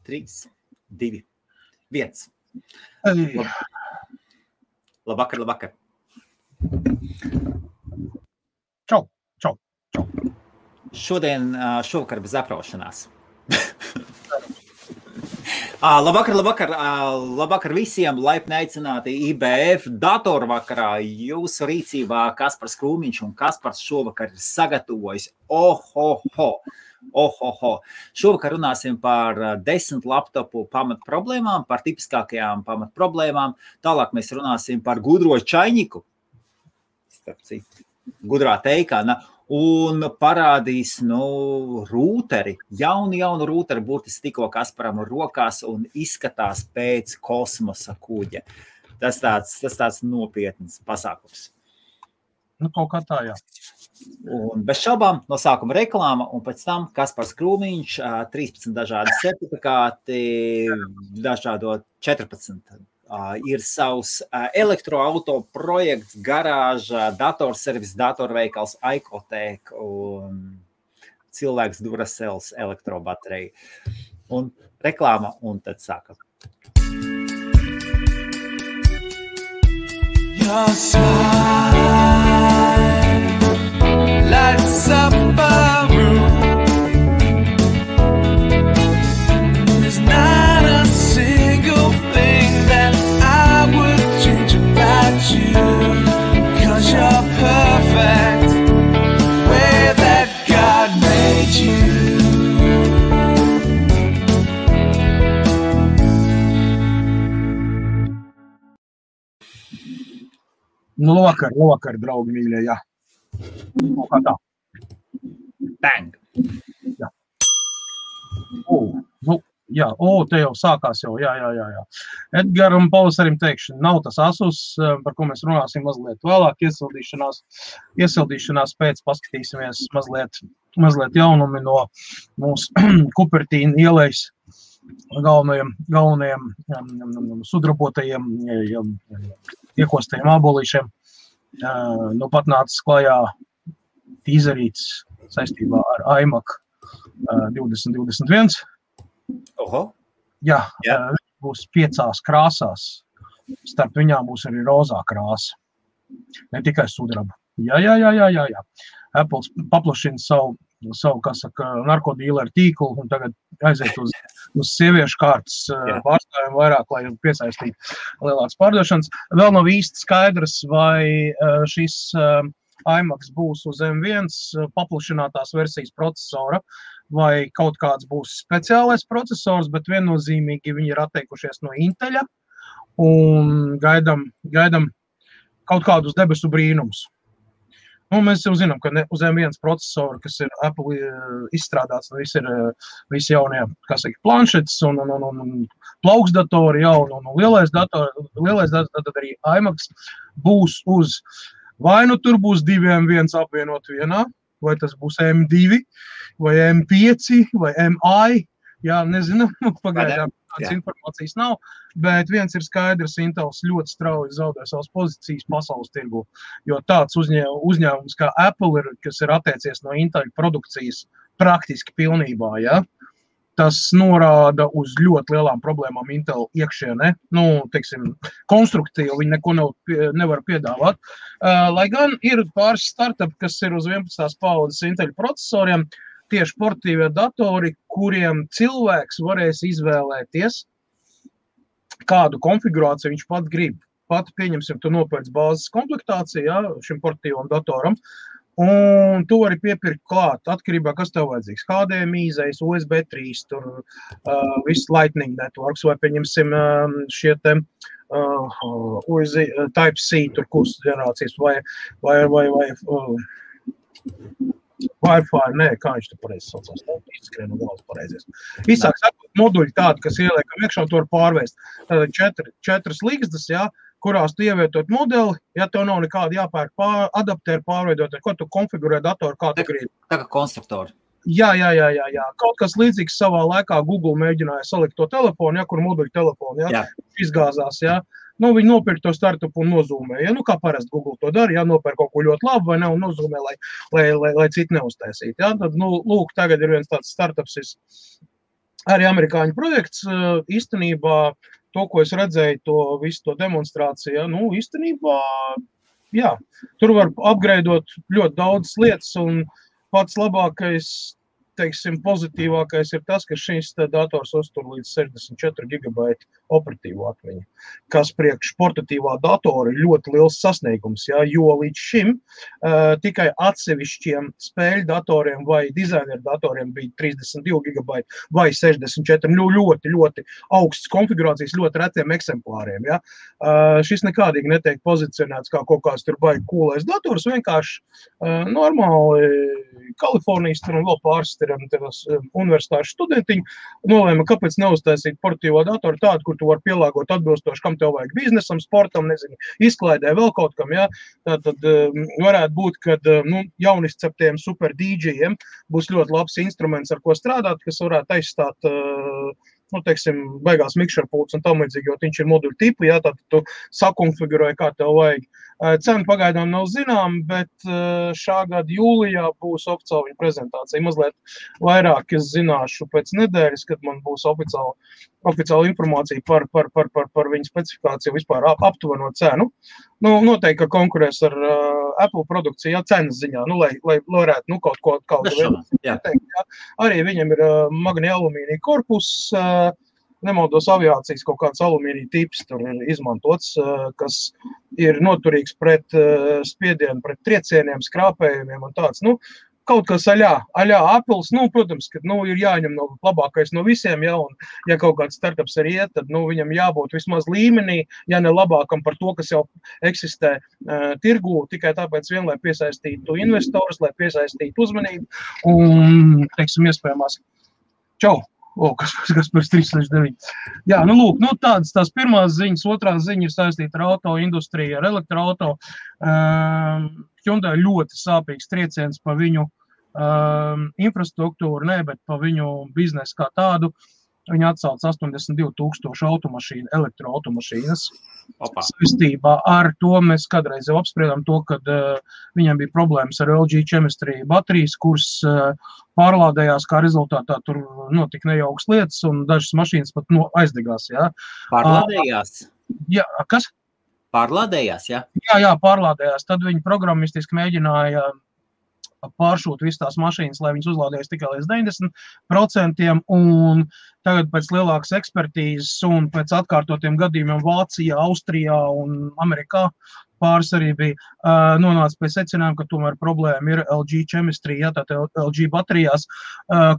3, 2, 1. Ei. Labvakar. Čau. Šovakar bez apraušanās. Labvakar visiem, laipni aicināti IBF datorvakarā. Jūsu rīcībā Kaspars Krūmiņš un Kaspars šovakar ir sagatavojis. Šovakar runāsim par 10 laptopu pamatproblēmām, par tipiskākajām pamatproblēmām. Tālāk mēs runāsim par gudro čaļņiku, starp citu, gudrā teikāna. Un parādīs, rūteri, jaunu rūteri burtiski tikko Kasparam rokās un izskatās pēc kosmosa kuģa. Tas tāds nopietns pasākums. Kaut kā tā, jā. Un bez šaubām no sākuma reklāma un pēc tam Kaspars Krūmiņš, 13 dažādi certifikāti, dažādo 14. Ir savs elektroauto projekts, garāža, datorservis, datorveikals, Aikotēk un cilvēks Duracell elektrobaterija. Un reklāma, un tad sākam. Your smile lights up a room. There's not a single thing that I would change about you, 'cause you're perfect way that God made you. Labvakar, draugi mīļie, jā. Kā tā? Bang! Jā. Te jau sākās jau, jā. Edgaram Pavasarim teikšana, nav tas Asus, par ko mēs runāsim mazliet vēlāk, iesildīšanās pēc, paskatīsimies mazliet jaunumi no mūsu Kupertīna ielejas galvenajiem sudrabotajiem, iekostajiem ābolīšiem. Pat nācis klajā tīzerīts saistībā ar iMac 2021. Jā. Būs 5 krāsās. Starp viņām būs arī rozā krāsa. Ne tikai sudraba. Jā. Apples paplašina savu, kā saka, narkodīleru tīklu un tagad aiziet uz sieviešu kārtas pārstāvjumu vairāk, lai piesaistītu lielākas pārdošanas. Vēl nav īsti skaidrs, vai šis iMac būs uz M1 paplašinātās versijas procesora, vai kaut kāds būs speciālais procesors, bet viennozīmīgi viņi ir atteikušies no Inteļa un gaidam kaut kādus debesu brīnumus. Mēs jau zinām, ka uz M1 procesoru, kas ir Apple izstrādāts, visi jaunie, kā saka, planšetes un plauksdatori jauni un lielais dators, tad arī iMac būs uz, vai tur būs 2 M1 apvienot vienā, vai tas būs M2, vai M5, vai MI, nezinu, pagaidām tādas informācijas nav, bet viens ir skaidrs, Intels ļoti strauji zaudē savas pozīcijas pasaules tirgu, jo tāds uzņēmums kā Apple ir, kas ir atteicies no Intel produkcijas praktiski pilnībā, tas norāda uz ļoti lielām problēmām Intel iekšienē, konstruktīvi viņi neko nevar piedāvāt, lai gan ir pāris startupi, kas ir uz 11. paudzes Intel procesoriem, tieši portatīvie datori, kuriem cilvēks varēs izvēlēties, kādu konfigurāciju viņš pat grib. Pat, pieņemsim, tu nopērc bāzes komplektāciju, šim portatīvam datoram, un tu vari piepirkt klāt, atkarībā, kas tev vajadzīgs. HDMI, USB 3, tur viss Lightning networks, vai pieņemsim šie te Type-C, tur kursu ģenerācijas, vai Wi-Fi, kā viņš te pareizi saucās, izskrien no galvas pareizies. Īsāk sakot, moduļi tādi, kas ieliekam iekšā, to var pārvērst. Tātad 4 līgstas, kurās tu ievietot modeli, tev nav nekāda jāpērk adaptēri pārveidot, ko tu konfigurē datoru, kā tu gribi. Tā kā konstruktori. Jā. Kaut kas līdzīgs savā laikā Google mēģināja salikt to telefonu, kur moduļu telefonu, izgāzās, viņi nopirka to startupu un nozūmē, kā parasti Google to dara, nopirka kaut ko ļoti labu vai ne, un nozūmē, lai citi neuztaisītu, Tad, lūk, tagad ir viens tāds startups arī amerikāņu projekts īstenībā to, ko es redzēju, visu to demonstrāciju, nu, īstenībā, jā, tur var upgradeot ļoti daudz lietas, un pats labākais, teiksim, pozitīvākais ir tas, ka šīs dators uztur līdz 64 gigabaiti operatīvo atmiņu, kas priekš portatīvā datora ir ļoti liels sasniegums, ja, jo līdz šim tikai atsevišķiem spēļu datoriem vai dizaineru datoriem bija 32 gigabaiti vai 64, ļoti, ļoti augsts konfigurācijas, ļoti retiem eksemplāriem. Ja. Šis nekādīgi netiek pozicionēts kā kaut kāds tur baigi coolais dators, vienkārši normāli Kalifornijas tur un vēl pāris universitāšu studentiņi nolēma, kāpēc neuztaisīt portatīvo datoru tādu, kur tu vari pielāgot atbilstoši, kam tev vajag biznesam, sportam, nezinu, izklaidē, vēl kaut kam, jā. Tātad varētu būt, kad jaunizceptiem super DJiem būs ļoti labs instruments, ar ko strādāt, kas varētu aizstāt teiksim, beigās mikšerpults un tam līdzīgi, jo viņš ir moduļu tipu, jā, tad tu sakonfigurēji, kā tev vajag. Cena pagaidām nav zinām, bet šā gada jūlijā būs oficiāla viņa prezentācija. Mazliet vairāk es zināšu pēc nedēļas, kad man būs oficiāla informācija par viņa specifikāciju vispār aptuveno cenu. Nu, noteikti, ka konkurēs ar Apple produkciju, jā, cenas ziņā, lai varētu, kaut teikt, jā. Arī viņam ir magnija alumīnija korpus, nemaldos aviācijas kaut kāds alumīnija tips tur ir izmantots, kas ir noturīgs pret spiedienu, pret triecieniem, skrāpējumiem un tāds, kaut kas aļā Apples, protams, ka, ir jāņem labākais no visiem, ja, un ja kaut kāds startups arī iet, tad, viņam jābūt vismaz līmenī, ja ne labākam par to, kas jau eksistē tirgū, tikai tāpēc vien, lai piesaistītu investorus, lai piesaistītu uzmanību, un, teiksim, iespējamās, čau! Kas par 369. Jā, lūk, tādas tās pirmās ziņas, otrās ziņas ir saistīta ar auto industriju, ar elektroauto. Hyundai ļoti sāpīgs trieciens pa viņu infrastruktūru, bet pa viņu biznesu kā tādu. Viņi atsauc 82,000 automašīnu, elektroautomašīnas. Saistībā ar to mēs kādreiz jau apspriedām to, kad viņam bija problēmas ar LG Chemistry baterijas, kuras pārlādējās, kā rezultātā tur notika nejauks lietas, un dažas mašīnas pat aizdegās. Jā. Pārlādējās? Jā, kas? Pārlādējās, jā? Jā, pārlādējās. Tad viņi programmistiski mēģināja pāršūt visas tās mašīnas, lai viņas uzlādējas tikai līdz 90%, un tagad pēc lielākas ekspertīzes un pēc atkārtotiem gadījumiem Vācijā, Austrijā un Amerikā pāris arī bija nonāca pie secinājuma, ka tomēr problēma ir LG Chemistry, jā, tātad LG baterijās,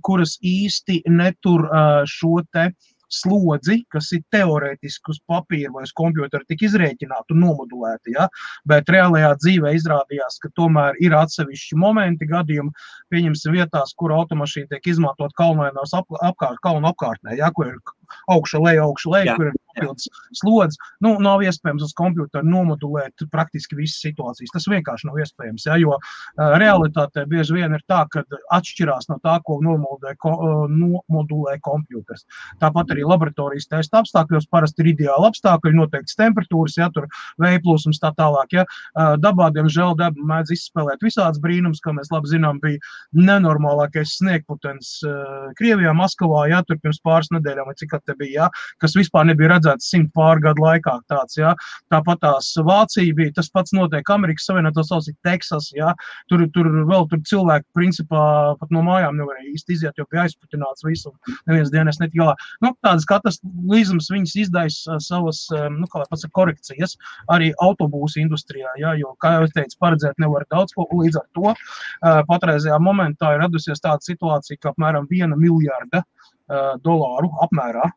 kuras īsti netur šo te slodzi, kas ir teorētiski uz papīra vai uz kompjutera tik izrēķināti un nomodulēti, ja? Bet reālajā dzīvē izrādījās, ka tomēr ir atsevišķi momenti gadījumi, pieņemsim vietās, kur automašīna tiek izmantot kalnainās kalnu apkārtnē, ja? Kur ir augša leja, kur ir papildus slodzi. Nav iespējams uz kompjuteru nomodulēt praktiski visas situācijas. Tas vienkārši nav iespējams, ja? Jo realitātē bieži vien ir tā, ka atšķirās no tā, ko nomodulē kompjuters. Tāpat arī laboratorijas testa apstākļos parasti ir ideāli apstākļi, noteikts temperatūras, ja, tur vējplūsums tā tālāk, ja. Dabā, diemžēl, daba mēdz izspēlēt visāds brīnums, kā mēs labi zinām, bija nenormālākais sniegputens Krievijā, Maskavā, ja, tur pirms pāris nedēļām, vai cik te bija, ja, kas vispār nebija redzēts 100 pār gadu laikā tāds, ja. Tāpat tās Vācija bija, tas pats notiek Amerikas Savienotās valstīs, Teksas, ja, tur cilvēki, principā, pat no mājām nevarēja īsti iziet, jo bija aizputināts visu, neviens dienas netika galā. Tādas kataklizmas viņas izdaisa savas, korekcijas arī autobūsu industrijā, ja, jo, kā jau es teicu, paredzēt nevar daudz ko, līdz ar to patreizajā momentā ir radusies tāda situācija, ka apmēram $1 miljarda apmērā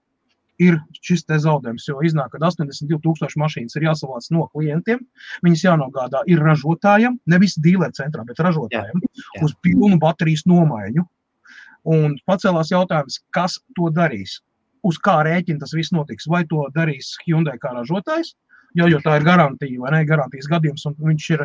ir šis te zaudējums, jo iznāk, ka 82,000 mašīnas ir jāsavāc no klientiem, viņas jānogādā ir ražotājiem, nevis dīleru centrā, bet ražotājiem, uz pilnu baterijas nomaiņu. Un pacēlās jautājums, kas to darīs? Uz kā rēķina tas viss notiks? Vai to darīs Hyundai kā ražotājs, jo tā ir garantija, vai ne, garantijas gadījums, un viņš ir,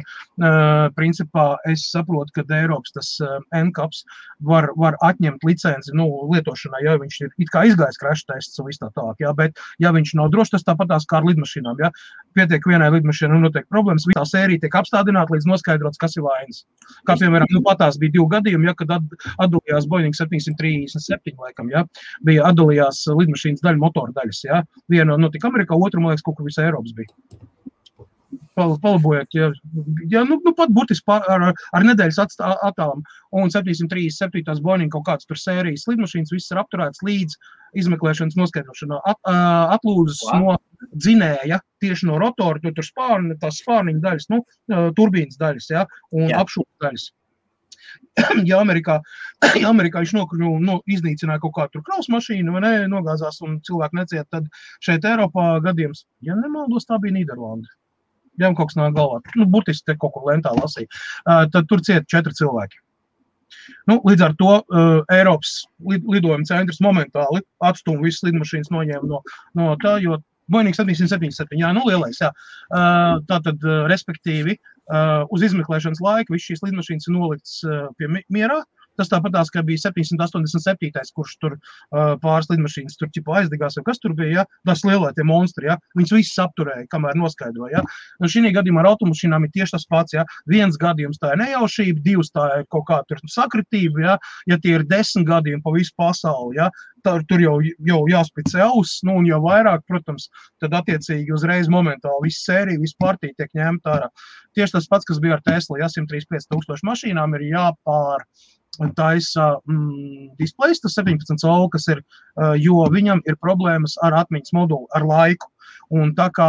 principā, es saprotu, ka Eiropas tas NCAPs var atņemt licenci, lietošanai, ja viņš ir it kā izgājis crash tests un viss tā tālāk, ja, bet ja viņš nav drošs, tas tāpatās kā ar lidmašīnām, ja, pietiek vienai lidmašīnai un notiek problēmas, visā sērija tiek apstādināta līdz noskaidrots, kas ir vainas. Kā, piemēram, patās bija 2 gadījumi, ja, kad atdalījās Boeing 737, laikam, ja, bija atdalījās lidmašīnas daļa, motora daļas, ja, viena notika Amerikā, otru, man liekas, kaut kur visā Eiropas bija. Palabojot, ja pat burtiski ar nedēļas attālam, un 737 Boeing kaut kāds tur sērijas lidmašīnas, viss ir apturēts līdz izmeklēšanas noskaidrošanā, atlūzas no dzinēja, tieši no rotora, tur spārni, tās spārniņa daļas, turbīnas daļas, ja, un apšūtas daļas. Ja Amerikā viņš iznīcināja kaut kādu tur kraus mašīnu, vai ne, nogāzās un cilvēki neciet, tad šeit Eiropā gadījums, ja nemaldos, tā bija Nīderlanda. Ja kaut kas nāk galvā, burtiski te kaut kur lentā lasīja, tad tur ciet 4 cilvēki. Līdz ar to Eiropas lidojuma centrs momentāli atstūma visas lidmašīnas noņēma no tā, jo Boeing 777, jā, lielais, jā. Tātad, respektīvi, uz izmeklēšanas laika viss šīs lidmašīnas ir nolikts pie mierā. Tas tāpatās, ka bija 787, kurš tur pāris lidmašīnas tur ķipa aizdegās, vai kas tur bija, ja? Tas lielai tie monstri, ja? Viņus visus apturēja, kamēr noskaidroja. Ja? Un šī gadījumā ar automašīnām ir tieši tas pats, ja? 1 gadījums tā ir nejaušība, 2 tā ir kaut kā tur sakritība, ja tie ir 10 gadījumi pa visu pasauli, ja? Tur jau jāspicē auss, un jau vairāk, protams, tad attiecīgi uzreiz momentāli visu sēriju, visu partiju tiek ņemta ārā. Tieši tas pats, kas bija ar Tesla, ja 135 000 mašīnām ir taisa displejs, tas 17 colu, kas ir, jo viņam ir problēmas ar atmiņas modulu, ar laiku. Un tā kā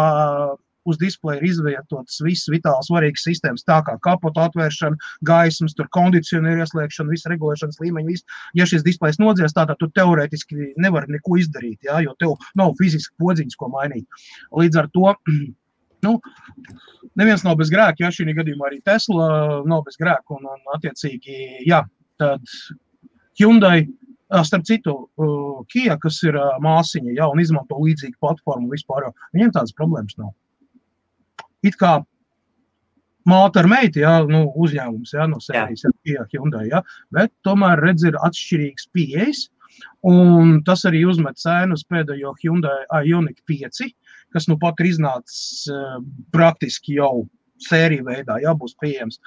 uz displeja ir izvietotas visas vitāli svarīgas sistēmas, tā kā kapota atvēršana, gaismas, tur kondicionieru ieslēgšana, visa regulēšanas līmeņa, viss. Ja šis displejs nodzies, tātad tu teorētiski nevari neko izdarīt, ja, jo tev nav fiziski podziņas, ko mainīt. Līdz ar to, neviens nav bez grēka, ja šī gadījumā arī Tesla nav bez grēka, un attiecīgi, jā, tad Hyundai, starp citu, Kia, kas ir māsiņa, ja, un izmanto līdzīgu platformu vispār, viņiem tādas problēmas nav. It kā māte ar meiti, ja, uzņēmums, ja, no sērijas, ja, Kia, Hyundai, ja, bet tomēr redz ir atšķirīgs pieejas, un tas arī uzmet cēnu uz pēdējo Hyundai Ioniq 5, kas pat ir iznācis praktiski jau sēriju veidā, jā, būs pieejams.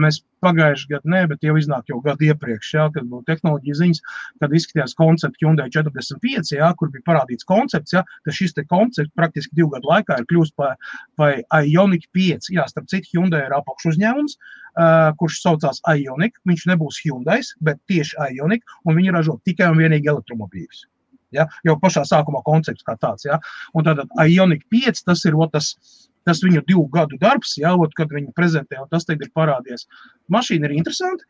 Mēs pagājuši gadu bet jau iznāk jau gadu iepriekš, jā, kad būtu tehnoloģija ziņas, kad izskatījās koncepts Hyundai 45, jā, kur bija parādīts koncepts, jā, ka šis te koncepts praktiski 2 gadu laikā ir kļūst par Ioniq 5. Jā, starp citu, Hyundai ir apakš uzņēmums, kurš saucās Ioniq, viņš nebūs Hyundais, bet tieši Ioniq, un viņi ražo tikai un vienīgi elektromobīļus. Ja, jau pašā sākumā koncepts kā tāds, ja. Un tātad Ioniq 5, tas ir tas viņu 2 gadu darbs, ja, kad viņi prezentē, un tas tagad ir parādies. Mašīna ir interesanti,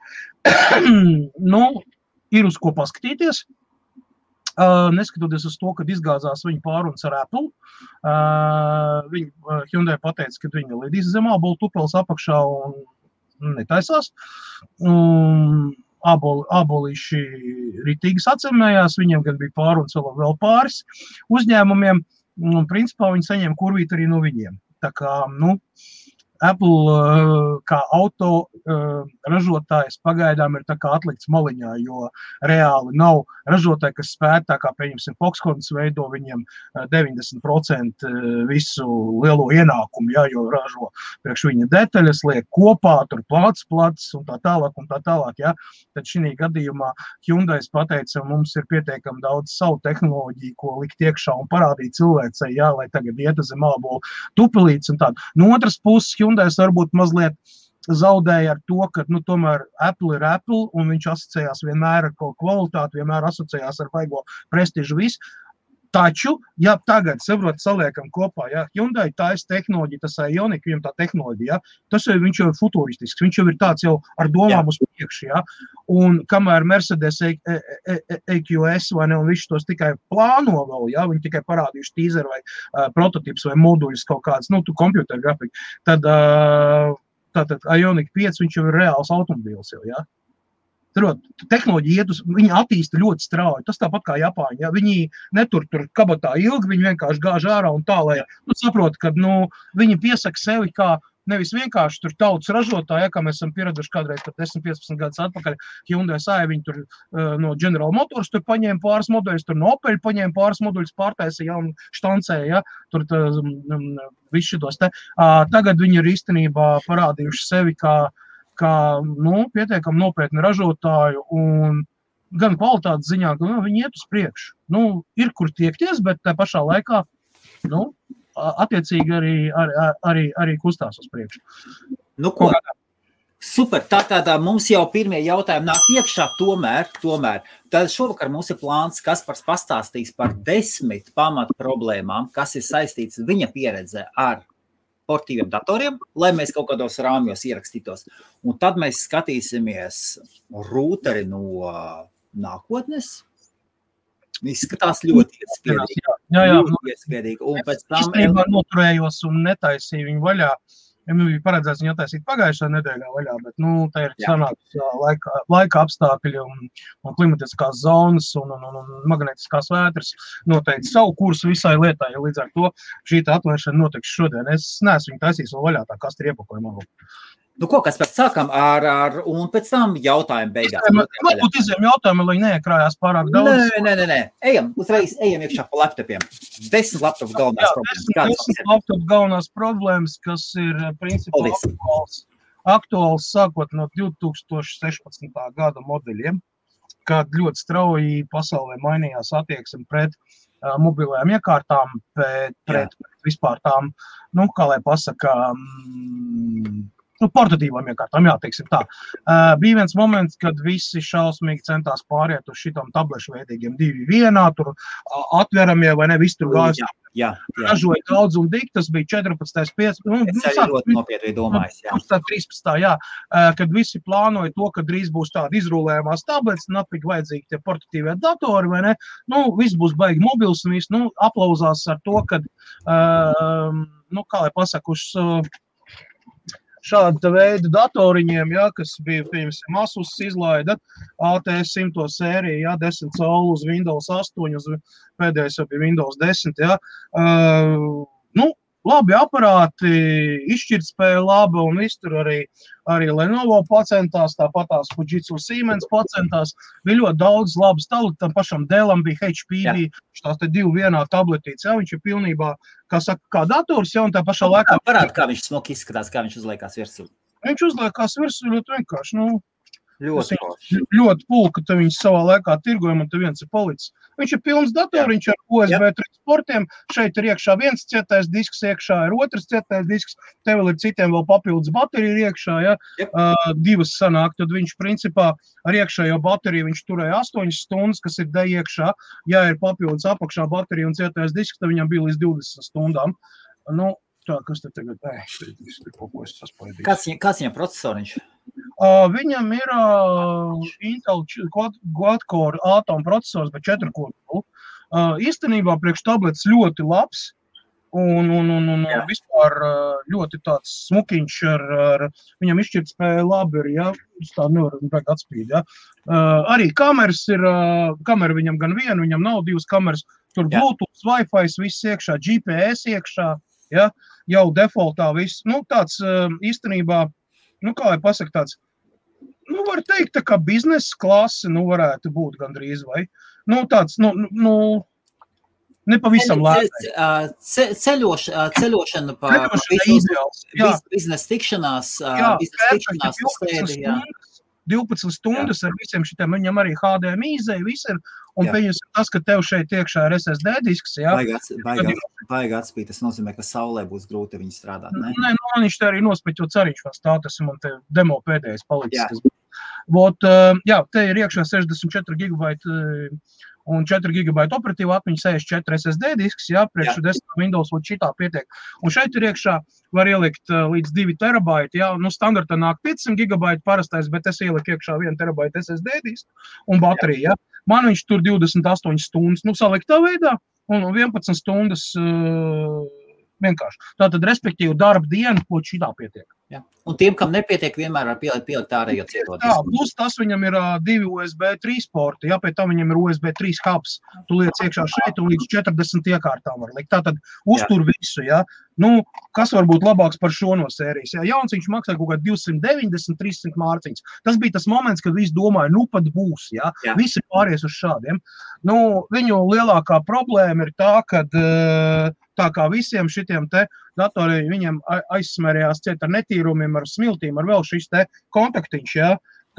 ir uz ko paskatīties, neskatoties uz to, kad izgāzās viņa pārunas ar Apple. Hyundai pateica, ka viņa lidīs zem ābolu tupeles apakšā un netaisās. Ābolīši ritīgi sacemējās, viņiem gan bija pārunas vēl pāris uzņēmumiem, un principā viņi saņēma kurvīt arī no viņiem. Tā kā, Apple kā auto ražotājs pagaidām ir tā kā atlikts maliņā, jo reāli nav ražotāji, kas spētu, tā kā, pieņemsim, Foxconn veido viņiem 90% visu lielo ienākumu, jā, jo ražo priekš viņa detaļas, liek kopā, tur plats un tā tālāk, jā. Tad šī gadījumā Hyundai pateica, mums ir pietiekami daudz savu tehnoloģiju, ko likt iekšā un parādīt cilvēcei, jā, lai tagad iet zem ābolu tupelītes un tādu. No otras puses, Hyundai varbūt mazliet zaudēja ar to, ka, tomēr Apple ir Apple, un viņš asociējās vienmēr ar kaut kvalitāti, vienmēr asociējās ar vaigo prestižu visu. Taču, ja tagad, saliekam kopā, ja, Hyundai taisa tehnoloģija, tas Ioniq, viņam tā tehnoloģija, ja, viņš jau ir futuristisks, viņš jau ir tāds jau ar domām uz priekšu, ja, un kamēr Mercedes EQS vai ne, un viņš tos tikai plāno vēl, ja, viņi tikai parādījuši teaser vai prototips vai moduļus kaut kāds, kompjuteru grafika, tad Ioniq 5, viņš jau ir reāls automobīls jau, ja. Tehnoloģija viņi attīsta ļoti strauji. Tas tāpat kā Japāņi. Ja? Viņi netur tur kabatā ilgi, viņi vienkārši gāž ārā un tā, lai saprot, ka viņi piesaka sevi kā nevis vienkārši tur tautas ražotāji, ja, kā mēs esam pieraduši kādreiz 10-15 gadus atpakaļ, Hyundai Sāja, viņi tur no General Motors tur paņēma pāris moduļus, tur no Opel paņēma pāris moduļus, pārtaisīja un štancēja, ja, tur visu šitos te. Tagad viņi ir īstenībā parādījuši sevi kā pietiekami nopietni ražotāju un gan kvalitātes ziņā, ka viņi iet uz priekšu. Ir kur tiekties, bet tā pašā laikā, attiecīgi arī kustās uz priekšu. Ko? Super, tā mums jau pirmie jautājumi nāk iekšā, tomēr. Tad šovakar mums ir plāns, Kaspars pastāstīs par 10 pamatu problēmām, kas ir saistīts viņa pieredze ar portīviem datoriem, lai mēs kaut kādos rāmjos ierakstītos. Un tad mēs skatīsimies rūteri no nākotnes. Izskatās ļoti iespēdīgi. Ļoti iespēdīgi. Un pēc tam... Īstenībā noturējos un netaisīju viņu vaļā. Ja man bija paredzēts viņu attaisīt pagājušā nedēļā vaļā, bet tā ir sanāks laika apstākļi un klimatiskās zonas un magnetiskās vētras noteikti savu kursu visai lietai, ja līdz ar to šī atvēršana notiks šodien. Es neesmu viņu taisījis vēl vaļā, tā kas ir iepakojumā. Kas pēc sākam un pēc tam jautājumu beigās. Varbūt izējam jautājumu, lai neiekrājās pārāk daudz. Nē. Ejam iekšā pa laptopiem. 10 laptopu galvenās problēmas. 10 laptopu galvenās problēmas, kas ir principā aktuāls sākot no 2016. gada modeļiem, kad ļoti strauji pasaulē mainījās attieksme pret mobilajām iekārtām, pret vispār tām, kā lai pasaka, portatīvām iekārtām, teiksim tā. Bija viens moments, kad visi šausmīgi centās pāriet uz šitam tablešu veidīgiem 2.1, tur atveramie vai ne, viss tur gājas. Ražoja daudz un dik, tas bija 14. 5. Es arī ļoti nopietni domājis, 13. Kad visi plānoja to, ka drīz būs tādi izrulējumās tablets, napīgi vajadzīgi tie portatīvie datori, vai ne, viss būs baigi mobils un viss, aplauzās ar to, kad, kā lai pasaku, šāda veida datoriņiem, kas bija, piemēram, Asus izlaida ATS 100 sērija, 10 colu uz Windows 8, uz pēdējais jau bija Windows 10, labi aparāti, izšķirtspēja laba un viss tur arī Lenovo pacentās, tāpatās Fujitsu Siemens pacentās, bija ļoti daudz labas tabletes, tam pašam Dellam bija, HP bija, tās te 2.1 tabletītes, viņš ir pilnībā, kā dators, un tā pašā laikā... Parādi, kā viņš smuki izskatās, kā viņš uzliekās virsū. Viņš uzliekās virsū ļoti vienkārši, Ļoti pulka, tad viņš savā laikā tirgojam, un te viens ir palicis. Viņš ir pilns datoriņš ar USB 3 portiem, šeit ir iekšā viens cietais disks, iekšā ir otrs cietais disks, te vēl ir citiem vēl papildus baterija iekšā, divas sanāk, tad viņš principā ar iekšējo bateriju viņš turēja 8 stundas, kas ir iekšā, ja ir papildus apakšā baterija un cietais disks, tad viņam bija līdz 20 stundām. Tā, kas te tagad, Kāds viņam procesoriņš? Viņam ir Intel quad-core Atom procesors, bet 4-core. Īstenībā priekš tablets ļoti labs un vispār ļoti tāds smukiņš viņam izšķirtspēja labi ir, tā nevar atspīd, Arī kameras ir, kamera viņam gan viena, viņam nav 2 kameras, tur Bluetooth, Wi-Fi, viss iekšā, GPS iekšā, jau defaultā viss, tāds īstenībā, kā lai pasaka tāds, var teikt, tā kā biznesa klase, varētu būt gandrīz, vai, tāds, nepavisam lētai. Ceļošana pa biznesa tikšanās, 12 stundas ar visiem šitiem, viņam arī HDMI izēja, viss ir, un pieņems tas, ka tev šeit iekšā ir SSD disks, Baigi atspīt, tas nozīmē, ka saulē būs grūti viņi strādāt, ne? Nē, man viņš te arī nospiķot cariņš vēl stāv, tas ir man te demo pēdējais palicis. Te ir iekšā 64 GB un 4 GB operatīva atmiņa, 64 SSD disks, priekš 10 Windows un šitā pietiek. Un šeit ir iekšā var ielikt līdz 2 terabaiti, standartā nāk 500 GB parastais, bet es ieliku iekšā 1 terabaita SSD disku un baterija, Man viņš tur 28 stundas, saliktā veidā, un 11 stundas vienkārši. Tātad, respektīvi, darba diena, ko šitā pietiek. Ja. Un tiem, kam nepietiek, vienmēr var pielikt ārējo cietoties. Jā, plus tas viņam ir 2 USB 3 porti, jā, pēc tam viņam ir USB 3 hubs. Tu liec iekšā šeit un līdz 40 iekārtām var likt. Tātad uztur visu, jā. Nu, kas var būt labāks par šo no sērijas? Jā, jauns viņš maksā kaut kā 290-300 mārciņas. Tas bija tas moments, kad visi domāja, nu pat būs, jā. Visi pāries uz šādiem. Nu, viņu lielākā problēma ir tā, kad tā kā visiem šitiem te datoriem viņiem aizsmērījās ciet ar netīrumiem, ar smiltīm, ar vēl šis te kontaktiņš, jā,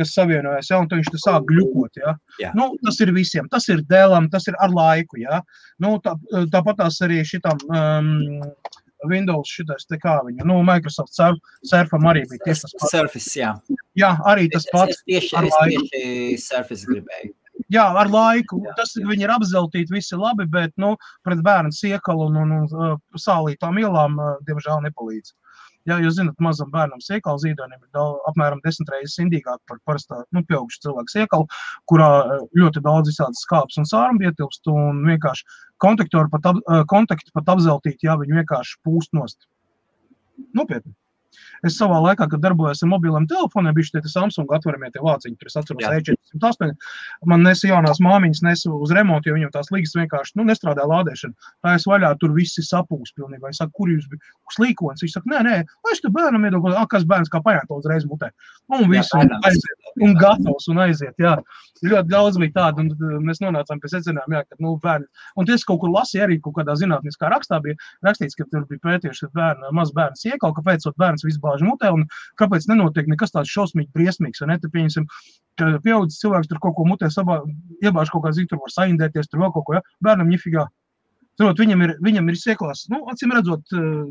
kas savienojas, jā, un tad viņš te sāk gļukot, jā. Nu, tas ir visiem, tas ir Dellam, tas ir ar laiku, jā. Nu, tāpat tās arī šitam Windows šitais te kā viņa, nu, Microsoft Surfam arī bija tieši tas pats. Surface, jā. Jā, arī tas pats. Es tieši Surface gribēju. Jā, ar laiku. Tas viņi ir apzeltīti visi labi, bet, nu, pret bērnu siekalu un sālītām ielām, diemžēl, nepalīdz. Jā, jūs zināt, mazam bērnam siekalu zīdainim ir apmēram 10 reizes indīgāk par parastā, nu, pieaugušu cilvēku siekalu, kurā ļoti daudz visādas skāpes un sārumi ietilpst, un vienkārši kontakti pat apzeltīti, jā, viņi vienkārši pūst nost. Nopietni. Es savā laikā, kad darbojos ar mobiliem telefoniem, bišķi tie Samsung atveramie tie vāciņi, tur es atceros E408, man nesa jaunās māmiņas nesa uz remontu, jo viņam tās līgas vienkārši, nu, nestrādā lādēšana. Tā es vaļā, tur visi sapūs pilnībā. Es saku, kur jūs bija slīkons? Viņš saka, nē, lai es te bērnam iedodu, kas bērns kā paņēma to uzreiz mutē. Un visu, un aiziet, un gatavs, un aiziet, jā. Ļoti daudz bija tāda, un mēs nonācām pie secinājuma, jā, ka, nu, bērni. Un es kaut kur lasīju arī kaut kādā zinātniskā rakstā bija rakstīts, ka tur bija pētījuši, ka maz bērns iekal, kāpēc bērns visu bāž mutē, un kāpēc nenotiek nekas tāds šausmīgi briesmīgs, vai ne? Te pieņemsim, ka pieaudzis cilvēks tur kaut ko mutē iebāž kaut kā zik, tur var saindēties, tur vēl kaut ko, ja? Bērnam ņifigā. Turot, viņam ir sieklās, nu, acīm redzot,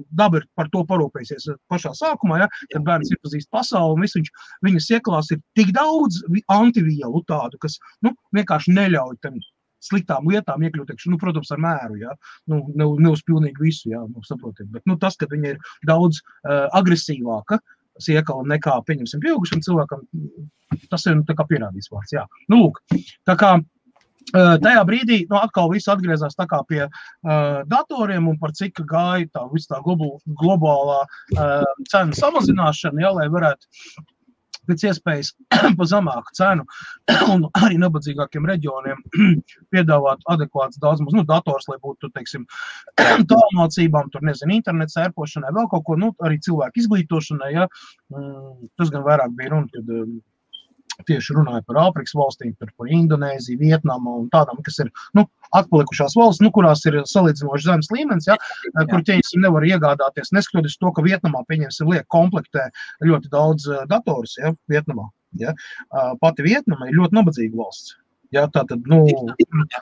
daba ir par to parūpējusies pašā sākumā, ja? Kad bērns iepazīst pasauli, un visu viņa sieklās ir tik daudz antivielu tādu, kas, nu, vienkārši neļauj tam sliktām lietām iekļūt, nu, protams, ar mēru, jā, nu, ne uz pilnīgi visu, jā, nu, saprotiet, bet, nu, tas, ka viņa ir daudz agresīvāka siekala nekā, pieņemsim, pieaugušam cilvēkam, tas ir, nu, tā kā pierādīts vārds, jā. Nu, lūk, tā kā tajā brīdī, nu, atkal viss atgriezās tā kā pie datoriem un par cik gāja tā viss tā globālā cenu samazināšana, jā, lai varētu pēc iespējas pa zemāku cenu un arī nabadzīgākiem reģioniem piedāvāt adekvāts daudz maz, nu, dators, lai būtu, teiksim, tālmācībām, tur, nezinu, internets ērpošanai, vēl kaut ko, nu, arī cilvēku izglītošanai, ja, tas gan vairāk bija runa, kad tieši runāja par Āfrikas valstīm, par Indonēziju, Vietnamu un tādām, kas ir, nu, atpalikušās valsts, nu, kurās ir salīdzinoši zemes līmenis, ja, kur ķeņsim nevar iegādāties, neskatoties to, ka Vietnamā, pieņemsim, liek komplektē ļoti daudz datorus, ja, Vietnamā, ja. Pati Vietnama ir ļoti nabadzīga valsts. Ja, tātad, nu,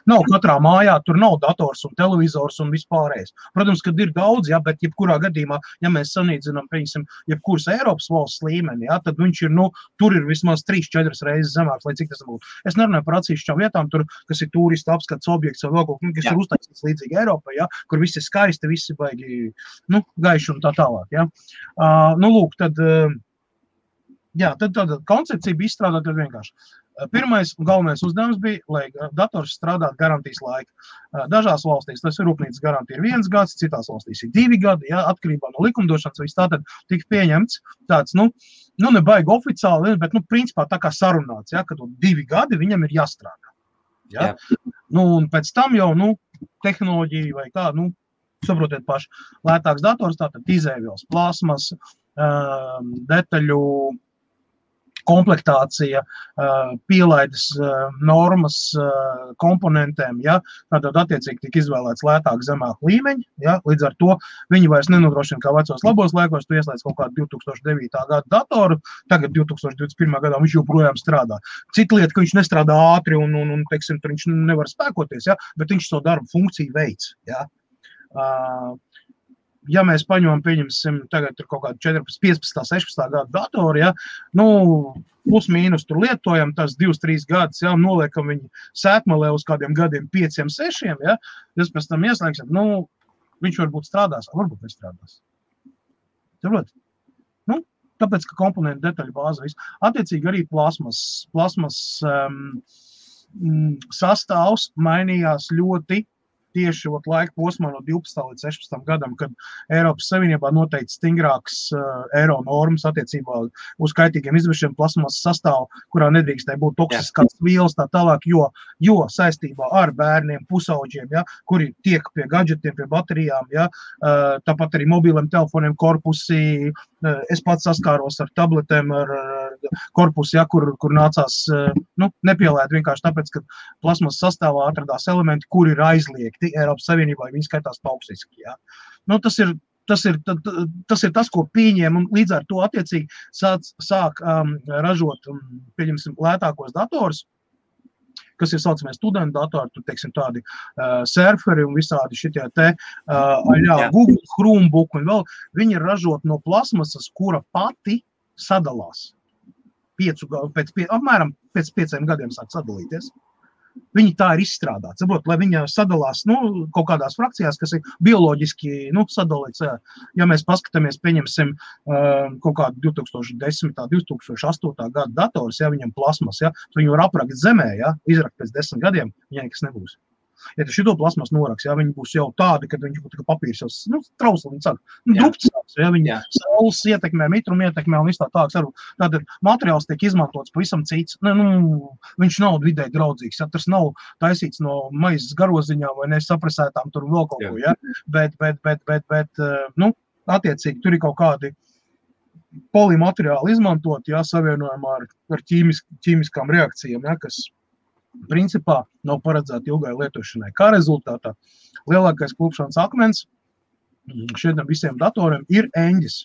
nav katrā mājā, tur nav dators un televizors un vispārējais. Protams, kad ir daudz, ja, bet jebkurā gadījumā, ja mēs sanīdzinām, pieņemsim, jebkuras Eiropas valsts līmeni, ja, tad viņš ir, nu, tur ir vismaz 3-4 reizes zemāks, lai cik tas būtu. Es nerunāju par atsevišķām vietām, tur, kas ir turistu apskats objekts vai vēl kaut kas, kas ir uztaisīts līdzīgi Eiropai, ja, kur viss ir skaisti, visi baigi, nu, gaiši un tā tālāk, ja. Nu, lūk, tad, jā, tad koncepcija bija izstrādāta vienkārši. Pirmais un galvenais uzdevums bija, lai dators strādātu garantijas laika. Dažās valstīs tas ir rūpnīcas garantija ir 1 gads, citās valstīs ir 2 gadi, ja, atkarībā no likumdošanas, viss tātad tika pieņemts tāds, nu, ne baigi oficiāli, bet, nu, principā tā kā sarunāts, ja, ka 2 gadi viņam ir jāstrādā. Ja? Nu, un pēc tam jau, nu, tehnoloģija vai kā, nu, saprotiet paši, lētāks dators, tātad izēvielas, plasmas, detaļu, komplektācija, pielaides normas komponentiem, ja, tātad attiecīgi tika izvēlēts lētāk zemāk līmeņi, ja, līdz ar to viņi vairs nenodrošina kā vecos labos laikos, tu ieslēdz kaut kādu 2009. Gada datoru, tagad 2021. Gadā viņš joprojām strādā. Cita lieta, ka viņš nestrādā ātri un teiksim, tur viņš nevar spēkoties, ja, bet viņš savu darbu funkciju veids, ja. Ja mēs paņemam, pieņemsim, tagad tur kaut kādu 14, 15, 16 gadu datoru, ja, nu, plus mīnus tur lietojam, tas 2-3 gadus, ja, noliekam viņu sētmalē uz kādiem gadiem 5-6, ja, jūs pēc tam ieslēgsiet, nu, viņš varbūt strādās, varbūt nestrādās. Saprot? Nu, tāpēc, ka komponentu detaļu bāze viss. Attiecīgi arī plasmas sastāvs mainījās ļoti tieši laika posmā no 12. līdz 16. gadam, kad Eiropas Savienībā noteikti stingrāks eiro normas attiecībā uz kaitīgiem izvešiem plasmasas sastāvu, kurā nedrīkstēja būt toksiskās vielas tā tālāk, jo saistībā ar bērniem, pusauģiem, ja, kuri tiek pie gadžetiem, pie baterijām, ja, tāpat arī mobiliem telefoniem korpusi, es pats saskāros ar tabletēm, ar korpusu, ja, kur nācās nepielēt vienkārši tāpēc, ka plasmas sastāvā atradās elementi, kuri ir aizliegti Eiropas Savienībā, viņi skaitās toksiski. Ja. Tas ir tas, ko pieņēma, un līdz ar to attiecīgi sāk ražot, pieņemsim, lētākos dators, kas ir saucamie studentu datori, tur, teiksim, tādi surferi un visādi šitie Google, Chromebook un vēl, viņi ir ražot no plasmasas, kura pati sadalās. Apmēram pēc 5 gadiem sāk sadalīties. Viņi tā ir izstrādāti. Saprot, lai viņa sadalās kaut kādās frakcijās, kas ir bioloģiski sadalīts. Ja mēs paskatāmies, pieņemsim kaut kādu 2010. 2008. gada dators, ja viņam plasmas, ja, viņu var aprakt zemē, ja, izrakt pēc 10 gadiem, viņai nekas nebūs. Ja tu šito plasmas noraks, ja, viņi būs jau tādi, kad viņš būtu kā papīrs jau trausli, viņi saka, dupcās, ja, viņi saules ietekmē, mitrumu ietekmē un viss tā tāks. Tātad materiāls tiek izmantots pavisam cits. Viņš nav vidē draudzīgs, ja, tas nav taisīts no maizes garoziņām vai nesaprasētām tur vēl kaut ko, ja, bet attiecīgi tur ir kaut kādi polimateriāli izmantot, ja, savienojumā ar ķīmiskām reakcijām, ja, kas principā nav paredzēta ilgai lietošanai. Kā rezultātā lielākais klupšanas akmens šiem visiem datoriem ir eņģis.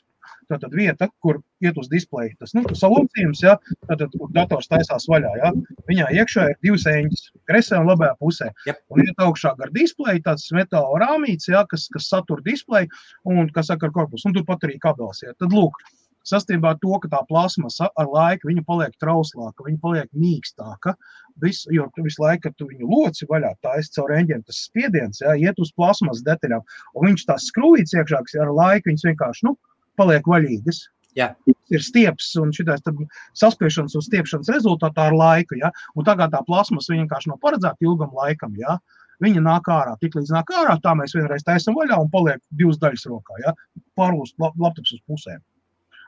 Tātad vieta, kur iet uz displeju, tas salocījums, ja, tātad, kur dators taisās vaļā, ja, viņā iekšā ir 2 eņģis, kresē un labajā pusē. Yep. Un iet augšā gar displeju, tāds metāla rāmīts, ja, kas satur displeju un kas saka ar korpusu. Un tur pat arī kabels. Ja. Tad lūk, sastībā to, ka tā plasmasa ar laiku viņa paliek trauslāka, viņa paliek mīkstāka, jo visu laiku, kad tu viņu loci vaļā, taisi caur eņģiem, tas spiediens, ja, iet uz plasmas detaļām, un viņš tās skrūvīts iekšā, kas ar laiku viņas vienkārši, paliek vaļīgas. Jā. Ir stieps un šitais saspiešanas un stiepšanas rezultātā ar laiku, ja, un tagad tā plasmas viņa vienkārši nav paredzēta ilgam laikam, ja. Viņa nāk ārā, tik līdz nāk ārā, tā mēs vienreiz taisam vaļā un paliek 2 daļas rokā, ja, pārlūst laptops uz pusēm.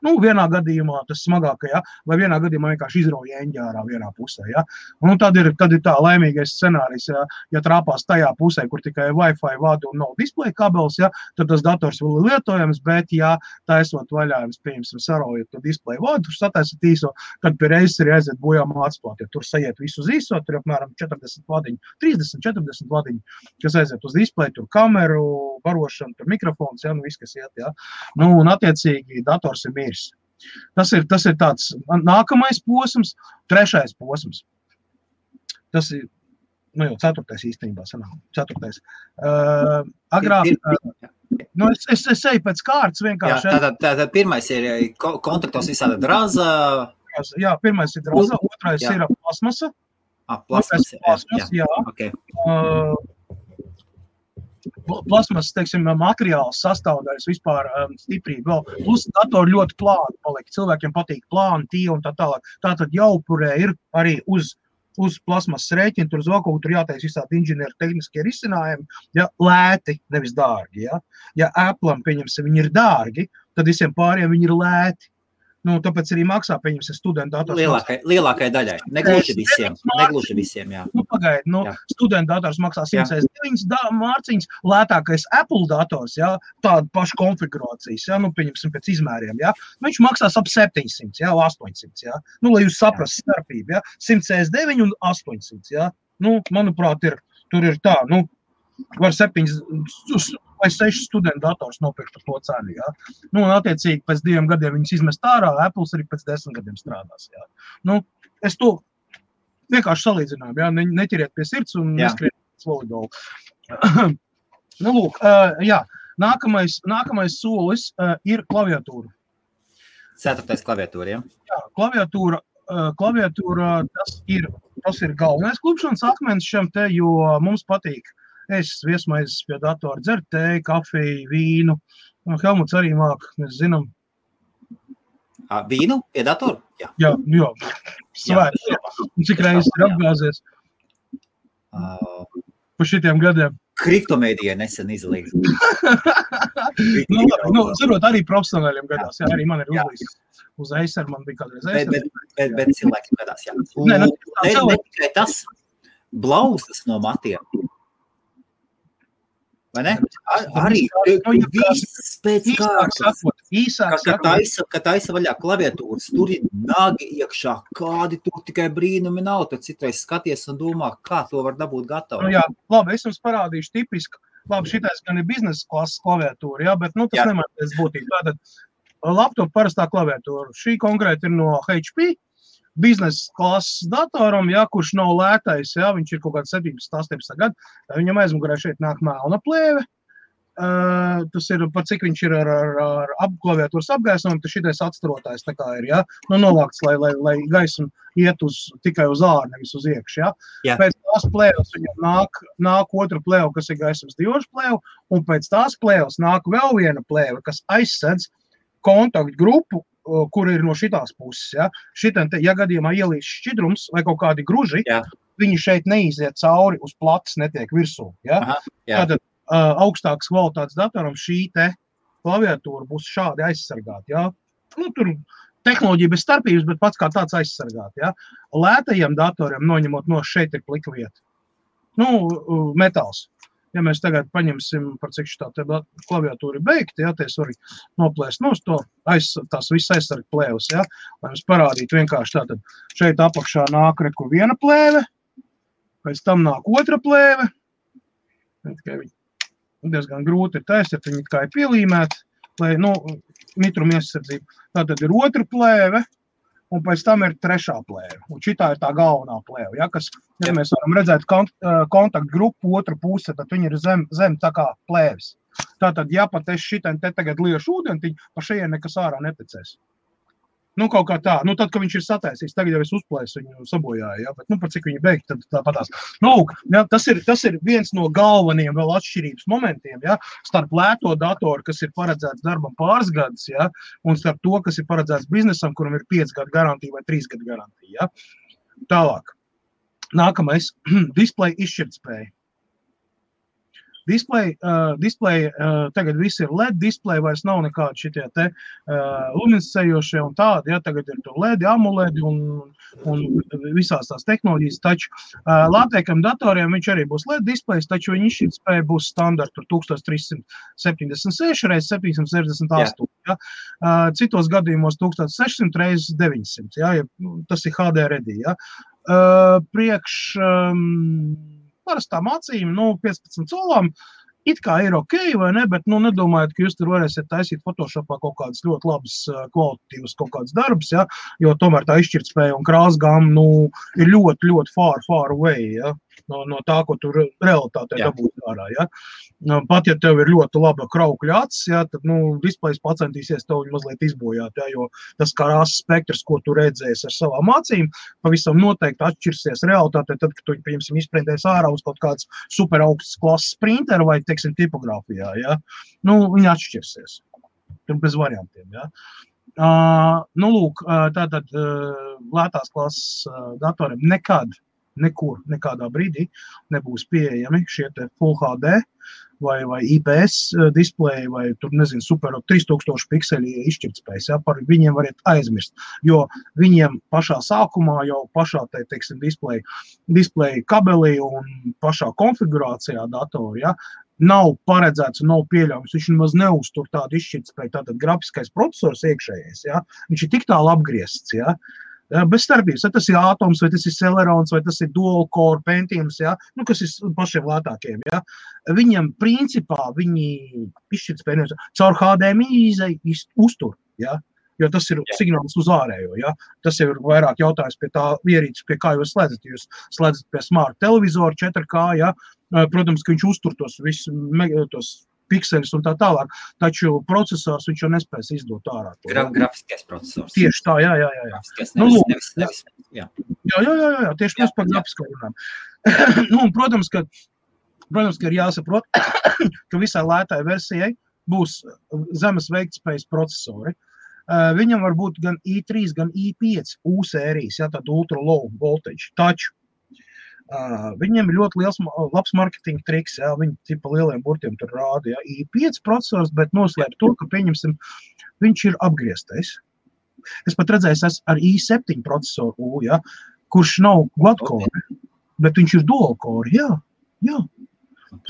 Vienā gadījumā tas smagākajā, vai vienā gadījumā vienkārši izrauja eņģi ārā vienā pusē. Ja? Un tad ir tā laimīgais scenārijs, ja trāpās tajā pusē, kur tikai Wi-Fi vada un nav displeja kabels, ja, tad tas dators vēl ir lietojams, bet ja taisot vaļā, jums pieņemsim saraujot to displeja vadu, tur sataisat īso, tad pie reizes ir aiziet bojā mācplāt, ja tur sajiet visu uz īso, tur ir apmēram 40 vadiņu, 30-40 vadiņu, kas aiziet uz displeja, tur kameru, barošana, tur mikrofons, ja, viss, kas iet, ja. Un attiecīgi dators ir miris. Tas ir tāds nākamais posms, 3. posms. Tas ir, jau 4. īstenībā sanāk, 4. Agrāk, es eju pēc kārtas vienkārši. Tātad pirmais ir kontaktos visāda draza. Jā, pirmais ir draza, otrais ir plasmasa. Plasmasa, jā. Okay. Plasmas, teiksim, materiāls sastāvdaļas vispār stiprība vēl. Plus datori ļoti plāni paliek. Cilvēkiem patīk plāni, tie un tā tālāk. Tātad jaupurē ir arī uz plasmas rēķina, tur uz vēl kaut kur jātais visādi inženieru tehniskie risinājumi, ja, lēti, nevis dārgi. Ja Apple'am, pieņemsim, viņi ir dārgi, tad visiem pāriem viņi ir lēti. Tāpēc arī maksā, pieņemsim, studentu dators. Lielākai daļai. Negluži visiem, jā. Pagaidi, studentu dators maksā 109 mārciņas, lētākais Apple dators, jā, tāda paša konfigurācijas, jā, pieņemsim pēc izmēriem, jā. Viņš maksās ap 700, jā, 800, jā. Lai jūs saprast starpību, jā, 169 un 800, jā. Manuprāt, tur ir tā, var 7 vai 6 studentu dators nopirkt par to cenu, jā. Un attiecīgi pēc 2 gadiem viņas izmest ārā, Apples arī pēc 10 gadiem strādās, jā. Es to vienkārši salīdzināju, jā, neķeriet pie sirds un neskriet volejbolu. Lūk, jā, nākamais solis ir klaviatūra. 4. klaviatūra, jā? Jā, klaviatūra tas ir galvenais klupšanas akmens šiem te, jo mums patīk viesmaizes pie datora, dzert tēju, kafiju, vīnu. Helmuts arī māk, mēs zinām. Vīnu pie datora? Jā. Svēts. Cik reizes ir apgāzies pa šitiem gadiem? Kriptomēdijai nesen izlīdz. Zarot arī profesionāļiem gadās, jā, arī man ir uzlīdz uz Acer, man bija kādreiz Acer. Bet cilvēkiem gadās, jā. Ne tikai tas blauzdas no matiem. Vai ne? Arī viss pēc kārtas. Kad taisa vaļā klaviatūras, tur ir nagi iekšā, kādi tur tikai brīnumi nav, tad citreiz skaties un domā, kā to var dabūt gatavu. Nu jā, labi, es jums parādīšu tipisku. Labi, šitais gan ir biznesa klases klaviatūra, jā, bet tas nemainās būtību. Tātad laptop parastā klaviatūra. Šī konkrēti ir no HP. Biznesa klases datoram, jā, kurš nav lētais, jā, viņš ir kaut kāds 17 gadu, viņam aizmugurē šeit nāk melna plēve, tas ir, par cik viņš ir ar klaviatūras apgaismojumu, tas šitais atstarotājs tā kā ir, jā, novākts, lai gaismu iet tikai uz āru, nevis uz iekšu, jā. Pēc tās plēvas viņam nāk otra plēva, kas ir gaismas diožu plēva, un pēc tās plēvas nāk vēl viena plēva, kas aizsedz kontaktu grupu, kur ir no šitās puses, ja. Šitam, ja gadījumā ielīs šķidrums vai kaut kādi gruži, viņi šeit neiziet cauri uz plats, netiek virsū, ja. Tātad augstākas kvalitātes datoram šī te klaviatūra būs šādi aizsargāta, ja. Nu, tur tehnoloģija bez starpības, bet pats kā tāds aizsargāta, ja. Lētajiem datoriem noņemot no šeit ir plika vieta. Nu, metāls. Ja mēs tagad paņemsim, par cik šitā te klaviatūra ir beigta, ja, te es varu noplēst nos to, tās viss aizsarga plēvas, ja, lai mums parādītu vienkārši tātad. Šeit apakšā nāk reku viena plēve, pēc tam nāk otra plēve, tikai viņi diezgan grūti ir taisīt, viņi kā ir pielīmēti, lai, mitruma iesardzība. Tātad ir otra plēve, un pēc tam ir trešā plēve. Un šitā ir tā galvenā plēve, ja, kas, ja mēs varam redzēt kontaktu grupu otru puse, tad viņi ir zem tā kā plēves. Tātad, ja pat es šitam te tagad liešu ūdentiņu, pa šajien nekas ārā netecēs. Nu, kaut kā tā. Nu, tad, kad viņš ir sataisījis, tagad jau es uzplēsu viņu sabojāju, ja, bet, par cik viņi beigt, tad tāpatās. Nu, ja, tas ir viens no galvenajiem vēl atšķirības momentiem, ja, starp lēto datoru, kas ir paredzēts darbam pāris gadus, ja, un starp to, kas ir paredzēts biznesam, kuram ir 5 gadu garantija vai 3 gadu garantija, ja. Tālāk. Nākamais, display izšķirtspēja. Display, tagad viss ir LED display, vairs nav nekādi šitie te luminescējošie un tādi, ja, tagad ir to LED, AMOLED un visās tās tehnoloģijas, taču lātēkam datoriem viņš arī būs LED displays, taču viņa izšķirtspēja būs standarta 1376 x 768, ja, citos gadījumos 1600 x 900, ja, tas ir HD ready, ja, parastām acīm, 15 colām, it kā ir ok, vai ne, bet, nedomājat, ka jūs tur varēsiet taisīt Photoshopā kaut kādas ļoti labas kvalitatīvas kaut kādas darbas, ja, jo tomēr tā izšķirtspēja un krāsgama, ir ļoti, ļoti far away, ja, no tā, ko tur realitātē dabūt ārā, ja. Pat, ja tev ir ļoti laba kraukļa acis, ja, tad, displejs pacentīsies tev mazliet izbojāt, ja, jo tas krāsas spektrs, ko tu redzēsi ar savām acīm, pavisam noteikti atšķirsies realitātē, tad, kad tu, piemēram, izprintēs ārā uz kaut kāds super augsts klases printeru vai, teiksim, tipogrāfijā, ja, viņi atšķirsies. Tur bez variantiem, ja. Lūk, tātad lētās klases datoriem nekur, nekādā brīdī nebūs pieejami šie te Full HD vai IPS displeji vai tur, nezinu, super 3000 pikseli izšķirtspējas, ja, par viņiem variet aizmirst, jo viņiem pašā sākumā jau pašā, teiksim, displeja kabelī un pašā konfigurācijā datori, ja, nav paredzēts un nav pieļaujams, viņš nemaz neuztur tādu izšķirtspēju, tātad grafiskais procesors iekšējais, ja, viņš ir tik tālu apgriezts, ja, bez starpības, vai tas ir Atoms, vai tas ir Celerons, vai tas ir Dual Core Pentiums, ja, kas ir pašiem lētākiem, ja. Viņam principā viņi izšķirtspēju caur HDMI uztur, ja, jo tas ir signāls uz ārējo, ja. Tas jau ir vairāk jautājums pie tā ierīces, pie kā jūs slēdzat. Jūs slēdzat pie smart televizoru 4K, ja, protams, ka viņš uztur tos visus pikseļus un tā tālāk, taču procesors viņš jau nespēs izdot ārā. Grafiskais procesors. Tieši tā, jā. Grafiskais, nevis, jā. Jā, tieši mēs par grafisko runājam. Protams, ka ir jāsaprot, ka visai lētai versijai būs zemes veiktspējas procesori. Viņam var būt gan i3, gan i5 U sērijas, ja, tad ultra low voltage, taču Viņiem ir ļoti labs marketinga triks, jā, viņi tipa lieliem burtiem tur rāda, jā, i5 procesors, bet noslēp to, ka pieņemsim, viņš ir apgrieztais. Es pat redzēju ar i7 procesoru, jā, kurš nav quad-core, bet viņš ir dual-core, jā.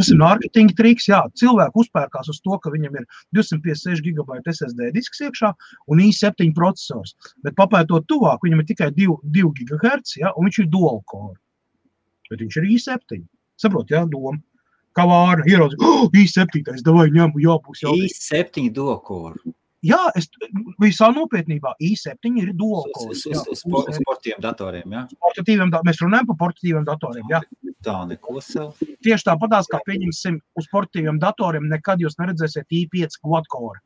Tas ir marketinga triks, jā. Cilvēki uzpērkās uz to, ka viņam ir 256 GB SSD disks iekšā un i7 procesors. Bet papētot tuvāk, viņam ir tikai 2 GHz, jā, un viņš ir dual core. Bet viņš ir i7. Saprot, jā, doma. Kā vāra, ieraudzi, i7, davai ņemu, jābūs. i7 dual core. Jā, visā nopietnībā i7 ir dual core. Uz sportīviem datoriem, jā? Mēs runājam par portatīviem datoriem, jā. Tā neko sev. Tieši tāpatās, kā pieņemsim uz portatīviem datoriem, nekad jūs neredzēsiet i5 quad-core.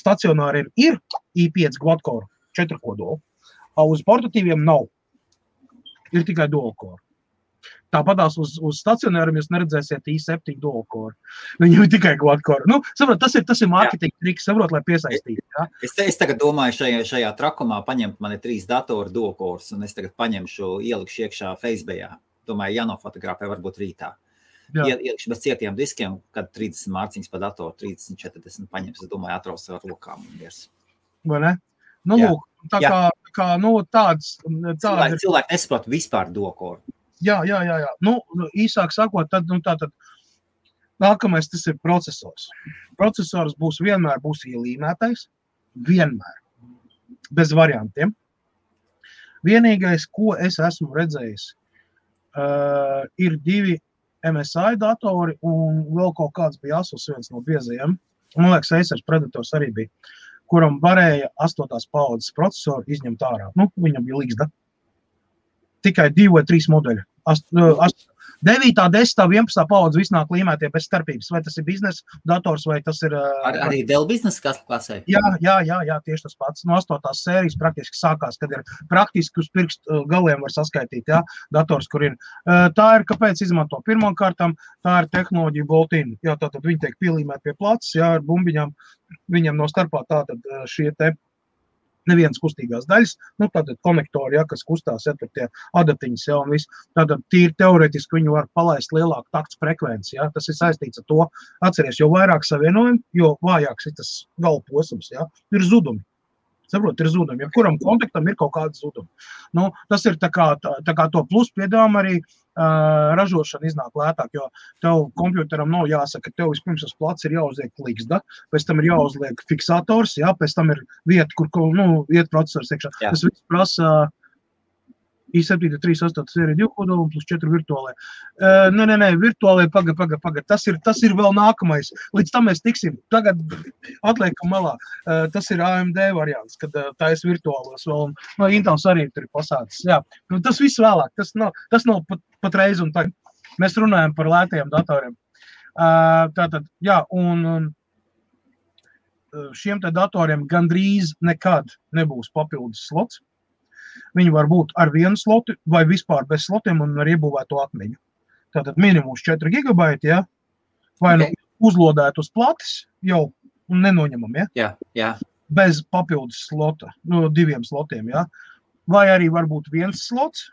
Stacionāriem ir i5 quad-core, 4 kodoli, uz portatīviem nav. Ir tikai dual-core. Tāpatās uz stacionāriem jūs neredzēsiet i7 dual-core. Viņam ir tikai quad-core. Nu, saprot, tas ir marketing triks, saprot, lai piesaistītu. Ja? Es tagad domāju šajā trakumā paņemt mani 3 datoru dual-cores, un es tagad paņemšu, ielikšu iekšā Facebookā. Domāju, jānofotografē varbūt rītā. Ielikšu bez cietiem diskiem, kad 30 mārciņas pa datoru, 30, 40 paņems. Es domāju, atraus ar rokām. Vai ne? Nu, lūk, tā kā nu, tāds cilvēki nesaprot vispār dual-core. Jā. Nu, īsāk sakot, tad nākamais tas ir procesors. Procesors vienmēr būs ielīmētais. Vienmēr. Bez variantiem. Vienīgais, ko es esmu redzējis, ir 2 MSI datori un vēl kaut kāds bija Asus viens no biezajiem. Man liekas, Acer Predators arī bija, kuram varēja 8. paudzes procesoru izņemt ārā. Nu, viņam bija līgzda. Tikai 2 vai 3 modeļi. 9, 10, 11 paudze viss nāk līmētie bez starpības. Vai tas ir biznesa dators, vai tas ir... Arī Dell biznesa klasē? Jā, tieši tas pats. No 8. sērijas praktiski sākās, kad ir praktiski uz pirkstu galiem var saskaitīt, jā, dators, kur ir. Tā ir, kāpēc izmanto pirmām kārtām, tā ir tehnoloģija bolt-in. Jā, tātad viņi tiek pielīmēt pie placis, jā, ar bumbiņām. Viņam no starpā tātad šie te nevienas kustīgās daļas, nu, tātad konektori, ja, kas kustās, ja, tur tie adatiņas, ja, un viss. Tātad tīri teoretiski viņu var palaist lielāku takts frekvenci, ja, tas ir saistīts ar to. Atceries, jo vairāk savienojumi, jo vājāks ir tas galvposms, ja, ir zudumi. Saprot, ir zudumi. Ja kuram kontaktam ir kaut kāda zudumi. Nu, tas ir tā kā to plus piedāvām arī ražošana iznāk lētāk, jo tev kompjuteram nav jāsaka, ka tev vispirms uz plats ir jāuzliek līgzda, pēc tam ir jāuzliek fiksators, jā, pēc tam ir vieta, kur iet procesors iekšā. Jā. Tas viss prasa i7 3.8 sērija 2 kodoli plus 4 virtuālai. Nē, virtuālai, paga. Tas ir vēl nākamais. Līdz tam mēs tiksim. Tagad atliekam malā. Tas ir AMD variants, kad tais virtuālos vēl. No Intels arī tur ir pasācis. Jā. Nu, tas viss vēlāk. Tas nav pat reiz un tagad. Mēs runājam par lētajiem datoriem. Tātad, jā, un šiem te datoriem gandrīz nekad nebūs papildus slots. Viņi var būt ar vienu slotu vai vispār bez slotiem un ar iebūvēto atmiņu. Tātad minimums 4 GB, ja? Vai nu uzlodēt uz platis jau un nenoņemam, ja? Jā. Bez papildus slota, 2 slotiem, ja? Vai arī var būt viens slots.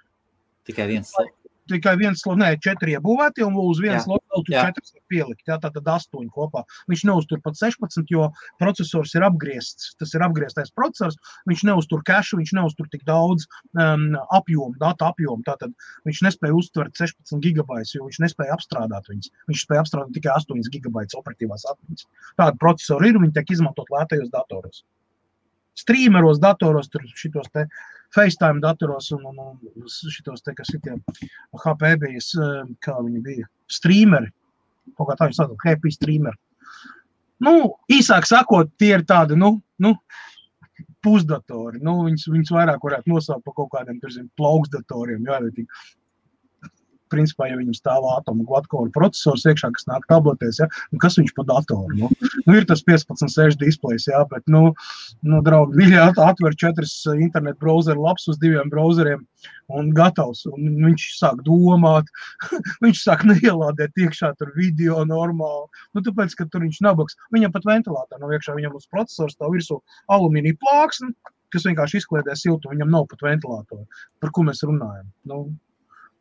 Tikai viens slots. Tikai viens slots, 4 iebūvēti un uz vienu slotu vēl tur 4 var pielikt, ja? Tātad 8 kopā. Viņš neuztur pat 16, jo procesors ir apgriezts. Tas ir apgrieztais procesors, viņš neuztur cache, viņš neuztur tik daudz data apjomu. Tātad viņš nespēja uztvert 16 GB, jo viņš nespēja apstrādāt viņas. Viņš spēja apstrādāt tikai 8 GB operatīvās atmiņas. Tāda procesori ir, viņi tiek izmantot lētajos datoros. Streameros datoros, tur šitos te FaceTime datoros un šitos te, kas ir tie HP bija, kā viņi bija, streameri, kaut kā tā viņi sākot, happy streameri. Nu, īsāk sakot, tie ir tādi, pusdatori, viņus vairāk varētu nosaukt par kaut kādiem, plauksdatoriem, jā, principā, ja viņam stāv atomu quad-core procesors iekšā, kas nāk tabletēs, ja, kas viņš pa datoru, ir tas 15.6 displejs, jā, bet, draugi, viņi atver 4 internet browseru laps uz 2 browseriem un gatavs, un viņš sāk domāt, viņš sāk neielādēt iekšā tur video normāli, tāpēc, ka tur viņš nabaks, viņam pat ventilātori nav iekšā, viņam uz procesors stāv virsū alumīnija plāksne, kas vienkārši izkliedē siltu, viņam nav pat ventilātori, par ko mēs runājam,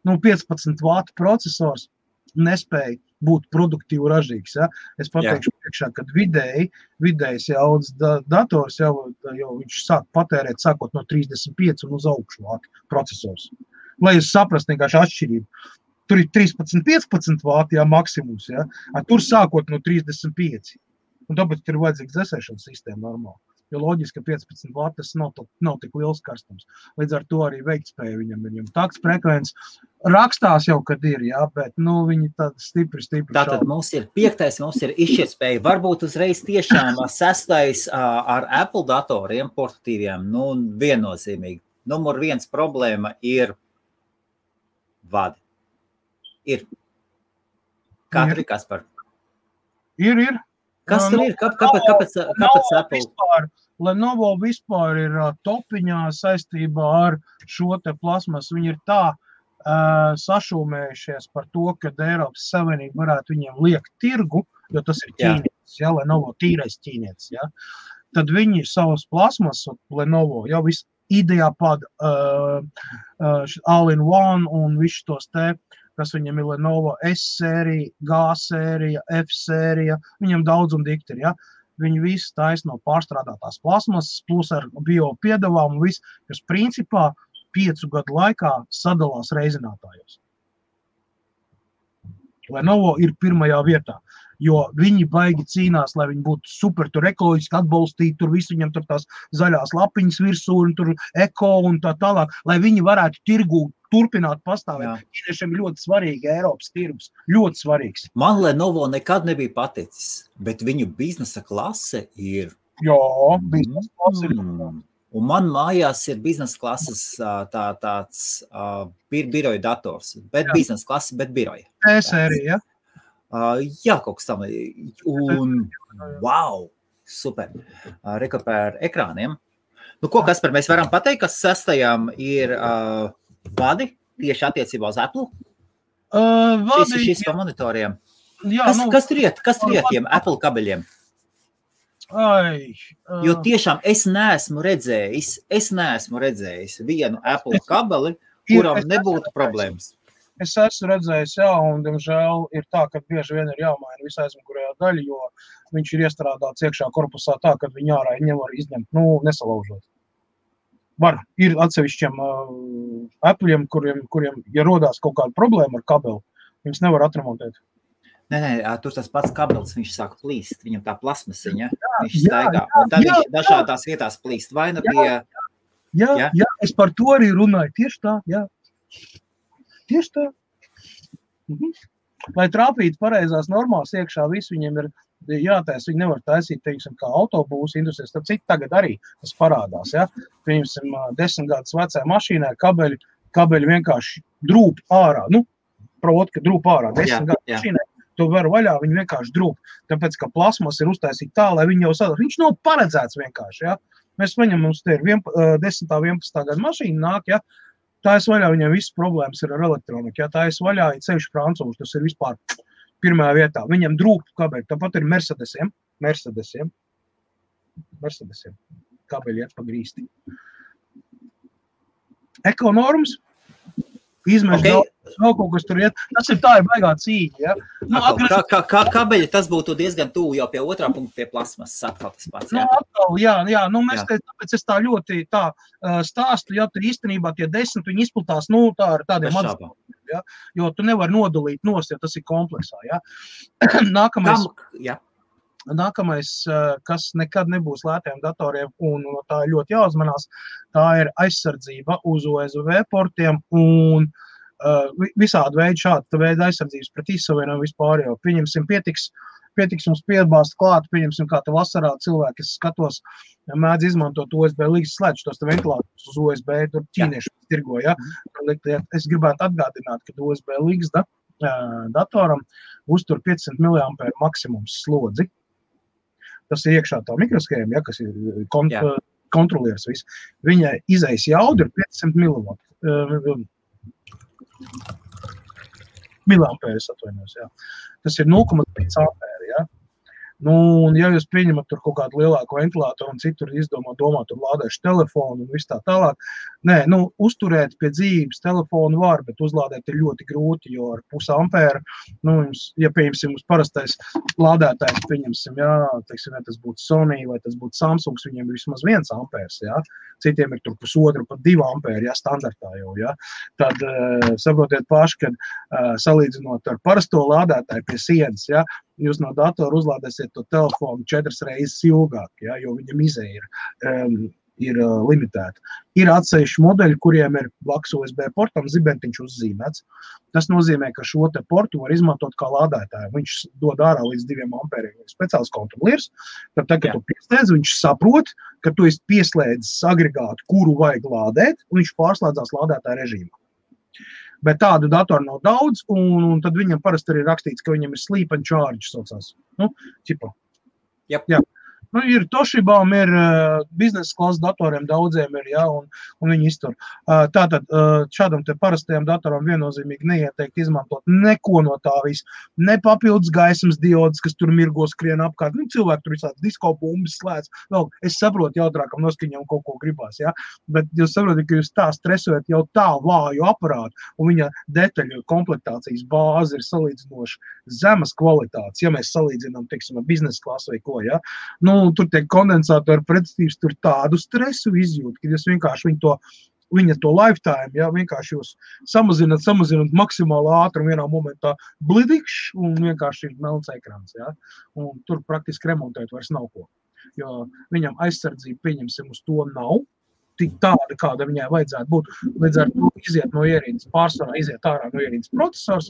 15 vātu procesors nespēja būt produktīvi ražīgs. Ja? Es pateikšu priekšā, kad vidējs jaudas dators jau viņš sāk patērēt sākot no 35 un uz augšu vātu procesors. Lai jūs saprast vienkārši atšķirību. Tur ir 13-15 vāti, maksimums, tur sākot no 35. Un tāpēc ir vajadzīgs dzēsēšanas sistēma normāli. Jo loģiski, ka 15 vāti tas nav tik liels karstums. Līdz ar to arī veiktspēja viņam takts frekvences rakstās jau, kad ir, bet viņi tādi stipri Tātad mums ir 5. mums ir izšķirtspēja. Varbūt uzreiz tiešām 6. ar Apple datoriem, portatīviem, viennozīmīgi. Numur 1 problēma ir vadi. Ir. Kā tur ir, Kaspar? Ir. Kas tur ir? Kāpēc Apple? Lenovo vispār ir topiņā saistībā ar šo te plasmas. Viņi ir tā sašūmējušies par to, ka Eiropas Savienība varētu viņiem liekt tirgu, jo tas ir ķīnietis, Lenovo tīrais ķīnietis. Tad viņi savas plasmas, Lenovo, jau viss IdeaPad, All-in-One un visu tos te, kas viņam ir Lenovo S-sērija, G-sērija, F-sērija, viņam daudz un dikti ir, Viņi visi taisa no pārstrādātās plasmasas, plus ar bio piedevām un viss, kas principā 5 gadu laikā sadalās reizinātājos. Lenovo ir pirmajā vietā, jo viņi baigi cīnās, lai viņi būtu super tur ekoloģiski atbalstīti, tur visu viņam tur tās zaļās lapiņas virsū un tur eko un tā tālāk, lai viņi varētu tirgū turpināt pastāvēt. Ķīniešiem ir ļoti svarīgi Eiropas tirgus, ļoti svarīgs. Man Lenovo nekad nebija paticis, bet viņu biznesa klase ir... biznesa klase ir. Un man mājās ir biznesa klases tāds biroja dators, bet biznesa klase, bet biroja. T-sērija, kaut kas tam. Un, wow, super. Reka par ekrāniem. Ko, Kaspar, mēs varam pateikt, ka 6. ir vadi tieši attiecībā uz Apple? Šis pa monitoriem. Kas tur iet tiem Apple kabeļiem? Jo tiešām es neesmu redzējis vienu Apple kabeli, kuram nebūtu problēmas. Es esmu redzējis, un, diemžēl, ir tā, ka bieži vien ir jāmaina visā aizmugurējā daļa, jo viņš ir iestrādāts iekšā korpusā tā, ka viņi ārā nevar izņemt, nesalaužot. Ir atsevišķiem Apple'iem, kuriem, ja rodās kaut kāda problēma ar kabeli, viņus nevar atremontēt. Nē, tur tas pats kabelis, viņš sāk plīst, viņam tā plasmasiņa, viņš staigā, un tad viņš dažādās vietās plīst, vai nu bija... Jā, es par to arī runāju, tieši tā. Tieši tā. Lai trāpītu pareizās normās iekšā, visu viņiem ir jātais, viņi nevar taisīt, teiksim, kā autobūsu industrijas, tad citi tagad arī tas parādās, Piemēram, 10 gadus vecā mašīnā kabeļi vienkārši drūp ārā, proti, ka drūp ārā, 10 gadu mašīnā. To var vaļā, viņi vienkārši drūp, tāpēc, ka plasmas ir uztaisīta tā, lai viņi jau sadara. Viņš nav paredzēts vienkārši, Mēs viņam, mums te ir 10. 11. gada mašīna nāk, Tā es vaļā, viņam visas problēmas ir ar elektroniku, Tā es vaļā, ir sevišķi francūši, tas ir vispār pirmajā vietā. Viņam drūp kabeļi, tāpat ir Mercedesiem. Kabeļi iet pa grīsti. Ekonormas. Izmeši vēl kaut kas tur iet. Tas ir tā, ir baigā cīņa, Kā kabeļi, tas būtu diezgan tuvu jau pie otrā punkta pie plasmas, atkal tas pats, mēs tāpēc es tā ļoti stāstu, tur īstenībā tie 10, viņi izplatās, tā ar tādiem maziem, jo tu nevar nodalīt nost, ja tas ir kompleksā, Nākamais, kas nekad nebūs lētiem datoriem, un tā ir ļoti jāuzmanās, tā ir aizsardzība uz USB portiem un visādi veidi šāda veida aizsardzības pret izsavienojumu vispār jau. Pieņemsim, pietiks mums piebāzt klāt, pieņemsim, kā te vasarā cilvēki, es skatos, mēdz izmantot USB līgas slēdz tos ventilātus uz USB, tur ķīnieši tirgo, Es gribētu atgādināt, ka USB līgas datoram uztur 500 mAh maksimums slodzi. Tas ir iekšā tā mikroskēma, kas ir kontrolieris viss. Viņa izejas jauda ir 500 miliampēris atvainojos, Tas ir 0,5 ampēri, Nu, un ja jūs pieņemat tur kaut kādu lielāku ventilātoru un citur domā, tur lādēšu telefonu un viss tā tālāk. Nē, nu, uzturēt pie dzīves telefonu var, bet uzlādēt ir ļoti grūti, jo ar 0,5 ampēru, nu, jums, ja pieņemsim uz parastais lādētājs, pieņemsim, jā, teiksim, vai tas būtu Sony vai tas būtu Samsungs, viņiem ir vismaz 1 ampērs, jā. Citiem ir tur 1,5, pat 2 ampēri, jā, standartā jau, jā. Tad saprotiet paši, kad salīdzinot ar parasto lādētāju pie sienas, jā, jūs no datora uzlādēsiet to telefonu 4 reizes ilgāk, ja, jo viņam izēja ir limitēta. Ir atsevišķi modeļi, kuriem ir blakus USB portam zibentiņš uzzīmēts. Tas nozīmē, ka šo te portu var izmantot kā lādētāju. Viņš dod ārā līdz 2 ampēriem. Speciāls kontrolieris, tad, kad tu pieslēdz, viņš saprot, ka tu esi pieslēdzis agregātu, kuru vajag lādēt, un viņš pārslēdzās lādētāja režīmā. Bet tādu datoru nav daudz, un tad viņam parasti arī rakstīts, ka viņam ir sleep and charge saucās. Nu, ķipa. Yep. Jā. Nu, ir Toshibām, ir biznesa klases datoriem daudziem ir, jā, un viņi iztur. Tātad šādam te parastajam datoram viennozīmīgi neieteikt izmantot neko no tā visu. Ne papildus gaismas diodas, kas tur mirgo skrien apkārt. Nu, cilvēki tur visādi disko bumbas slēdz. Vēl, es saprotu jautrākam noskaņam kaut ko gribās, jā. Bet jūs saprotat, ka jūs tā stresojat jau tā vāju aparātu, un viņa detaļu komplektācijas bāze ir salīdzinoši zemas kvalitātes, ja mēs salīdzinām, teiksim, ar biznesa klasu vai ko, jā. Nu, tur tiek kondensātori pretstības, tur tādu stresu izjūt, kad jūs vienkārši viņa to lifetime, ja, vienkārši jūs samazināt maksimāli ātrumu vienā momentā blidikšs un vienkārši ir melns ekrāns, ja. Un tur praktiski remontēt vairs nav ko, jo viņam aizsardzība, pieņemsim, uz to nav, tik tāda, kāda viņai vajadzētu būt. Līdz ar to iziet no ierīces, pārsvarā iziet ārā no ierīces procesors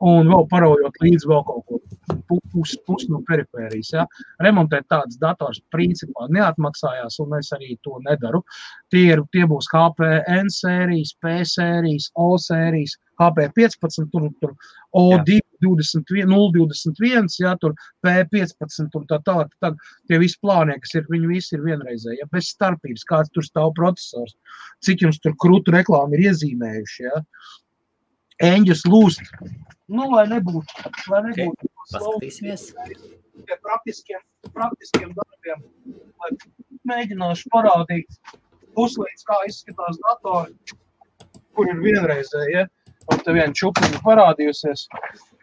un vēl paraujot līdz vēl kaut ko pus no perifērijas. Ja. Remontēt tādas dators principā neatmaksājās, un es arī to nedaru. Tie būs HP N sērijas, P sērijas, O sērijas, HP 15, tur O2, 021, ja, tur P15 un tā tālāk. Tad tie visi plānie, kas ir, viņi visi ir vienreizēji, ja, bez starpības, kāds tur stāv procesors, cik jums tur krūtu reklāmi ir iezīmējuši, ja. Eņģis lūst, nu, lai nebūtu. Okay. Paskatīsimies. Pie praktiskiem darbiem, lai mēģināšu parādīt puslīdz, kā izskatās datori, kur ir vienreizēji, ja. Un te viena čupiņa parādījusies.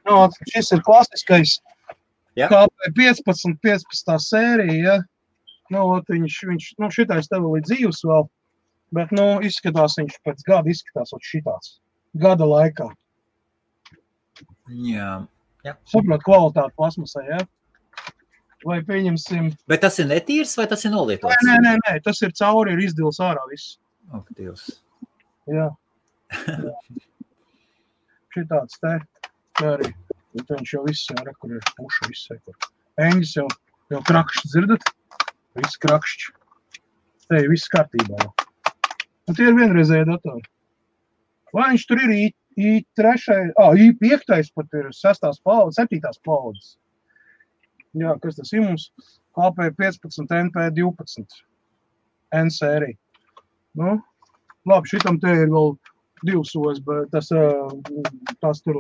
Nu, šis ir klasiskais HP 15 sērija, ja. Nu, viņš, nu, šitais tev līdz dzīves vēl, bet, nu, izskatās viņš pēc gada izskatās šitāds. Gada laikā. Jā. Saprot kvalitāti plasmasai, ja. Vai pieņemsim... Bet tas ir netīrs vai tas ir nolietots? Nē, tas ir cauri, ir izdils ārā viss. Ak, Dievs. Jā. Šitāds te arī, viņš jau viss, jā, kur ir puša, viss, kur. Eņģis jau krakšķi, dzirdat? Viss krakšķi. Te ir viss kārtībā jau. Un tie ir vienreizēji datori. Vai viņš tur ir I5 pat ir 6. paudzes, 7. paudzes. Jā, kas tas ir mums? HP 15, NP 12. N sērija. Nu, labi, šitam te ir vēl 2 USB, tas tur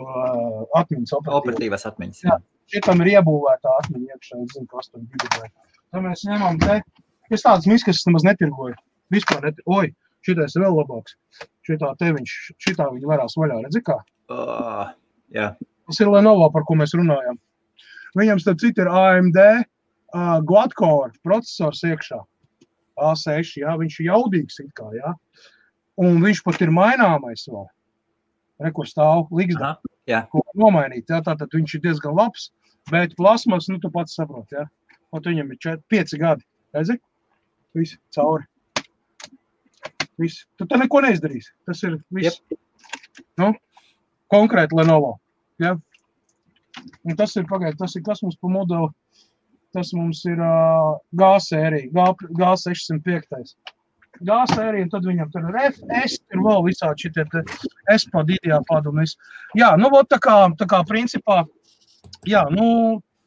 atmiņas operatīvas atmiņas. Jā, šitam ir iebūvētā atmiņa iekšā, es zinu, kas tur gigabaitu. Tad mēs ņemam te, es tādas miskas nemaz netirgoju, vispār netirgoju. Oi, šitais ir vēl labāks. Šitā viņi varās vaļā, redzi kā? Jā. Tas ir Lenovo, par ko mēs runājam. Viņam starp citu ir AMD Quad-core procesors iekšā. A6, jā, viņš ir jaudīgs it kā, jā. Un viņš pat ir maināmais vēl. Rekur stāv ligzdā, ko nomainīt, jā, tātad viņš ir diezgan labs, bet plasmas, nu, tu pats saprot, jā. Un viņam ir 5 gadi, redzi? Visi, cauri. Visi. Tu te neko neizdarīsi, tas ir viss. Yep. Nu, konkrēti Lenovo, jā. Un tas ir, tas ir kas mums pa modeli, tas mums ir G sērija, G605. G sērija, un tad viņam tur ir FS, ir vēl visādi šitie te S-pad, IDEA-pad un viss. Jā, nu, tā kā principā, jā, nu,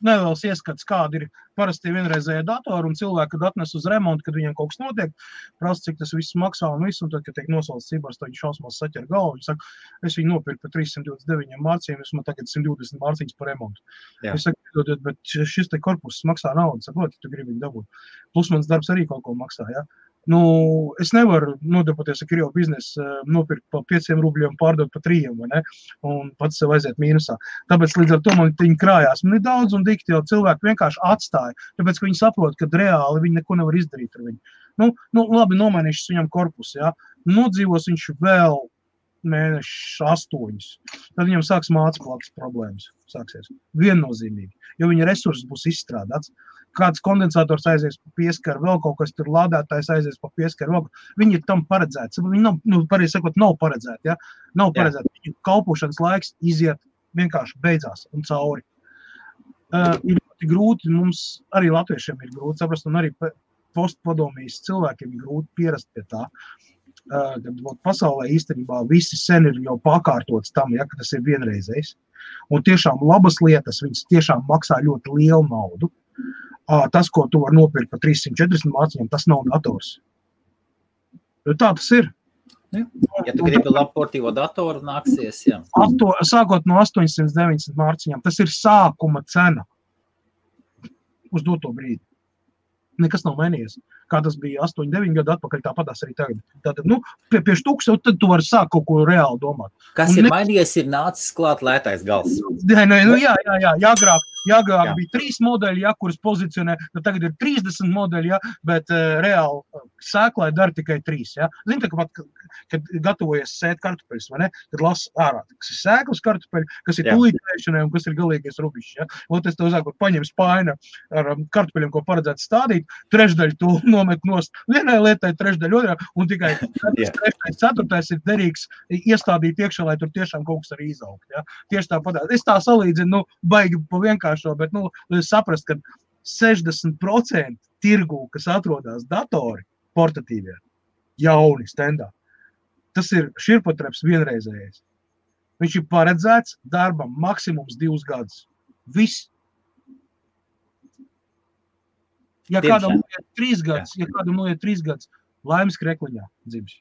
neliels ieskats, kādi ir parasti vienreizējie datori un cilvēki, kad atnes uz remontu, kad viņiem kaut kas notiek, prasa, cik tas viss maksā un viss, un tad, kad tiek nosalts cibars, tad viņi šausmās saķer galvu, viņi saka, es viņu nopirku par 329 mārciņiem, es man tagad 120 mārciņas par remontu. Jā. Es saku, bet šis te korpus maksā naudu, saproti, tu gribi viņu dabūt. Plus mans darbs arī kaut ko maksā, ja? Nu, es nevaru nodarboties ar Krievu biznesu, nopirkt pa 5 rubļiem, pārdot pa 3, vai ne? Un pats sev aiziet mīnusā. Tāpēc līdz ar to man viņi krājās. Man ir daudz un dikti, jo cilvēki vienkārši atstāja, tāpēc, ka viņi saprot, ka reāli viņi neko nevar izdarīt ar viņu. Nu labi, nomainīšas viņam korpusu, ja? Nodzīvos viņš vēl mēneši 8. Tad viņam sāks mācību problēmas. Sāksies. Viennozīmīgi, jo viņa resursi būs izstrādāts. Kāds kondensators aizies pa pieskaru, vēl kaut kas tur lādētājs aizies pa pieskaru, vēl. Viņi ir tam paredzēti. Viņi nav, pareizi sakot, nav paredzēti, ja? Nav paredzēti. Viņu kalpošanas laiks iziet vienkārši beidzās un cauri. Ir ļoti grūti, mums arī latviešiem ir grūti saprast, un arī postpadomijas cilvēkiem ir grūti pierast pie tā. Kad pasaulē īstenībā visi sen ir jau pakārtots tam, ja, ka tas ir vienreizējs. Un tiešām labas lietas, viņas tiešām maksā ļoti lielu naudu. Tas, ko tu var nopirkt par 340 mārciņām, tas nav dators. Jo tā tas ir. Ja tu gribi labu portīvo datoru, nāksies, jā. Sākot no 890 mārciņām, tas ir sākuma cena uz doto brīdi. Nekas nav mainījies. Kā tas bija 8-9 gadu atpakaļ, tāpatās arī tagad. Tātad, pie štūks, tad tu vari sākt kaut ko reāli domāt. Kas ir mainījies, ir nācis klāt lētais gals. Jā, agrāk bija 3 modeļi, ja, kuras pozicionē, tagad ir 30 modeļi, ja, bet reāli sēklai dara tikai 3. Ja. Zini, tā, kad gatavojies sēt kartupeļus, vai ne? Kad lasa ārā, kas ir sēklas kartupeļi, kas ir tūlītēšanai un kas ir galīgais rubišs. Ja. Un es tev zāku, paņem spāina ar kartupeļiem, ko paredzētu stādīt, trešdaļu to nomet nost vienai lietai, trešdaļu otrā, un tikai 4. ir derīgs iestādīt iekšā, lai tur tiešām kaut kas arī izaugt. Ja. Tieši tāpat. Es tā salīdzinu, baigi pa vienkāršo, bet, saprast, ka 60% tirgū, kas atrodas datori, portatīvie, jauni, standā, tas ir širpotreps vienreizējais. Viņš ir paredzēts darbam maksimums 2 gadus. Viss. Ja kādam noiet 3 gadus, laimes krekliņā dzimš.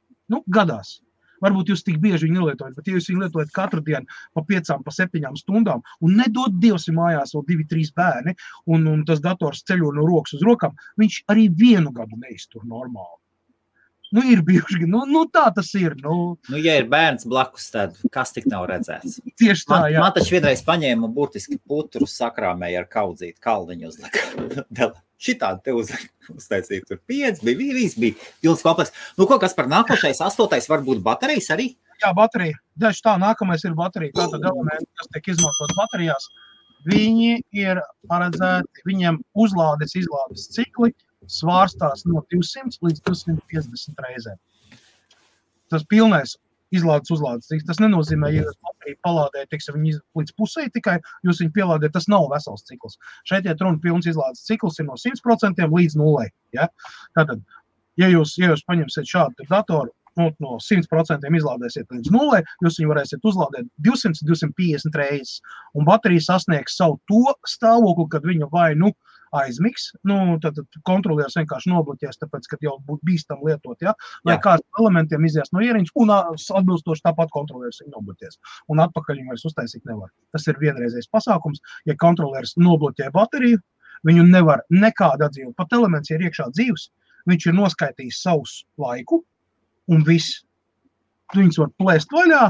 Gadās. Varbūt jūs tik bieži viņu nelietojat, bet ja jūs viņu lietojat katru dienu pa 5, pa 7 stundām un nedod Dievs mājās vēl 2-3 bērni un tas dators ceļo no rokas uz rokām, viņš arī 1 gadu neiztur normāli. Ir bijuši, tā tas ir. Ja ir bērns blakus, tad kas tik nav redzēts? Tieši tā, jā. Man taču vienreiz paņēma burtiski putru sakrāmēja ar kaudzīti kalniņu uzlika. Šitādi te uztaisīja, tur 5 bija, viss bija pilns kompleks. Kas par nākošais 8. varbūt baterijas arī? Jā, baterija. Daži tā, nākamais ir baterija. Tātad elementi, kas tiek izmantot baterijās, viņi ir paredzēti, viņiem uzlādes, izlādes cikli svārstās no 200 līdz 250 reizēm. Tas pilnais izlādes uzlādes cikls. Tas nenozīmē, ja jūs bateriju palādējat, viņi līdz pusē tikai, jūs viņu pielādējat, tas nav vesels cikls. Šeit iet runa pilns izlādes cikls ir no 100% līdz 0. Ja? Tātad, ja jūs paņemsiet šādu datoru, no 100% izlādēsiet līdz 0, jūs viņu varēsiet uzlādēt 200-250 reizes. Un baterija sasniegs savu to stāvokli, kad viņa vai aizmigs, tad kontrolieris vienkārši nobloķēs, tāpēc, ka jau būtu bīstam lietot, ja? Lai kāds elementiem izies no ieriņas, un atbilstoši tāpat kontrolieris viņu nobloķēs. Un atpakaļ viņu vairs uztaisīt nevar. Tas ir vienreizējs pasākums. Ja kontrolieris nobloķē bateriju, viņu nevar nekāda atdzīvot. Pat elements ir iekšā dzīvs, viņš ir noskaitījis savus laiku, un viss. Viņus var plēst vaļā,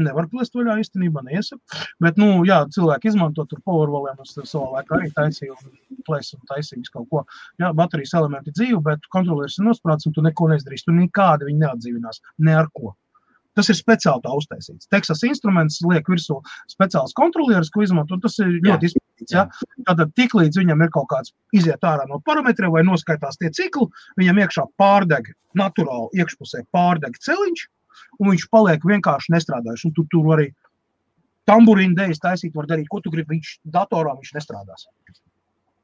nevar plēst vaļā īstenībā, neiesaku. Bet, cilvēki izmanto tur powerwalliem, es savā laikā arī taisīju un plēsu un taisīju kaut ko. Jā, baterijas elementi dzīvi, bet kontrolieris ir nosprāts un tu neko neizdarīsi. Tu nekādi viņi neatdzīvinās, ne ar ko. Tas ir speciāli tā uztaisīts. Texas Instruments liek virsū speciāls kontrolieris, ko izmanto, un tas ir ļoti izpētīts. Ja? Tātad tik līdz viņam ir kaut kāds iziet ārā no parametriem vai noskaitās tie cikli, viņam iekšā pārdeg, naturāli iekšpusē pārdeg celiņš, un viņš paliek vienkārši nestrādājuši. Un tu tur arī tamburīnu dēļas taisīt var darīt, ko tu gribi, datorā viņš nestrādās.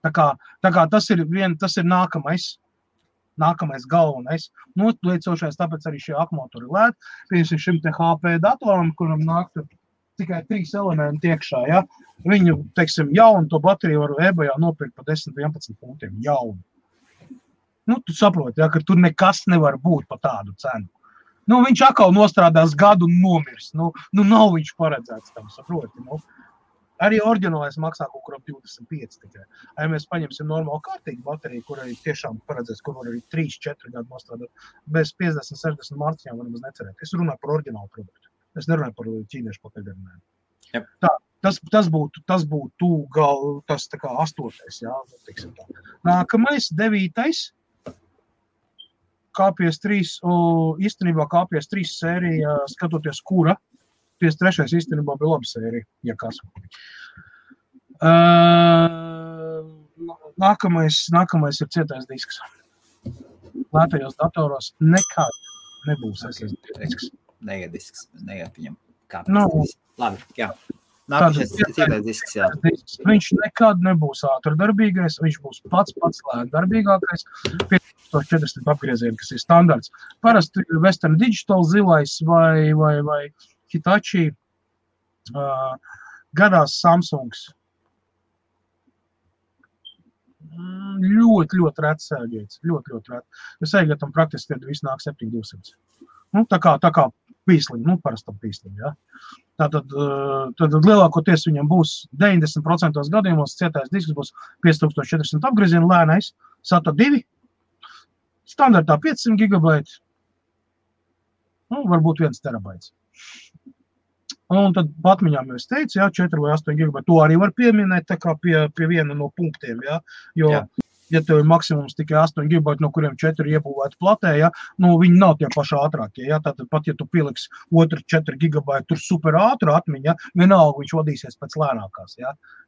Tā kā tas ir nākamais galvenais. Liecošais, tāpēc arī šie akumuļatori lēt. Piemēram, šim te HP datoram, kuram nāk tikai 3 elementi iekšā, ja? Viņu, teiksim, jaunu to bateriju var eBayā nopirkt par 10-11 punktiem, jaunu. Nu, tu saproti, ja, ka tur nekas nevar būt pa tādu cenu. Nu, viņš atkal nostrādās gadu un nomirs. Nu, nav viņš paredzēts tam, saproti, nu. Arī oriģinālais maksā kaut kur ap 25 tikai. Ja mēs paņemsim normālu kārtīgu bateriju, kurai tiešām paredzēts, kur var arī 3-4 gadu nostrādāt, bez 50-60 mārciņām var nemaz necerēt. Es runāju par oriģinālu produktu. Es nerunāju par ķīniešu pakaļdarinājumu. Yep. Tā, tas būtu tas tā kā 8. Jā, tiksim tā. Nākamais, 9. KPS3, īstenībā KPS3 sērija, skatoties kura, 53. īstenībā bija laba sērija, ja kas. Nākamais ir cietais disks. Lētajos datoros nekad nebūs SSD disks. Neiet disks, neiet viņam kāpēc. No. Labi, jā. Nākamais cietais disks, jā. Viņš nekad nebūs ātrdarbīgais, viņš būs pats lētdarbīgākais. 5400 apgriezieni, kas ir standarts. Parasti Western Digital zilais vai Hitachi, gadās Samsungs. Ļoti rets sēgēts, ļoti rets. Jo sēgētam praktiski tad viss nāk 7200. Nu, tā kā pīsliņi, parastam pīsliņi, ja. Tad lielākoties viņam būs 90% gadījumos cietais disks būs 5400 apgriezienu lēnais, SATA 2, standartā 500 gigabaiti, varbūt 1 terabaits. Un tad patmiņām es teicu, 4 vai 8 gigabaiti, to arī var pieminēt tā kā pie viena no punktiem, jo, ja tev ir maksimums tikai 8 gigabaiti, no kuriem 4 iebūvēti platē, viņi nav tie paši ātrākie, tātad pat, ja tu pieliks 4 gigabaiti tur super ātru atmiņa, vienalga viņš vadīsies pēc lēnākās,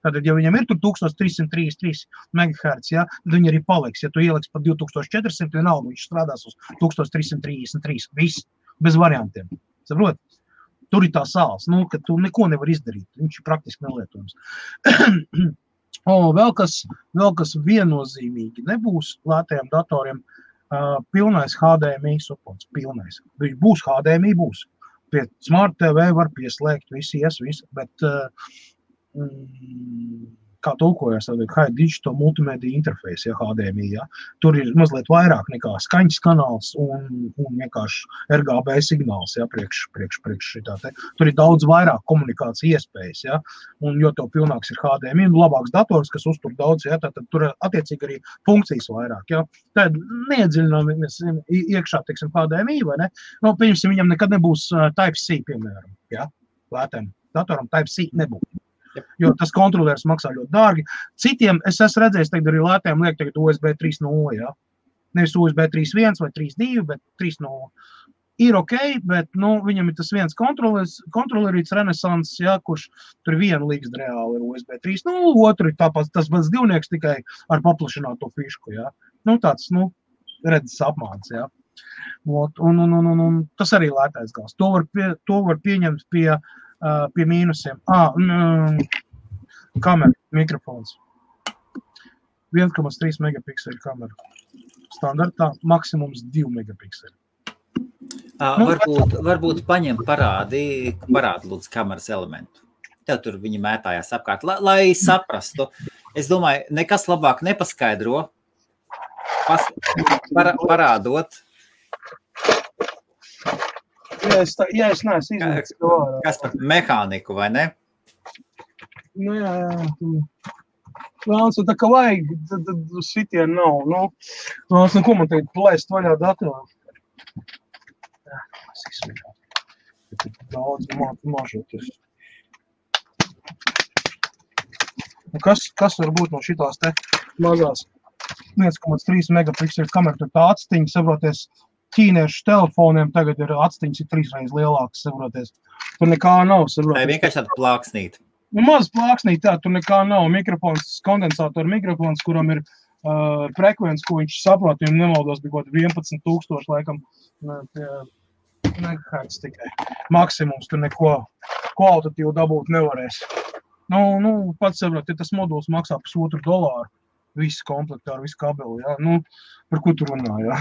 Tātad, ja viņam ir tur 1333 MHz, tad viņi arī paliks, ja tu ieliks pa 2400, vienalga viņš strādās uz 1333, viss, bez variantiem, saprot? Tur ir tā sāls, ka tu neko nevar izdarīt, viņš ir praktiski nelietojums. Vēl kas viennozīmīgi nebūs lētajiem datoriem, pilnais HDMI supports, pilnais. Būs HDMI, būs. Pie Smart TV var pieslēgt, visi, bet kā tulkojas, High Digital Multimedia Interface, HDMI, Tur ir mazliet vairāk nekā skaņas kanāls un vienkārši RGB signāls, priekš šitā te. Tur ir daudz vairāk komunikācija iespējas, un jo tev pilnāks ir HDMI, labāks dators, kas uztur daudz, tad tur attiecīgi arī funkcijas vairāk, Tad neiedziļināmies iekšā, teiksim, HDMI, vai ne? Pieņemsim, viņam nekad nebūs Type-C, piemēram, lētiem datoram Type-C nebūs. Jo tas kontrolieris maksā ļoti dārgi. Citiem, es esmu redzējis, tagad arī lētiem liek tagad USB 3.0, Nevis USB 3.1 vai 3.2, bet 3.0. Ir ok, bet, viņam ir tas viens kontrolierīts Renesans, kurš tur vienu līgst reāli ir USB 3.0, otru ir tāpēc tas pats divnieks tikai ar paplašināto fišku, Tāds, redzes apmāns, Un tas arī lētais gals. To var pieņemt pie mīnusiem. Kamera, mikrofons. 1,3 megapikseli kamera. Standartā maksimums 2 megapikseli. Varbūt parādi lūdzu kameras elementu. Tev tur viņi mētājās apkārt, lai saprastu. Es domāju, nekas labāk nepaskaidro, parādot. Ja es neesmu izmēķis to ārā. Kas par mehāniku, vai ne? Jā. Vēlams, tā kā vajag, tad sitien nav. Vēlams, ko man teikt, plēst vaļā datoru. Es izsmēķu. Daudz mažoties. Kas var būt no šitās te mazās 1,3 megapikseli kamera, tur tā atstiņa, saproties, ķīniešu telefoniem tagad ir atstiņas ir 3 reizes lielākas, saproties. Tur nekā nav, saproties. Tā vienkārši tāda plāksnīt. Maz plāksnīt, tur nekā nav. Mikrofons, kondensātoru mikrofons, kuram ir frekvence, ko viņš saprot, viņam nemaldos bija kaut 11,000, laikam, megahertz tikai. Maksimums tur neko kvalitatīvu dabūt nevarēs. Pats saprot, ja tas moduls maksā $1,5, visi komplektā ar visu kabeli, par ko tu runā, ja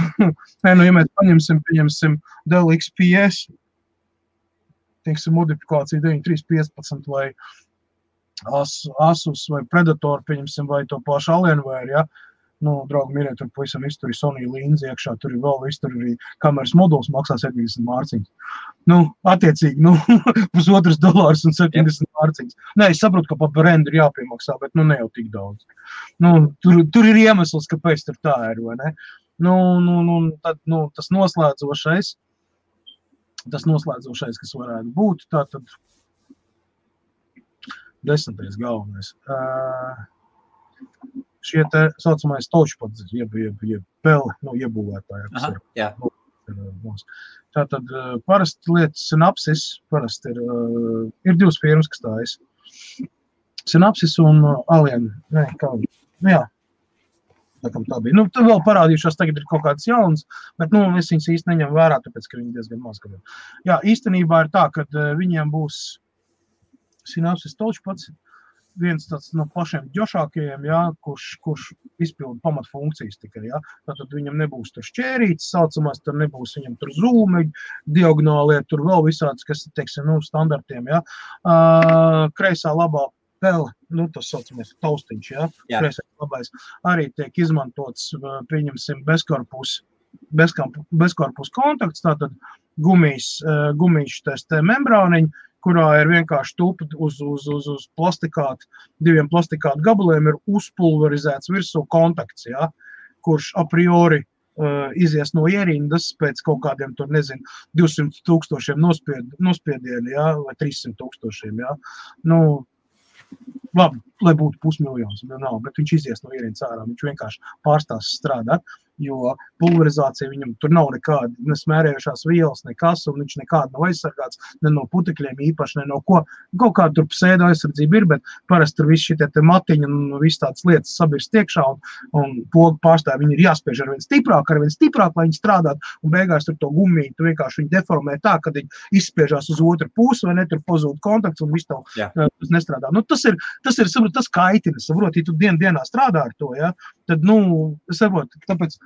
mēs pieņemsim Dell XPS, teiksim, modifikācija 9315 vai Asus vai Predator, pieņemsim, vai to pašu Alienware, ja? Nu, draugi, mīļie, tur pavisam viss, tur ir Sony līnzi iekšā, tur ir vēl viss, tur arī kameras moduls maksā 70 mārciņas. Nu, attiecīgi, nu, $1,5 un 70 mārciņas. Nē, es saprotu, ka pa rendu ir jāpiemaksā, bet, nu, ne jau tik daudz. Nu, tur ir iemesls, kāpēc tur tā ir, vai ne? Nu, tad, nu, tas noslēdzošais, kas varētu būt, tātad 10. galvenais. Šie te saucamais touchpads, jeb peli, nu, iebūvētāji. Aha, jā. Tātad parasti lietas Synapsis, parasti ir divas firmas, kas tājas. Synapsis un Alien, ne, kā, nu jā, tā bija. Nu, tur vēl parādījušās, tagad ir kaut kāds jauns, bet, nu, es viņas īsti neņem vērā, tāpēc, ka viņi diezgan maz gadiem. Jā, īstenībā ir tā, ka viņiem būs Synapsis touchpads, viens tāds no pašiem ģošākajiem, jā, kurš izpilda pamatfunkcijas tikai, jā. Tātad viņam nebūs tur šķērītes saucamās, tur nebūs viņam tur zūmeļi, diagonālie, tur vēl visāds, kas, teiksim, nu, standartiem, jā. Kreisā labā pele, nu, tas saucamais taustiņš, jā. Kreisā labais arī tiek izmantots, pieņemsim, bezkorpus kontakts, tātad gumīšs te membrāniņi, kurā ir vienkārši tupi uz diviem plastikātu gabaliem ir uzpulverizēts virsū kontakts, jā, kurš a priori izies no ierindas pēc kaut kādiem, tur nezinu, 200,000 nospiedieni, jā, vai 300,000, jā. Nu, labi, lai būtu 500,000, bet viņš izies no ierindas ārā, viņš vienkārši pārstās strādāt, jo pulverizācija viņam tur nav nekāda, ne smērējušās vielas, nekas, un viņš nekāda nav aizsargāts, ne no putekļiem īpaši, ne no ko. Kaut kāda tur psēda aizsardzība ir, bet parasti tur viss šitie te matiņi un viss tādas lietas sabirst iekšā, un pogu pārstāvi viņi ir jāspiež ar vien stiprāk, lai viņi strādātu, un beigās tur to gumiju, tu vienkārši viņi deformē tā, kad viņi izspiežās uz otru pusi, vai ne, tur pazūd kontakts, un viss tev nestrādā. Nu, tas ir, saprot, tas kaitina, saprot, ja tu dienā strādā ar to, ja, tad, nu, saprot, tāpēc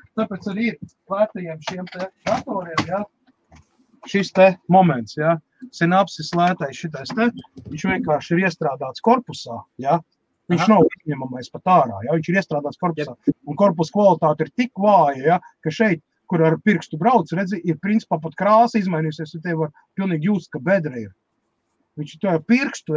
arī ir lētajiem šiem te datoriem, ja, šis te moments, ja, Synapsis lētais šitais te, viņš vienkārši ir iestrādāts korpusā, ja, viņš nav izņemamais pat ārā, ja, viņš ir iestrādāts korpusā, un korpus kvalitāte ir tik vāja, ja, ka šeit, kur ar pirkstu brauc, redzi, ir principā pat krāsa izmainījusies, un tev var pilnīgi just, ka bedra ir. Viņš to pirkstu,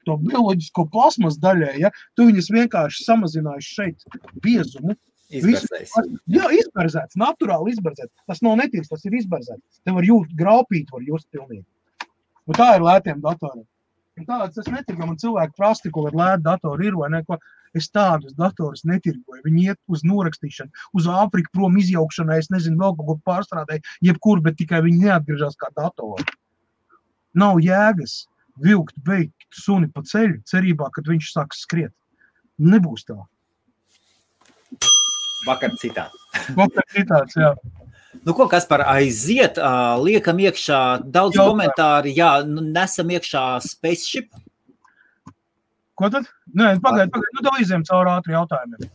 to bioloģisko plasmas daļai, ja, tu viņas vienkārši samazinājuši šeit biezumu. Izberzējis. Jā, izberzēts, naturāli izberzēts. Tas nav netīrs, tas ir izberzēts. Te var just, graupīt var just pilnīgi. Un tā ir lētiem datoriem. Un tāds es netirgoju, man cilvēki prasti, ko ar lētu datoru ir vai neko. Es tādus datorus netirgoju. Viņi iet uz norakstīšanu, uz Āfriku prom izjaukšanai, es nezinu, vēl kaut ko pārstrādēju, jebkur, bet tikai viņi neatgriežās kā datori. Nav jēgas vilkt, beigt suni pa ceļu, cerībā, kad viņš sāks skriet. Nebūs tā. Vakar citāts. Vakar citāts, jā. Nu, ko, Kaspar, aiziet, liekam iekšā daudz komentāri, jā, nesam iekšā Spaceship. Ko tad? Nē, pagaid, nu tev iziem caur ātri jautājumiem.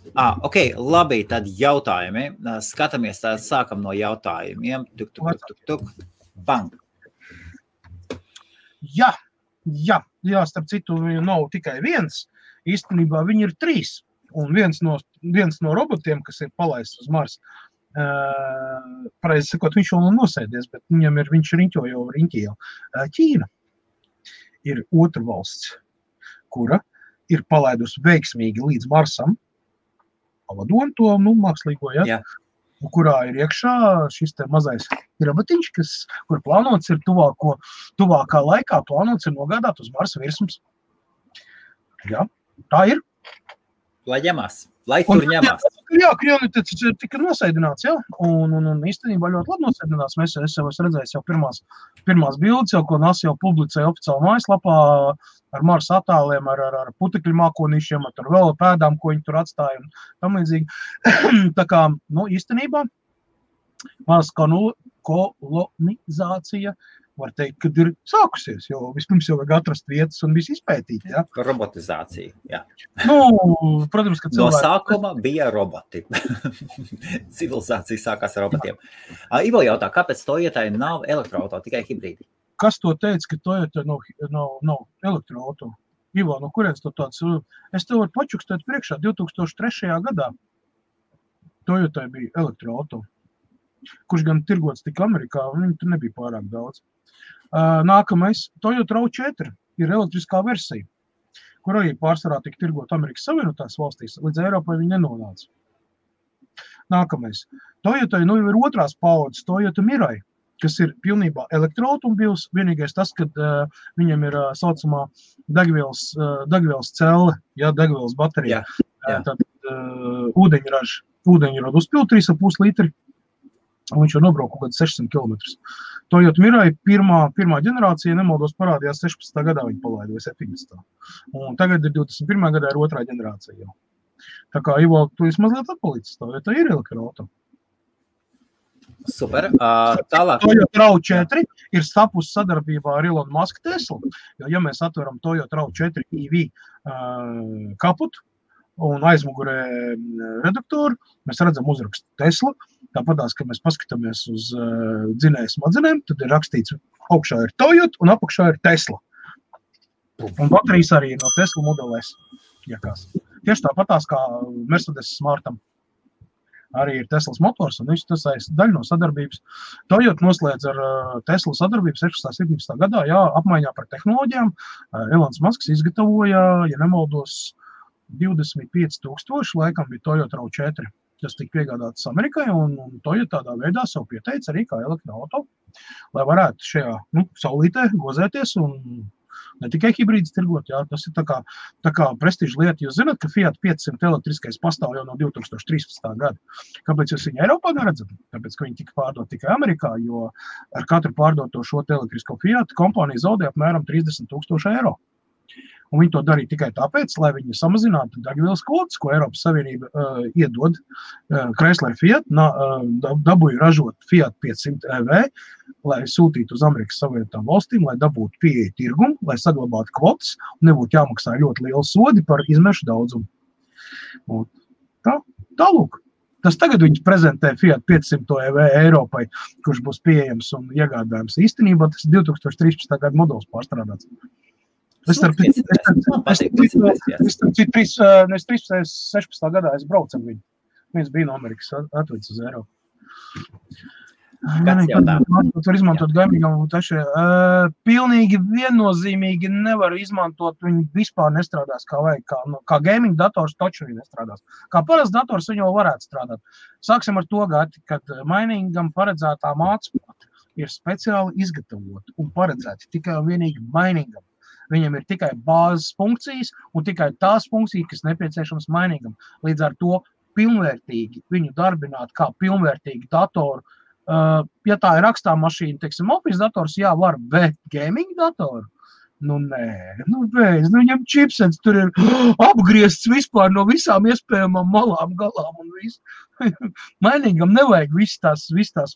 Ok, labi, tad jautājumi. Skatāmies, tad sākam no jautājumiem. Tuk. Bang. Jā, starp citu, nav tikai viens. Īstenībā viņi ir 3. Un viens no robotiem, kas ir palaists uz Mars, pareizi sakot, viņš vēl nav nosēdies, bet viņš riņķo jau. Ķīna ir otra valsts, kura ir palaidusi veiksmīgi līdz Marsam, pavadoni to, mākslīgo, ja? Kurā ir iekšā šis te mazais robotiņš, kur plānots ir tuvākā laikā, plānots ir nogādāt uz Marsa virsmas. Jā, tā ir. Lai tur ņemās. Jā, Krievniets tika nosēdināts, jā, un īstenībā ļoti labi nosēdinās. Es jau esmu redzējis jau pirmās bildes, ko NASA jau publicēja oficiāli mājaslapā ar Marsa attēliem, ar putekļu mākonīšiem, ar vēl pēdām, ko viņi tur atstāja un tam līdzīgi. Tā kā, īstenībā, Mars kolonizācija, var teikt, kad ir sākusies, jo vispirms jau vajag atrast vietas un visu izpētīt, jā. Robotizācija, jā. Protams, ka cilvēki... No sākuma bija roboti. Civilizācija sākās ar robotiem. Ivo jautā, kāpēc Toyotai nav elektroauto, tikai hibrīdi? kas to teica, ka Toyota nav elektroauto? Ivo, no kurienes to tāds? Es tev varu pačukstēt priekšā 2003. gadā. Toyotai bija elektroauto, kurš gan tirgots tik Amerikā, un viņi tur nebija pārāk daudz. Nākamais, Toyota RAV4 ir elektriskā versija, kur arī pārsvarā tika tirgot Amerikas Savienotās valstīs, līdz Eiropai viņi nenonāca. Nākamais, Toyotai jau ir otrās paudzes Toyota Mirai, kas ir pilnībā elektroautomobils, vienīgais tas, kad viņam ir saucamā degvielas celle, degvielas baterija. Tad ūdeņradu uzpild 3,5 litri, un viņš jau nobrauc kaut kāds 600 km. Toyota Mirai pirmā ģenerācija, nemaldos, parādījās 16. gadā viņa palaida, vai 17. Un tagad ir 21. gadā ir otrā ģenerācija jau. Tā kā, Ivo, tu esi mazliet atpalicis, Toyota ir elektroauto. Super. Tālāk. Toyota RAV4 ir stapusi sadarbībā ar Elon Musk Tesla. Jo, ja mēs atveram Toyota RAV4 EV kaputu un aizmugurē reduktoru, mēs redzam uzrakstu Tesla. Tāpatās, ka mēs paskatāmies uz dzinēju smadzenēm, tad ir rakstīts, augšā ir Toyota un apakšā ir Tesla. Un baterijas arī no Tesla Model S. Tieši tāpatās kā Mercedes Smartam. Arī ir Teslas motors, un tas daļa no sadarbības. Toyota noslēdz ar Tesla sadarbību 16. gadā, apmaiņā par tehnoloģijām. Elons Musks izgatavoja, ja nemaldos, 25,000, laikam bija Toyota RAV4, kas tika piegādātas Amerikai, un Toyota tādā veidā savu pieteica arī kā elektroauto, lai varētu šajā saulītē gozēties un ne tikai hibrīdus tirgot, tas ir tā kā prestiža lieta. Jūs zināt, ka Fiat 500 elektriskais pastāv jau no 2013. gada. Kāpēc jūs viņu Eiropā neredzat? Tāpēc, ka viņi tika pārdot tikai Amerikā, jo ar katru pārdoto šo elektrisko Fiat kompānija zaudē apmēram 30,000 eiro. Un viņi to darīja tikai tāpēc, lai viņi samazinātu degvielas kvotas, ko Eiropas Savienība iedod Chrysler Fiat, dabūja ražot Fiat 500 EV, lai sūtītu uz Amerikas Savienotām valstīm, lai dabūtu pieeja tirgumu, lai saglabātu kvotas un nebūtu jāmaksā ļoti liela sodi par izmešu daudzumu. Un tālūk. Tas tagad viņi prezentē Fiat 500 EV Eiropai, kurš būs pieejams un iegādājams. Īstenībā tas 2013. gada modelis pārstrādāts. Es 16. gadā es braucu ar viņu. Viņš bija no Amerikas atvedis uz Eiropu. Tur izmantot gaimīgam un taši. Pilnīgi viennozīmīgi nevar izmantot, viņi vispār nestrādās kā vajag. Kā gaming dators taču viņi nestrādās. Kā parasts dators viņi jau varētu strādāt. Sāksim ar to gati, kad mainingam paredzētā mācība ir speciāli izgatavota un paredzēta tikai un vienīgi mainingam. Viņam ir tikai bāzes funkcijas un tikai tās funkcijas, kas nepieciešams mainīgam. Līdz ar to pilnvērtīgi viņu darbināt kā pilnvērtīgi datoru. Ja tā ir rakstā mašīna, teiksim, office dators, var, bet gaming datoru? Nē, viņam chipsets tur ir apgriezts vispār no visām iespējamām malām, galām un visu. Mainīgam nevajag viss tās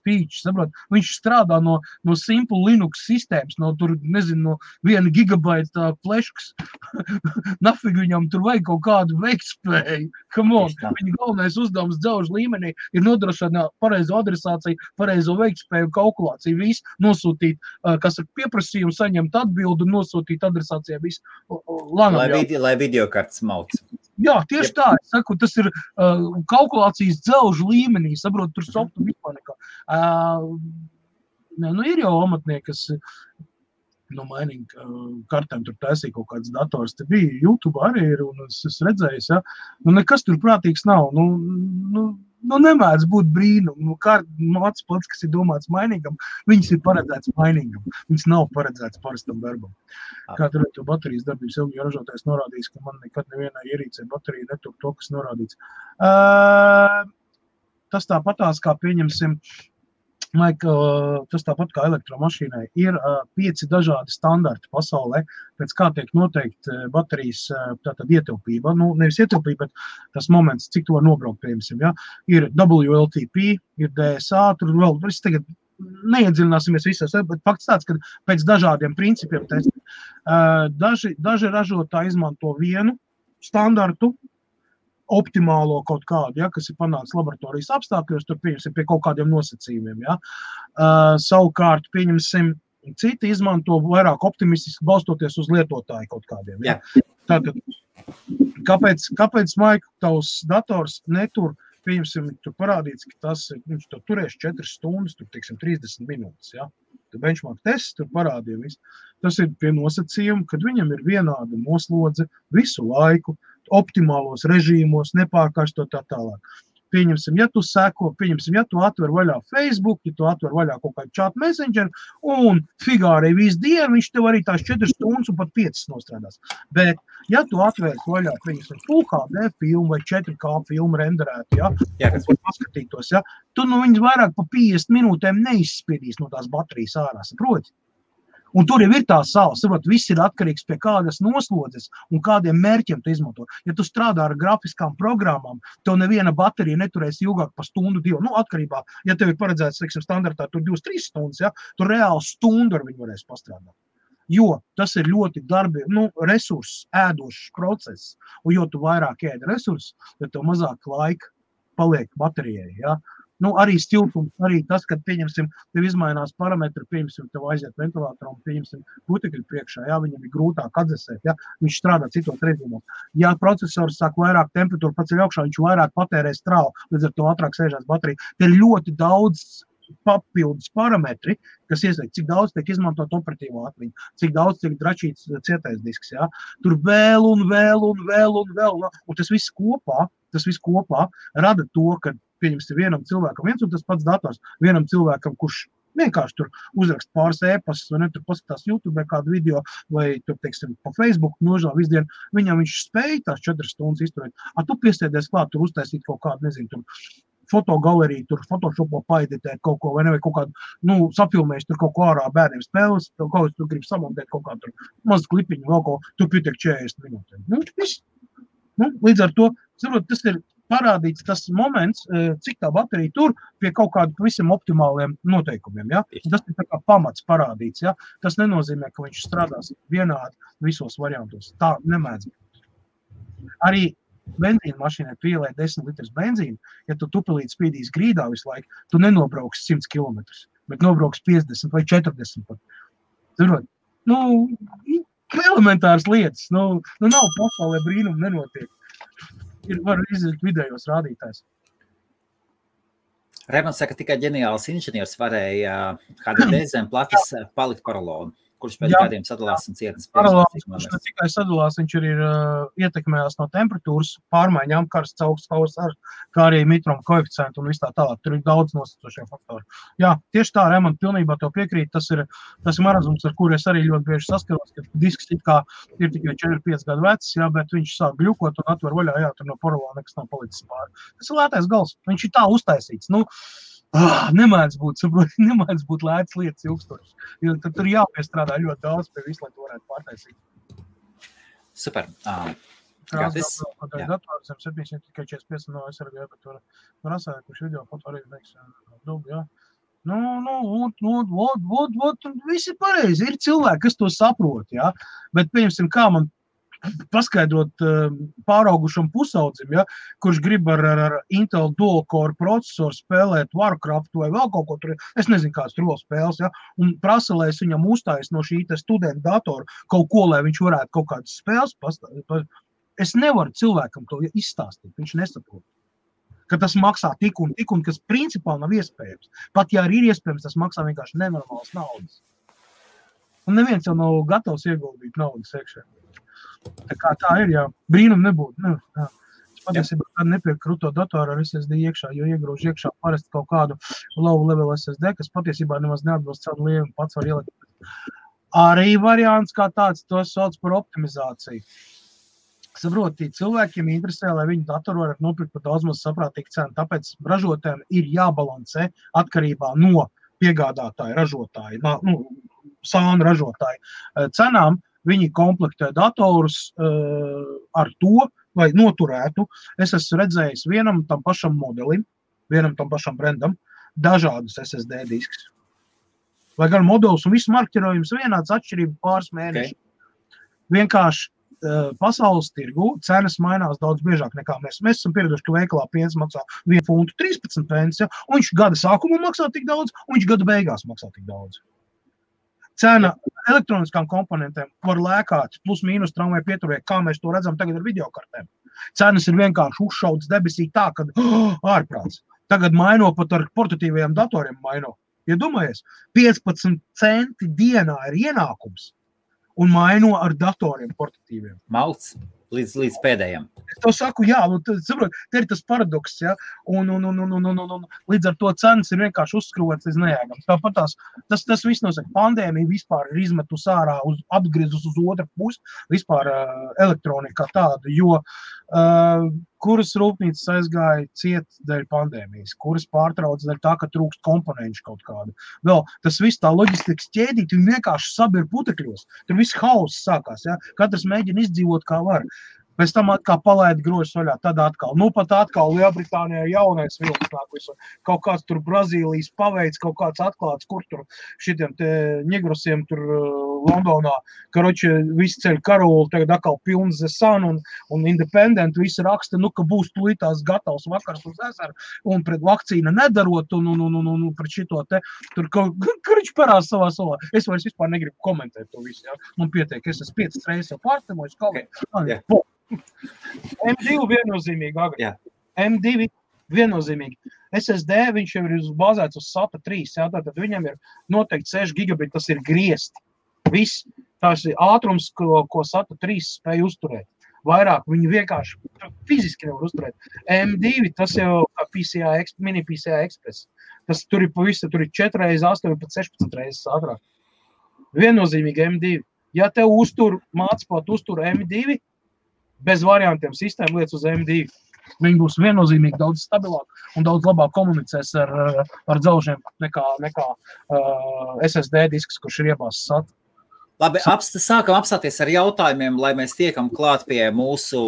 features, saprot? Viņš strādā no simple Linux sistēmas, no 1 gigabaita fleškas. Nafig viņam tur vajag kaut kādu veiktspēju. Come on, viņa galvenais uzdevums dzelžu līmenī ir nodrošināt pareizo adresāciju, pareizo veiktspēju, kalkulāciju, visu nosūtīt, kas ar pieprasījumu saņemt atbildu, nosūtīt adresācijā visu. Lai videokartes mauc. Jā, tieši tā, es saku, tas ir kalkulācijas dzelžu līmenī, saprot, tur softu vispār nekā. Ir jau amatnieki, kas mining kartēm tur taisīja kaut kāds dators, te bija YouTube arī ir, un es redzēju, nekas tur prātīgs nav, nemēdz būt brīnum, māc pats, kas ir domāts mainīgam, viņas ir paredzēts mainīgam, viņas nav paredzēts parastam darbam. Kā tur ir to baterijas darbības ilgi ražotājs norādījis, ka man nekad nevienā ierīcē baterija netuk to, kas norādīts. Tas tāpatās, kā pieņemsim, tas tāpat kā elektromašīnai, ir 5 dažādi standarti pasaulē, pēc kā tiek noteikti baterijas ietilpība. Nevis ietilpība, bet tas moments, cik to var nobraukt, piemēram. Ja? Ir WLTP, ir DSA, tur vēl, es tagad neiedziļināsimies visos, bet fakts tāds, ka pēc dažādiem principiem daži ražotāji izmanto vienu standartu, optimālo kaut kādu, kas ir panāks laboratorijas apstākļos, tur pieņemsim pie kaut kādiem nosacījumiem. Savukārt, pieņemsim, citi izmanto vairāk optimistiski balstoties uz lietotāju kaut kādiem. Ja? Tātad, kāpēc Maika, tavs dators netur, pieņemsim, tur parādīts, ka viņš to turēs 4 stundas, tur, teiksim, 30 minūtes, ja? Tur benchmark tests, tur parādīja visu. Tas ir pie nosacījuma, kad viņam ir vienāda noslodze visu laiku, optimālos režīmos, nepārkārstot tā tālāk. Pieņemsim, ja tu atver vaļā Facebook, ja tu atver vaļā kaut kādu chat messenger, un figārei visu dienu, viņš tev arī tās 4 stundas un pat 5 nostrādās. Bet, ja tu atvērs vaļā, pieņemsim, Full HD filmu vai 4K filmu renderētu, ja, paskatītos, ja, tu viņas vairāk pa 50 minūtēm neizspiedīs no tās baterijas ārā, saproti? Un tur jau ir tā sala, saprot, viss ir atkarīgs pie kādas noslodzes un kādiem mērķiem tu izmanto. Ja tu strādā ar grafiskām programmām, tev neviena baterija neturēs ilgāk par stundu, 2. Atkarībā, ja tev ir paredzēts, teiksim, standartā tur 2-3 stundas, ja, tur reāli stundu ar viņu varēs pastrādāt. Jo tas ir ļoti resursus ēdošs process, un jo tu vairāk ēd resursus, ja tev mazāk laika paliek baterijai, ja. Arī stiltums, arī tas, kad, pieņemsim, tev izmainās parametri, pieņemsim, tev aiziet ventilātoram, pieņemsim, putekļi priekšā, ja, viņam ir grūtāk atdzesēt, ja, viņš strādā citos režīmos. Ja procesors sāk vairāk temperatūru paceļ augšā, viņš vairāk patērē strāvu, līdz ar to ātrāk sēžās baterija. Te ir ļoti daudz papildus parametri, kas iesaist, cik daudz tiek izmantot operatīvo atmiņu, cik daudz tiek dračīts cietais disks, ja. Tur vēl, un tas viss kopā rada to, ka pieņemsim vienam cilvēkam viens un tas pats dators, vienam cilvēkam, kurš vienkārši tur uzrakst pāris ēpastus, vai ne, tur paskatās YouTube kādu video, vai tur, teiksim, pa Facebook nožēl visu dienu, viņam viņš spēja tās 4 stundas izturēt. Tu piestiedies klāt, tur uztaisīt kaut kādu, nezinu, tur fotogaleriju, tur Photoshopā paeditēt kaut ko, vai ne, vai kaut kādu, sapilmēs tur kaut ko ārā bērniem spēles, kaut ko tu gribi samontēt kaut kādu tur mazu klipiņu, vēl ko, tur pietiek 40 minūtēm. Viss. Līdz ar to, saprot, tas ir parādīts tas moments, cik tā baterija tur pie kaut kādu visam optimāliem noteikumiem, ja? Tas ir tā kā pamats parādīts, ja? Tas nenozīmē, ka viņš strādās vienādi visos variantos. Tā nemēdz. Arī benzīna mašīnai pielēt 10 litrus benzīnu, ja tu tupelīt spīdīs grīdā visu laiku, tu nenobrauks 100 km, bet nobrauks 50 vai 40 pat. Zirot, elementāras lietas, nav pasaulē brīnumi nenotiek. Var izdarīt vidējos rādītājs. Raimonds saka, tikai ģeniāls inženieris varēja HDD zem plates palikt paralonu, kurš pēc kādiem sadalās un cietnes. Paralons, kurš ne tikai sadalās, viņš arī ir ietekmējās no temperatūras pārmaiņām, karsts augsts, kā arī mitruma koeficientu un viss tā tālāk. Tur ir daudz nosacošie faktori. Jā, tieši tā, Raimond, pilnībā to piekrīt. Tas ir marazums, ar kuru es arī ļoti bieži saskaros, ka disks it kā ir tikai 4-5 gadu vecs, jā, bet viņš sāk gļukot un atver vaļā, jā, tur no paralona nekas nav palicis pāri. Tas ir lētais gals. Viņš ir tā uztaisīts. Nemēdz būt lētas lietas ilgstošas, jo tad tur jāpiestrādā ļoti daudz pie visu, lai to varētu pārtaisīt. Super. Krāsās dators, 700 tikai 45 no SRG, bet tur rasāja, kurš video foto arī neiks dubi, jā. Visi pareizi, ir cilvēki, kas to saprot, jā, bet pieņemsim, kā man paskaidrot pāraugušam pusaudzim, ja, kurš grib ar Intel dual-core procesoru spēlēt Warcraft vai vēl kaut ko tur, es nezinu, kāds tur vēl spēles, ja, un prasa, lai es viņam uzstājas no šī studenta datora kaut ko, lai viņš varētu kaut kādas spēles pastāstīt. Es nevaru cilvēkam to izstāstīt, viņš nesaprot, ka tas maksā tik un, kas principā nav iespējams. Pat ja arī ir iespējams, tas maksā vienkārši nenormālas naudas. Un neviens jau nav gatavs ieguldīt naudas iekšē. Tā kā tā ir, jā, brīnum nebūtu. Es patiesībā kādu nepieku kruto datoru ar SSD iekšā, jo iegrūž iekšā parasti kaut kādu low level SSD, kas patiesībā nemaz neatbilst savu lielumu, pats var ielikt. Arī variants kā tāds, to sauc par optimizāciju. Saproti, cilvēkiem interesē, lai viņu datoru var nopirkt par daudz maz saprātīgu cenu, tāpēc ražotājiem ir jābalansē atkarībā no piegādātāja ražotāja, sānu ražotāja cenām. Viņi komplektē datorus ar to, vai noturētu. Es esmu redzējis vienam tam pašam modelim, vienam tam pašam brandam, dažādus SSD diskus. Lai gan modelis un viss marķirojums vienāds atšķirība pāris mēneši. Vienkārši pasaules tirgu cenas mainās daudz biežāk nekā mēs. Mēs esam pieraduši, ka veikalā piens maksā 1 funtu 13 pence, ja, un viņš gada sākumā maksā tik daudz, un viņš gada beigās maksā tik daudz. Cena elektroniskām komponentēm var lēkāt, plus mīnus tramvaju pieturē, kā mēs to redzam tagad ar videokartēm. Cenas ir vienkārši uzšautas debesī tā, kad ārprāts. Tagad maino pat ar portatīvajiem datoriem maino. Ja domājies, 15 centi dienā ir ienākums un maino ar datoriem portatīviem. Mauts līdz pēdējiem. Es to saku, jā, saprot, te ir tas paradoks, ja, un līdz ar to cenas ir vienkārši uzskrūvēts līdz nejēgams. Tāpat tas viss nosaka, pandēmija vispār ir izmetus ārā, apgriezus uz otru pusi, vispār elektronika tāda, jo kuras rūpnīcas aizgāja ciet dēļ pandēmijas, kuras pārtrauc dēļ tā, ka trūkst komponenci kaut kādu. Vēl tas viss tā loģistikas ķēdīt, viņi vienkārši sabir putekļos. Tur viss hauss sākās, ja? Katrs mēģina izdzīvot kā var. Pēc tam atkal palaida grožus vaļā, tad atkal. Nu, pat atkal Lielbritānijā jaunais vilks nāk visu. Kaut kāds tur Brazīlijas paveids, kaut kāds atklāts, kur tur šitiem te ņegrosiem tur Londonā. Karoči, visi ceļ karoli, tagad atkal pilns The Sun un Independent, visi raksta, nu, ka būs tulītās gatavs vakars uz ezeru un pret vakcīna nedarot un pret šito te. Tur karoči parās savā. Es vairs vispār negribu komentēt to visu, ja. Man pietiek, es esmu 5 reizes jau pārstemojis, kaut M2 viennozīmīgi, Agri. Jā. M2 viennozīmīgi. SSD, viņš jau ir bāzēts uz SATA 3, jā, tātad viņam ir noteikti 6 gigabiti, tas ir griezti. Viss, tās ir ātrums, ko SATA 3 spēj uzturēt. Vairāk viņi vienkārši fiziski nevar uzturēt. M2, tas jau kā mini PCI Express. Tas tur ir pavisam, tur ir 4 reizes 8, pat 16 reizes ātrāk. Viennozīmīgi M2. Ja tev mācot uztur M2, bez variantiem sistēma lietas uz M2. Viņi būs viennozīmīgi daudz stabilāk un daudz labāk komunicēs ar dzelžiem nekā SSD disks, kurš ir iebāzts SATA. Labi, sākam apstāties ar jautājumiem, lai mēs tiekam klāt pie mūsu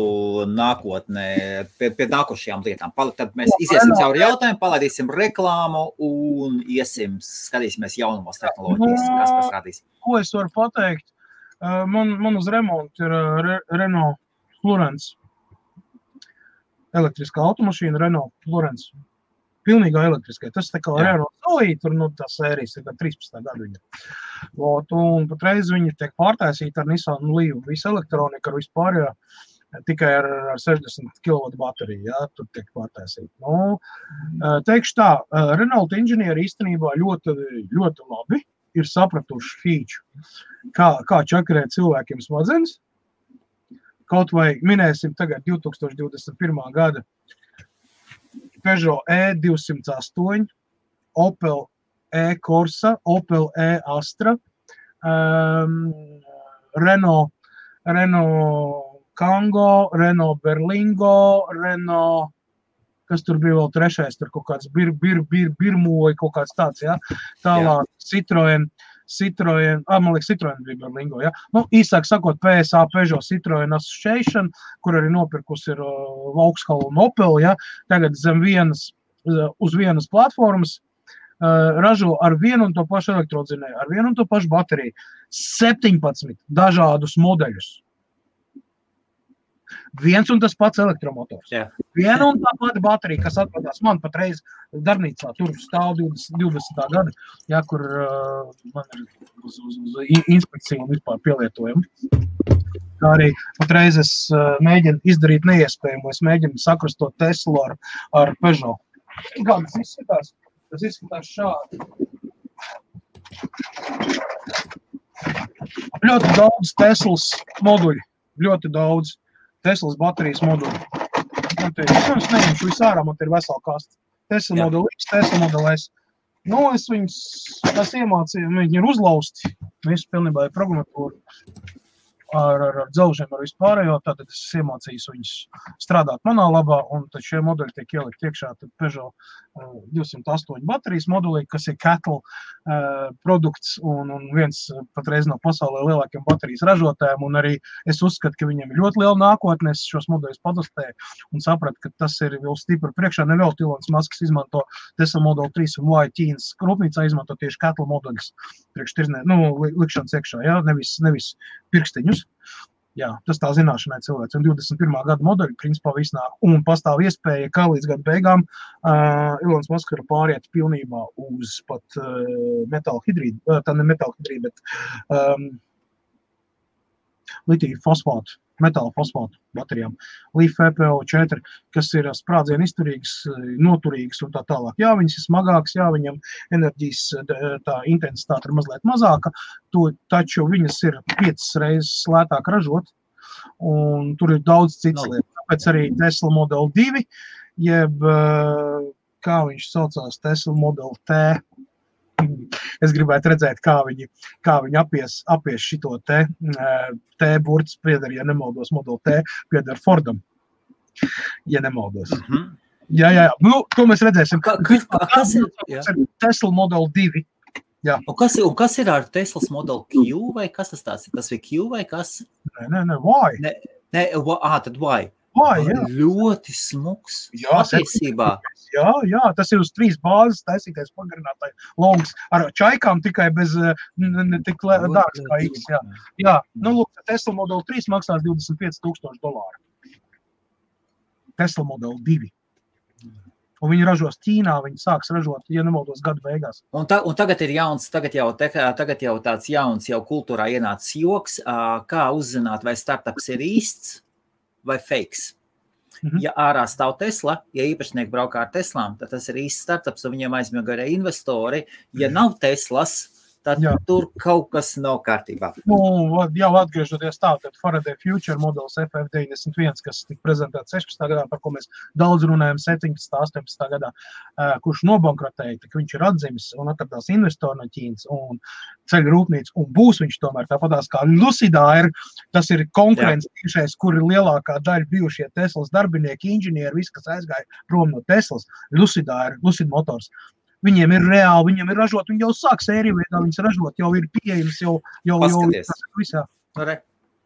nākotnē, pie nākošajām lietām. Tad mēs iziesim cauri jautājumu, palaidīsim reklāmu un skatīsimies jaunumos tehnoloģijas, kas pasrādīs. Ko es varu pateikt? Man uz remontu ir Renault Florence. Elektriskā automašīna Renault Florence. Pilnīgā elektriskā. Tas tā kā Renault Zoe, tur tā sērijas ir 13. gadu viņa. Un patreiz viņa tiek pārtaisīta ar Nissan Leaf. Visa elektronika ar vispār, tikai ar 60 kW bateriju, jā, tur tiek pārtaisīta. Nu, teikšu tā, Renault inženieri īstenībā ļoti, ļoti labi ir sapratuši feature, kā čakarēt cilvēkiem smadzenes. Kaut vai minēsim tagad 2021. gada Peugeot E208, Opel E-Corsa, Opel E-Astra, Renault Kangoo, Renault Berlingo, Renault, kas tur bija vēl trešais, tur kaut kāds Birmoja, kaut kāds tāds, ja? Tālāk Citroen, man liekas, Citroen bija Berlingo, ja? Nu, īsāk sakot, PSA Peugeot Citroen Association, kur arī nopirkus ir Vauxhall un Opel, ja? Tagad uz vienas platformas ražo ar vienu un to pašu elektrodzinēju, ar vienu un to pašu bateriju, 17 dažādus modeļus. Viens un tas pats elektromotors. Jā. Viena un tā pati baterija, kas atradās man patreiz darbnīcā, tur stāv 20. gada, ja, kur man ir uz inspekciju un vispār pielietojumu. Kā arī patreiz es mēģinu izdarīt neiespējamo, es mēģinu sakrustot Teslu ar Peugeot. Kā tas izskatās? Tas izskatās šādi. Ļoti daudz Teslas moduļi, ļoti daudz. Teslas baterijas moduļi. Es neņemšu visārā, man te ir vesela kasta. Tesla modeli X, Tesla modeli S. Nu, es viņus iemācīju, viņi ir uzlausti. Visu pilnībā ir programmatūra ar dzelžiem, ar vispārējo. Tātad es iemācījos viņus strādāt manā labā, un tad šie modeļi tiek ielikt iekšā. Tad Peugeot 208 baterijas modulī, kas ir Cattle produkts un viens patreiz no pasaulē lielākiem baterijas ražotājiem. Un arī es uzskatu, ka viņiem ir ļoti liela nākotne. Es šos modeļus padastēju un sapratu, ka tas ir vēl stipri priekšā. Nevēl Ilons Masks izmanto Tesla Model 3 un Ķīnas rūpnīcā izmanto tieši Cattle modeļus priekš likšanas iekšā, ja? Nevis pirkstiņus. Jā, tas tā zināšanai cilvēks. Un 21. gada modeļi principā viss nāk. Un pastāv iespēja, ka līdz gada beigām Ilons Musk var pāriet pilnībā uz pat metāla hidrīdu, tā ne metāla hidrīdu, bet litiju fosfātu, metāla fosfātu baterijām. LiF FePO4, kas ir sprādzienu izturīgas, noturīgas un tā tālāk. Jā, viņas ir smagākas, jā, viņam enerģijas tā intensitāte ir mazliet mazāka, taču viņas ir 5 reizes lētāk ražot, un tur ir daudz citas lietas. Tāpēc arī Tesla Model 2, jeb, kā viņš saucās, Tesla Model T. Es gribētu redzēt, kā viņi apies šito T burts pieder, ja nemaldos, Model T pieder Fordam, ja nemaldos. Jā. Nu, to mēs redzēsim. Kas ir Tesla Model 2? Jā. Un kas ir ar Teslas Model Q, vai kas tas tāds ir? Tas ir Q vai kas? Nē, why? Tad why? Why, jā. Ļoti smuks. Jā, patiesībā. Jā, tas ir uz 3 bāzes taisītais pagarinātāji longs ar čaikām tikai bez tik dārgs kā X. Jā. Nu, lūk, Tesla Model 3 maksās $25,000. Tesla Model 2. Un viņi ražos Ķīnā, viņi sāks ražot, ja nemaldos, gada beigās. Un tagad ir jauns, tagad jau tāds jauns, jau kultūrā ienācis joks, kā uzzināt, vai startups ir īsts vai fakes. Ja ārā stāv Tesla, ja īpašnieki braukā ar Teslām, tad tas ir īsts startups, un viņiem aizmiega arī investori. Ja nav Teslas, tad tur kaut kas nav kārtībā. Nu, jau atgriežoties tā, tad Faraday Future modelis FF91, kas tika prezentēts 16. gadā, par ko mēs daudz runājam 17. 18. gadā, kurš nobankrotēja, tak viņš ir atzimis un atradās investori no Ķīnas un ceļu rūpnīca, un būs viņš tomēr tāpatās kā Lucida tas ir konkurence tiešais, kur ir lielākā daļa bijušie Teslas darbinieki, inženieri, viss, kas aizgāja prom no Teslas, Lucida Motors. Viņiem ir reāli, viņiem ir ražot, viņi jau sāk sēriju veidā, viņas ražot, jau ir pieejams, jau visā.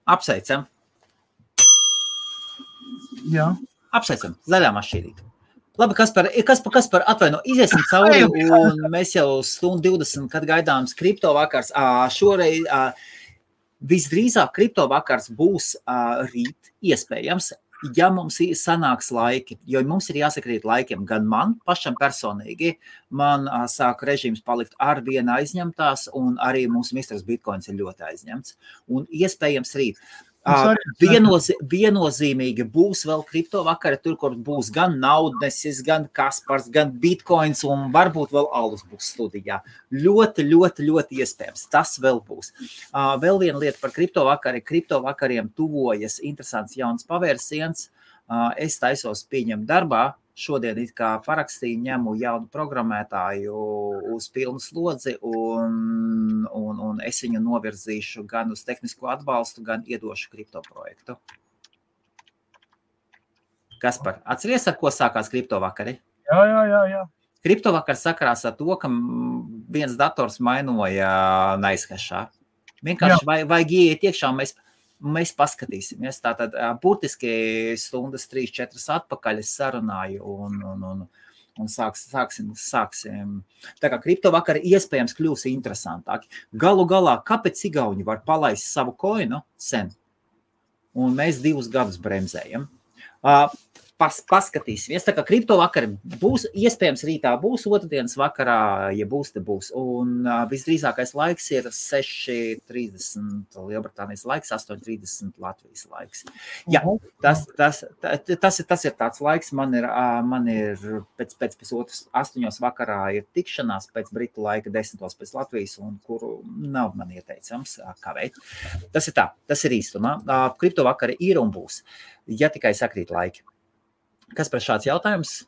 Apsveicam. Jā. Apsveicam, zaļā mašīnīte. Labi, kas par atvaino, iziesim cauri, un mēs jau 1:20, kad gaidāms kripto vakars. Šoreiz visdrīzāk kripto vakars būs rīt iespējams, ja mums sanāks laiki, jo mums ir jāsakrīt laikiem, gan man pašam personīgi, man sāk režīms palikt ar vienu aizņemtās, un arī mūsu misters Bitcoins ir ļoti aizņemts. Un iespējams rīt. Viennozīmīgi būs vēl kripto vakari, tur, kur būs gan Naudnesis, gan Kaspars, gan Bitcoins, un varbūt vēl Alus būs studijā. Ļoti iespējams. Tas vēl būs. Vēl viena lieta par kripto vakari. Kripto vakariem tuvojas interesants jauns pavērsiens. Es taisos pieņemt darbā. Šodien it kā parakstīju, ņemu jaunu programmētāju uz pilnu slodzi un es viņu novirzīšu gan uz tehnisko atbalstu, gan iedošu kripto projektu. Kaspar, atceries, ar ko sākās kripto vakari? Jā. Kripto vakars sakarās ar to, ka viens dators mainoja Nicehashā. Vienkārši vajag ieiet iekšā, mēs paskatīsimies. Tātad burtiski stundas 3-4 atpakaļ es sarunāju un sāksim. Tā kā kripto vakari iespējams kļūs interesantāki. Galu galā, kāpēc igauņi var palaist savu koinu sen? Un mēs 2 gadus bremzējam. Paskatīsimies. Tā kā kripto vakari būs, iespējams rītā būs, otrdienas vakarā, ja būs, te būs. Un visdrīzākais laiks ir 6:30 Lielbritānijas laiks, 8:30 Latvijas laiks. Jā, tas ir tāds laiks, man ir pēc pusotras 8 vakarā ir tikšanās, pēc Britu laika 10 pēc Latvijas, un kuru nav man ieteicams kavēt. Tas ir tā, tas ir īstumā. Kripto vakari ir un būs, ja tikai sakrīt laiki. Kas par šāds jautājums?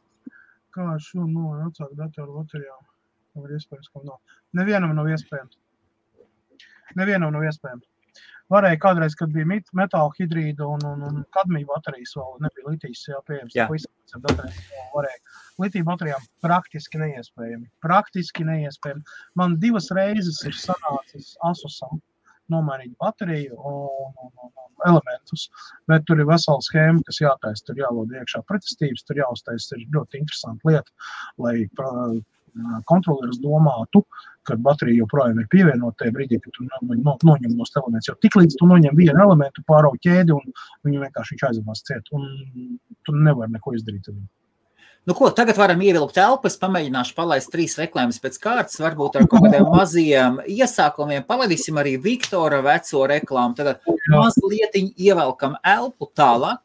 Kā šo atsākt datoru baterijām? Var iespējams, ka nav. Nevienam nav iespējams. Varēja kādreiz, kad bija metāla hidrīda un kadmija baterijas vēl nebija litijas pieejams. Varēja. Litija baterijām praktiski neiespējami. Man 2 reizes ir sanācis Asusam nomainīt bateriju un elementus, bet tur ir vesela schēma, kas jātaisa, tur jālod iekšā pretestības, tur jāuztaisa, ir ļoti interesanta lieta, lai kontroleris domātu, kad baterija joprojām ir pievienota tajā brīdī, kad tu noņem no elements. Jo tiklīdz tu noņem vienu elementu, pārauj ķēdi un viņu vienkārši viņš aizvās ciet. Un tu nevari neko izdarīt. Nu ko, tagad varam ievilkt elpas, pamēģināšu palaist 3 reklāmas pēc kārtas, varbūt ar kaut kādiem maziem iesākumiem. Palaidīsim arī Viktora veco reklāmu. Tagad mazlietiņ ievelkam elpu tālāk.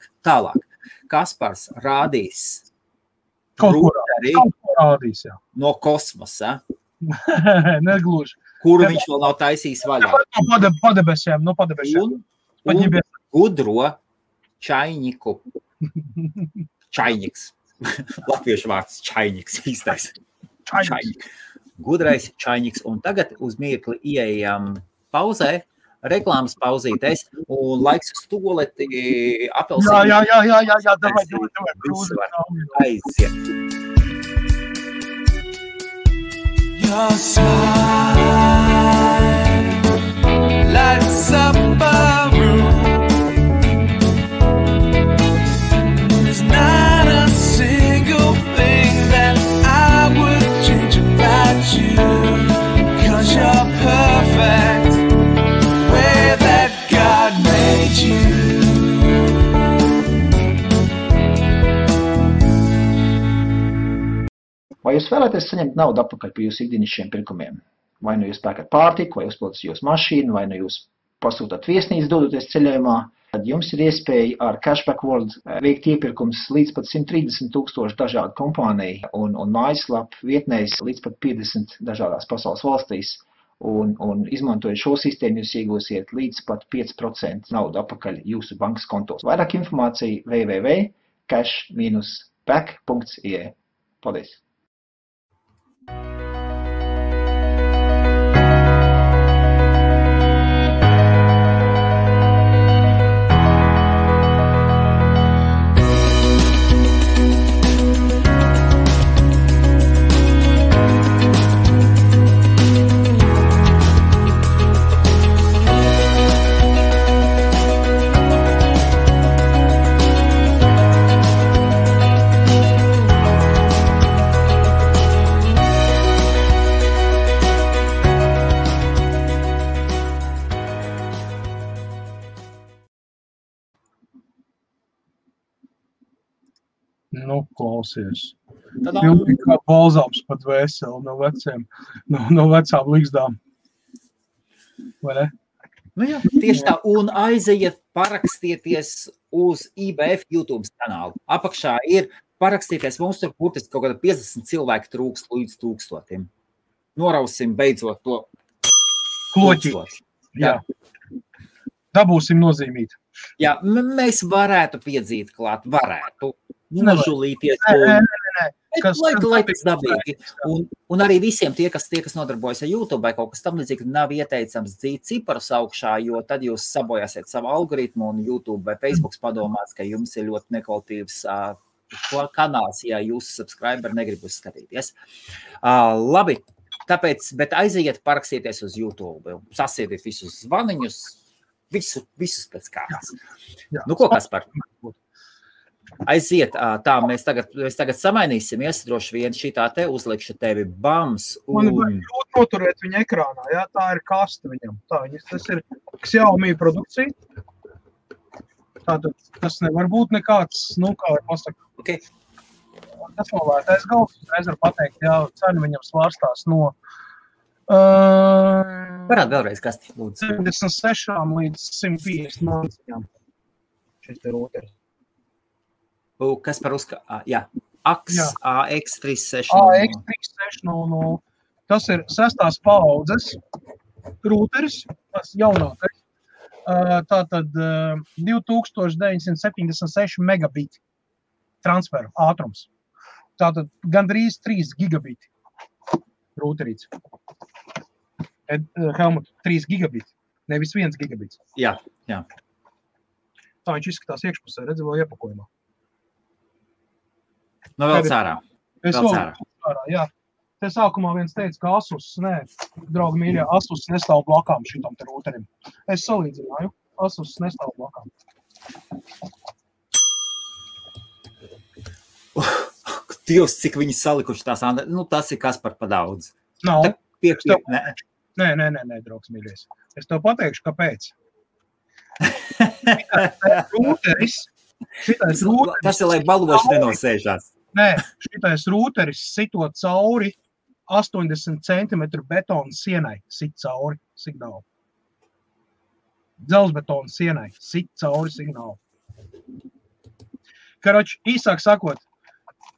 Kaspars rādīs Kaut ko rādīs, jā. No kosmosa. Negluži. Kuru viņš vēl nav taisījis vaļā. Padebesiem. Un gudro čainiku. Čainiks. Latviešu vārds čainiks īstais. Čainik. Gudrais čainiks. Un tagad uz mirkli ieejam pauzē, reklāmas pauzītēs, un laiks uz toleti apelsīnu. Jā, davai. Viss var aiziet. Your smile lights up a room. There's not a single thing that I would change about you, 'cause you're perfect the way that God made you. Vai jūs vēlaties saņemt naudu atpakaļ par jūsu ikdienišķiem pirkumiem? Vai nu jūs pērkat pārtiku, vai uzpildat jūsu mašīnu, vai nu jūs pasūtat viesnīcu dodoties ceļojumā, tad jums ir iespēja ar Cashback World veikt iepirkums līdz pat 130,000 dažādu kompāniju un mājaslapu vietnēs līdz pat 50 dažādās pasaules valstīs. Un izmantojot šo sistēmu, jūs iegūsiet līdz pat 5% naudu atpakaļ jūsu bankas kontos. Vairāk informācija www.cash-back.ie. Paldies! Nu, klausies. Pilnīgi kā balzāms pat veseli no vecām līgzdām. Vai ne? Nu jā, tieši tā. Un aiziet parakstieties uz IBF YouTube kanālu. Apakšā ir parakstieties. Mums tur burtiski kaut kāda 50 cilvēki trūks līdz 1000. Norausim beidzot to kloķi. Jā. Dabūsim nozīmīt. Jā, mēs varētu piedzīt klāt. Varētu. Nožulīties. Lai tas dabīgi. Un arī visiem tie, kas nodarbojas ar YouTube vai kaut kas tam līdzīgi, nav ieteicams dzīt ciparus augšā, jo tad jūs sabojāsiet savu algoritmu un YouTube vai Facebook padomās, ka jums ir ļoti nekvalitīvs kanāls, ja jūsu subscriberi negrib uzskatīties. Labi, tāpēc, bet aiziet parakstīties uz YouTube, sasiediet visus zvaniņus, visus pēc kārtas. Nu, ko Kaspar? Aiziet, tā, mēs tagad samainīsimies, droši vien šitā te uzlikšu tevi bams. Man vajag ļoti noturēt viņu ekrānā, jā, tā ir kaste viņam. Tas ir Xiaomi produkcija. Tātad tas nevar būt nekāds, kā var pasaka. Okay. Tas nav vērtais galds, uzreiz var pateikt, jā, cena viņam svārstās no Varētu vēlreiz kasti, lūdzu. 76 līdz 150 māciņām. Šis te roteris. Kas par jā, AX360. AX360. Tas ir 6. paaudzes rūteris, tas jaunākais. Tātad 2976 megabiti transferu ātrums. Tātad gandrīz 3 gigabiti rūterīts. Helmut, 3 gigabiti, nevis 1 gigabits. Jā. Tā viņš izskatās iekšpusē, redzi vēl iepakojumā. Nu, vēl cārā. Jā. Te sākumā viens teica, ka Asus, draugi mīļā, Asus nestāv blakām šitam te rūterim. Es salīdzināju, Asus nestāv blakām. Dievs, cik viņi salikuši tās, tas ir kas par daudz. Nav. Nē. Draugs mīļais. Es tev pateikšu, kāpēc. Šitais rūteris. Tas ir, lai baloši nenosēžās. Nē, šitais rūteris sitot cauri 80 cm betona sienai. Sit cauri signālu. Dzelzbetona sienai. Sit cauri signālu. Karoči, īsāk sakot,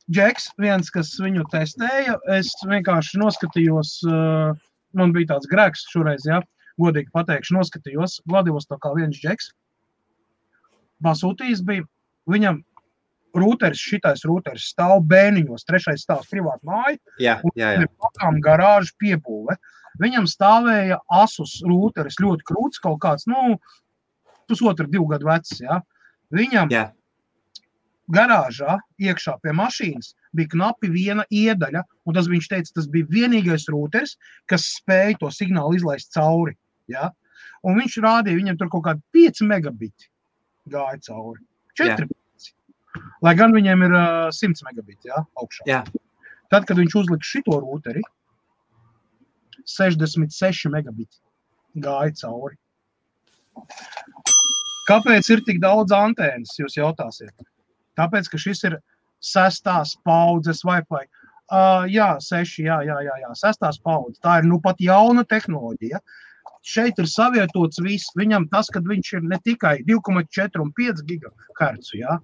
Džeks, viens, kas viņu testēja, es vienkārši noskatījos, man bija tāds grēks šoreiz, ja, godīgi pateikšu, noskatījos, Vladivostokā viens Džeks, pasūtījis bija, viņam šitais rūteris stāv bēniņos, 3. stāvs privāta māja, un ir pakām garāžu piebūve. Viņam stāvēja Asus rūteris, ļoti krūts, kaut kāds, 1,5–2 gadu vecs, ja. Viņam garāžā, iekšā pie mašīnas, bija knapi viena iedaļa, un viņš teica, tas bija vienīgais rūteris, kas spēja to signālu izlaist cauri. Ja? Un viņš rādīja, viņam tur kaut kādi 5 megabiti gāja cauri. 4. Lai gan viņiem ir 100 megabiti, ja, augšā. Jā. Tad, kad viņš uzlika šito rūteri, 66 megabiti gāja cauri. Kāpēc ir tik daudz antēnas, jūs jautāsiet? Tāpēc, ka šis ir 6. paudzes Wi-Fi. 6, jā, 6. paudze. Tā ir pat jauna tehnoloģija. Šeit ir savietots viss. Viņam tas, kad viņš ir ne tikai 2,4 un 5 GHz, ja?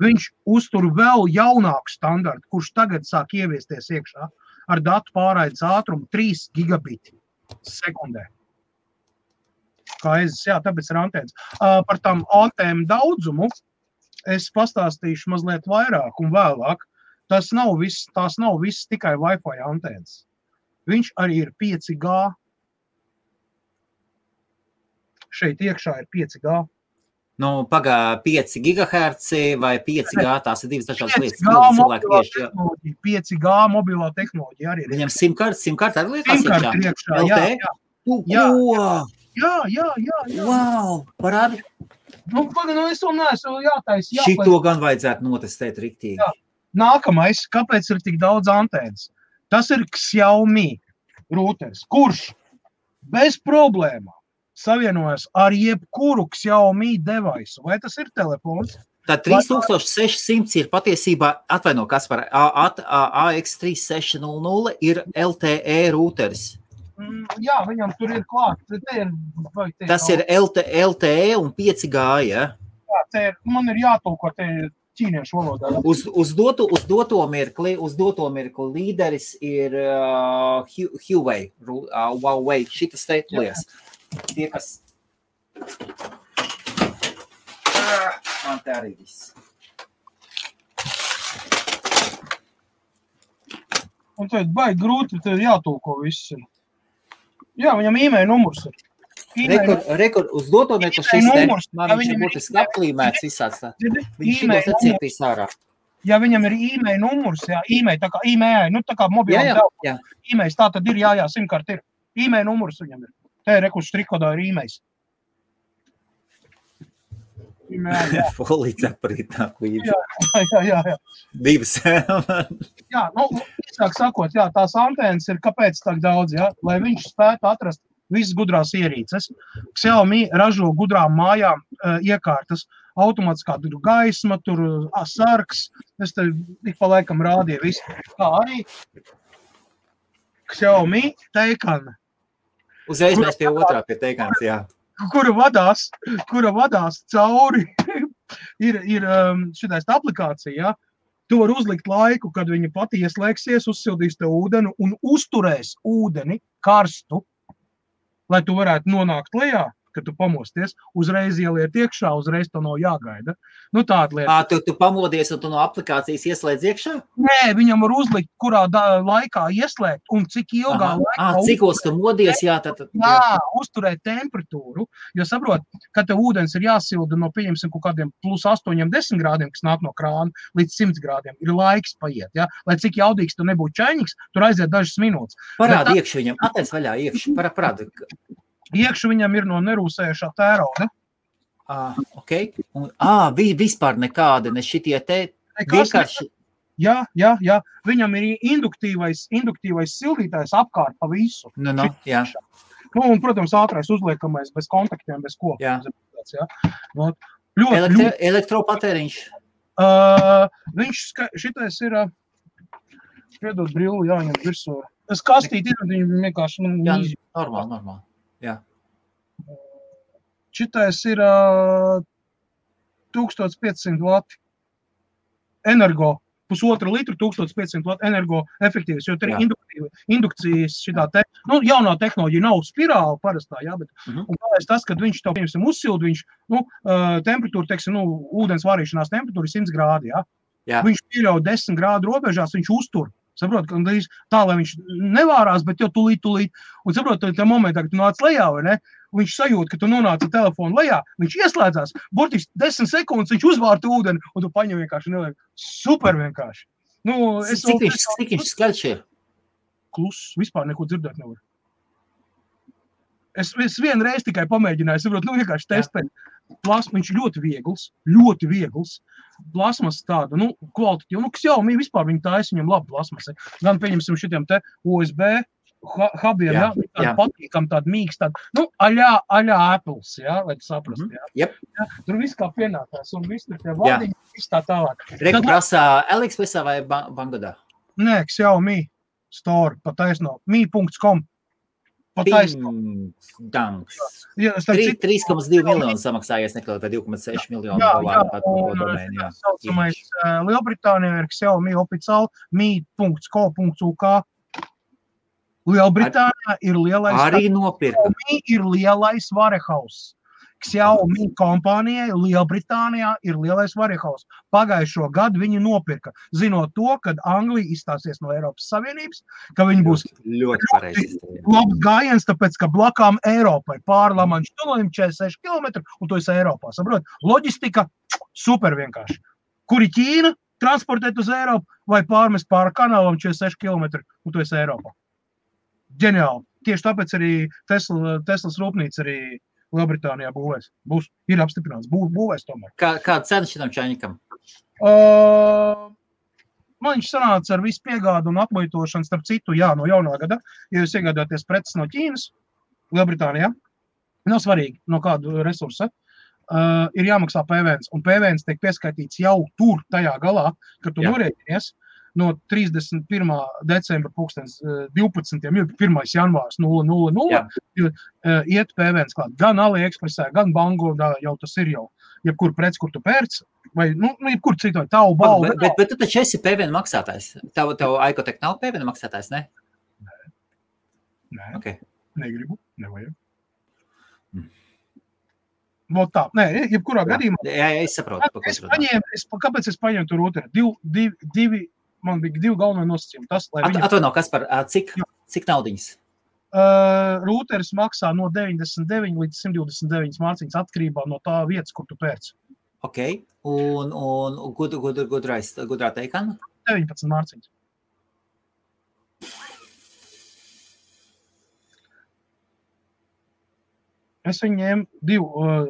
Viņš uztur vēl jaunāku standartu, kurš tagad sāk ieviesties iekšā ar datu pārraides ātrumu 3 gigabiti sekundē. Tāpēc ir antēnas. Par tām antēnu daudzumu es pastāstīšu mazliet vairāk un vēlāk. Tās nav viss tikai Wi-Fi antēnas. Viņš arī ir 5G. Šeit iekšā ir 5G. Pagā 5 GHz vai 5G, tās ir divas dažādas lietas. 5G mobilā tehnoloģija arī ir. Viņam simkārt arī lietās iekšā? Jā. Jā. Wow, parādi. Es vēl neesmu jātaisa. Šito gan vajadzētu notestēt riktīgi. Jā. Nākamais, kāpēc ir tik daudz antēnas? Tas ir Xiaomi rūteris, kurš bez problēmām savienojas ar jebkuru Xiaomi device. Vai tas ir telefons? Tā 3600 ir patiesībā, atvaino, kas par AX3600 ir LTE rūteris. Jā, viņam tur ir klāt. Tas ir LTE un 5G, ja? Jā, man ir jātulko te ķīniešu valodā. Uz doto mirkli līderis ir Huawei, šitas lietas. Tie, kas... Man te arī viss. Un tad baigi grūti, tad jātulko viss. Jā, viņam e-mail numurs ir. Rekord, uz doto mirkli šis te, man viņš ir būtiski apklīmēts visāds tā. Viņš šitos atcietīs ārā. Ja viņam ir e-mail numurs, e-mail, tā kā e-mail, tā kā mobilām telefonu. E-mails, tā tad ir, simkart ir. E-mail numurs viņam ir. Te ir rekurss trikodā ir e-mails. Folīts aprīt nāk līdzi. Jā. Divas. Jā, īsāk sakot, tās antēnas ir kāpēc tak daudz, lai viņš spētu atrast visas gudrās ierīces. Xiaomi ražo gudrām mājām iekārtas, automātiskā tur gaisma, tur sargs, es te ik pa laikam rādīju visu. Kā arī Xiaomi teikana. Uzreiz mēs pie otrā pie teikans, jā. Kura vadās cauri, ir šitais aplikācija, tu var uzlikt laiku, kad viņa pati ieslēgsies, uzsildīs te ūdeni un uzturēs ūdeni karstu, lai tu varētu nonākt lejā, kad tu pamosties, uzreiz ieliet iekšā, uzreiz to nav jāgaida. Tāda lieta. Tu pamodies un tu no aplikācijas ieslēdz iekšā? Nē, viņam var uzlikt, kurā laikā ieslēgt un cik ilgā laikā. Cikos tu modies, uzturēt temperatūru, jo saprot, ka te ūdens ir jāsilda no, pieņemsim, kaut kādiem plus 8-10 grādiem, kas nāk no krāna, līdz 100 grādiem. Ir laiks paiet, Lai cik jaudīgs tu nebūtu čainiks, tur aiziet dažas minūtes. Parādi iekšu viņam, atēc vaļā iekšu, parādi. Iekšu viņam ir no nerūsējušā tērauda. Ok. Vispār nekāda, ne šitie te vienkārši. Jā. Viņam ir induktīvais sildītājs apkārt pa visu. Jā. Un, protams, ātrais uzliekamais bez kontaktiem, bez ko. Jā. Ļoti. Elektropatēriņš. Šitais ir, piedod brilli, jāņem virsū. Es kastīti ir, viņi vienkārši... Jā, normāli. Jā. Šitais ir 1500 vati energo, 1,5 litru, 1500 vati energo efektīvs, jo tur ir indukcijas šitā jaunā tehnoloģija nav spirāla parastā, jā, bet un kāpēc tas, kad viņš to, piemēram, uzsild, viņš, temperatūra, teiksim, ūdens varīšanās temperatūra ir 100 grādi, jā. Viņš pieļauj 10 grādu robežās, viņš uztur. Saprot, ka tā, lai viņš nevārās, bet jau tulīt. Un saprot, tā momentā, kad tu nāc lejā, vai ne? Viņš sajūt, ka tu nonāci telefonu lejā, viņš ieslēdzās, burtiski 10 sekundes viņš uzvārta ūdeni, un tu paņem vienkārši neliek. Super vienkārši. Cik viņš skaļš ir? Kluss, vispār neko dzirdēt nevar. Es vienreiz tikai pamēģināju, saprot, vienkārši testēt. Viņš ļoti viegls. Plasmas tāda, kvalitatīva. Xiaomi vispār viņi taisa, viņam labi plasmasi. Gan pieņemsim šitiem te USB hubiem, tāda patīkam, tāda mīgs, tāda, aļā Apples, lai tu saprast, Yep. Tur viss kā pienākās, un viss tur tie vadiņi, viss tā tālāk. Reku prasā AliExpressā vai Bangladā? Nē, Xiaomi store, pataisno, mi.com. Pataisno. 3,2 miljonu samaksājies nekļaut, vai 2,6 miljonu dolāru pat par to domēni. Saucamais Lielbritānijā ir Xiaomi oficiāli mi.co.uk. Lielbritānijā ir lielais... Arī nopirka. Xiaomi ir lielais warehouse. Xiaomi kompānijai Lielbritānijā ir lielais warehouse. Pagājušo gadu viņi nopirka, zinot to, kad Anglija izstāsies no Eiropas Savienības, ka viņi būs ļoti pareizi. Labs gājiens, tāpēc, ka blakām Eiropai pāri Lamanšu tunelim 46 km, un to esi Eiropā. Saprot? Loģistika super vienkārši. Kuri Ķīna transportēt uz Eiropu vai pārmest pāri kanālam 46 km, un to esi Eiropā. Ģeniāli. Tieši tāpēc arī Teslas rūpnīca arī Lielbritānijā būvēs. Ir apstiprināts. Būvēs tomēr. Kāda cena šitam čainikam? Man viņš sanāca ar visu piegādu un apmuitošanu, starp citu, no jaunā gada. Ja jūs iegādāties preces no Ķīnas, Lielbritānijā, nav svarīgi, no kādu resursa, ir jāmaksā PVNs. Un PVNs tiek pieskaitīts jau tur, tajā galā, kad tu norēķinies. No 31. decembra 2012. 1. janvārs 000 iet PVNs klāt. Gan AliExpressā, gan Bangodā jau tas ir jau. Jebkur prec, kur tu pērc, vai, jebkur citu, tavu balvu. Bet tu taču esi PVN maksātājs. Tev Aikotek nav PVN maksātājs, ne? Nē. Okay. Negribu, nevajag. Tā, nē, jebkurā gadījumā. Jā, es saprotu. Kāpēc es paņēmu tur otru? Man bija 2 galvenie nosacījumi. Atvaino, Kaspar, cik naudiņas? Rūteris maksā no 99 līdz 129 mārciņas atkarībā no tā vietas, kur tu pērc. Ok, un gudrā teikana? 19 mārciņas. Es viņu ņēmu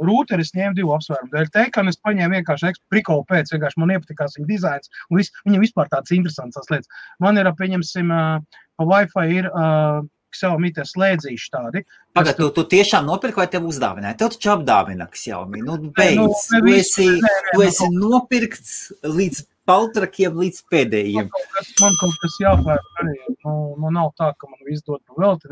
rūteris ņēmu 2 apsvērumu dēļ. Teikana es paņēmu vienkārši prikolu pēc, vienkārši man iepatikās viņa dizains, un viņam vispār tāds interesants tās lietas. Man ir, pieņemsim, pa Wi-Fi ir Xiaomi tie slēdzīši tādi. Pagad, tu tiešām nopirki vai tev uzdāvināja? Tev taču apdāvina Xiaomi. Beidz, tu esi nopirkts līdz paltrakiem līdz pēdējiem. Man kaut kas jāpērk arī. Nav tā, ka man viss dod pa velti.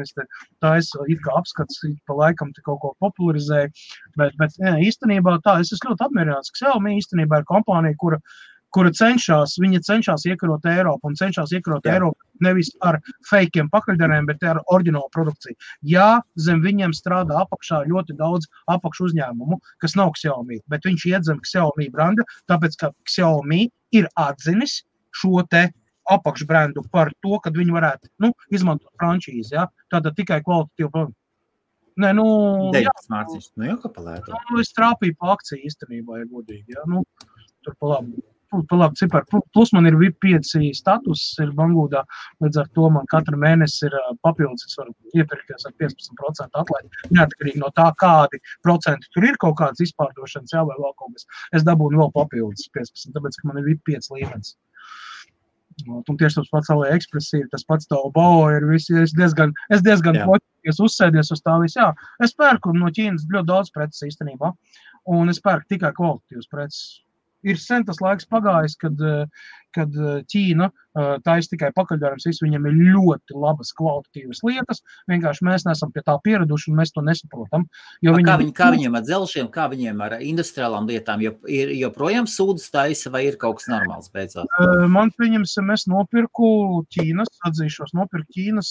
Tā es it kā apskats, pa laikam te kaut ko popularizēju. Bet īstenībā tā, es esmu ļoti apmierināts. Xiaomi īstenībā ir kompānija, kura cenšas iekarot Eiropu un cenšas iekarot Eiropu nevis ar fejkiem pakaļdarēm, bet ar oriģinālu produkciju. Jā, zem viņiem strādā apakšā ļoti daudz apakšu uzņēmumu, kas nav Xiaomi, bet viņš iet zem Xiaomi branda, tāpēc, ka Xiaomi ir atzinis šo te apakšbrandu par to, kad viņi varētu izmantot frančīzi, ja? Tātad tikai kvalitatīvu produktu. Nē, 9 mārciņas, jau kā palētu. Es trāpīju pa akciju īstenībā, ja godīgi, ja? Tur pa labi cipari. Plus man ir VIP 5 status, ir Bangūdā, līdz ar to man katru mēnesi ir papildus, es varu iepirkties ar 15% atlaidi. Neatkarīgi no tā, kādi procenti tur ir kaut kāds izpārdošanas, vai vēl kaut kas. Es dabūnu vēl papildus 15, tāpēc, ka man ir VIP 5 līmenis. Un tieši tas pats AliExpress ir, tas pats Taobao ir, es diezgan poķies uzsēdies uz tā visu, jā. Es pērku no Ķīnas ļoti daudz preces īstenībā, un es pērku tikai kvalitatīvas preces. Ir sen tas laiks pagājis, kad Ķīna taisa tikai pakaļdarbs, viņam ir ļoti labas kvalitatīvas lietas, vienkārši mēs neesam pie tā pieraduši un mēs to nesaprotam. Kā viņiem ar dzelžiem, kā viņiem ar industriālām lietām, ir joprojām sūdas taisa vai ir kaut kas normāls beidzot? Man pieņemsim, es nopirku Ķīnas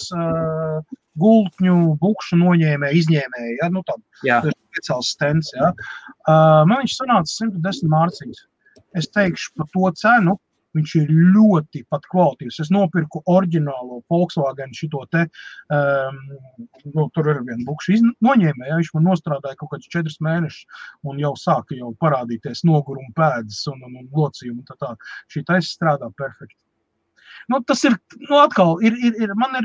gultņu, bukšu izņēmēju, ja, nu tādu speciāls stends, ja. Man viņš sanāca 110 mārciņas. Es teikšu par to cenu, viņš ir ļoti pat kvalitīvs. Es nopirku oriģinālo Volkswagen šito te, tur ir viena bukša noņēmēja, viņš man nostrādāja kaut kādus 4 mēnešus un jau sāka parādīties noguruma pēdas un locījumi un tā. Šī taisa strādā perfekti. Tas ir, atkal,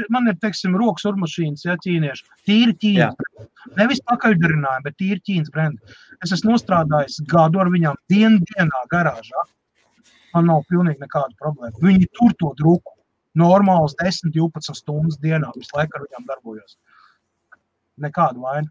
man ir, teiksim, rokas urmašīnas, ja, ķīnieši, tīri Ķīnas brendi. Nevis pakaļdarinājumi, bet tīri Ķīnas brendi. Es esmu nostrādājis gadu ar viņām dienā garāžā. Man nav pilnīgi nekāda problēma. Viņi tur to druku. Normāls 10-12 stundas dienā. Visu laiku ar viņām darbojos. Nekāda vaina.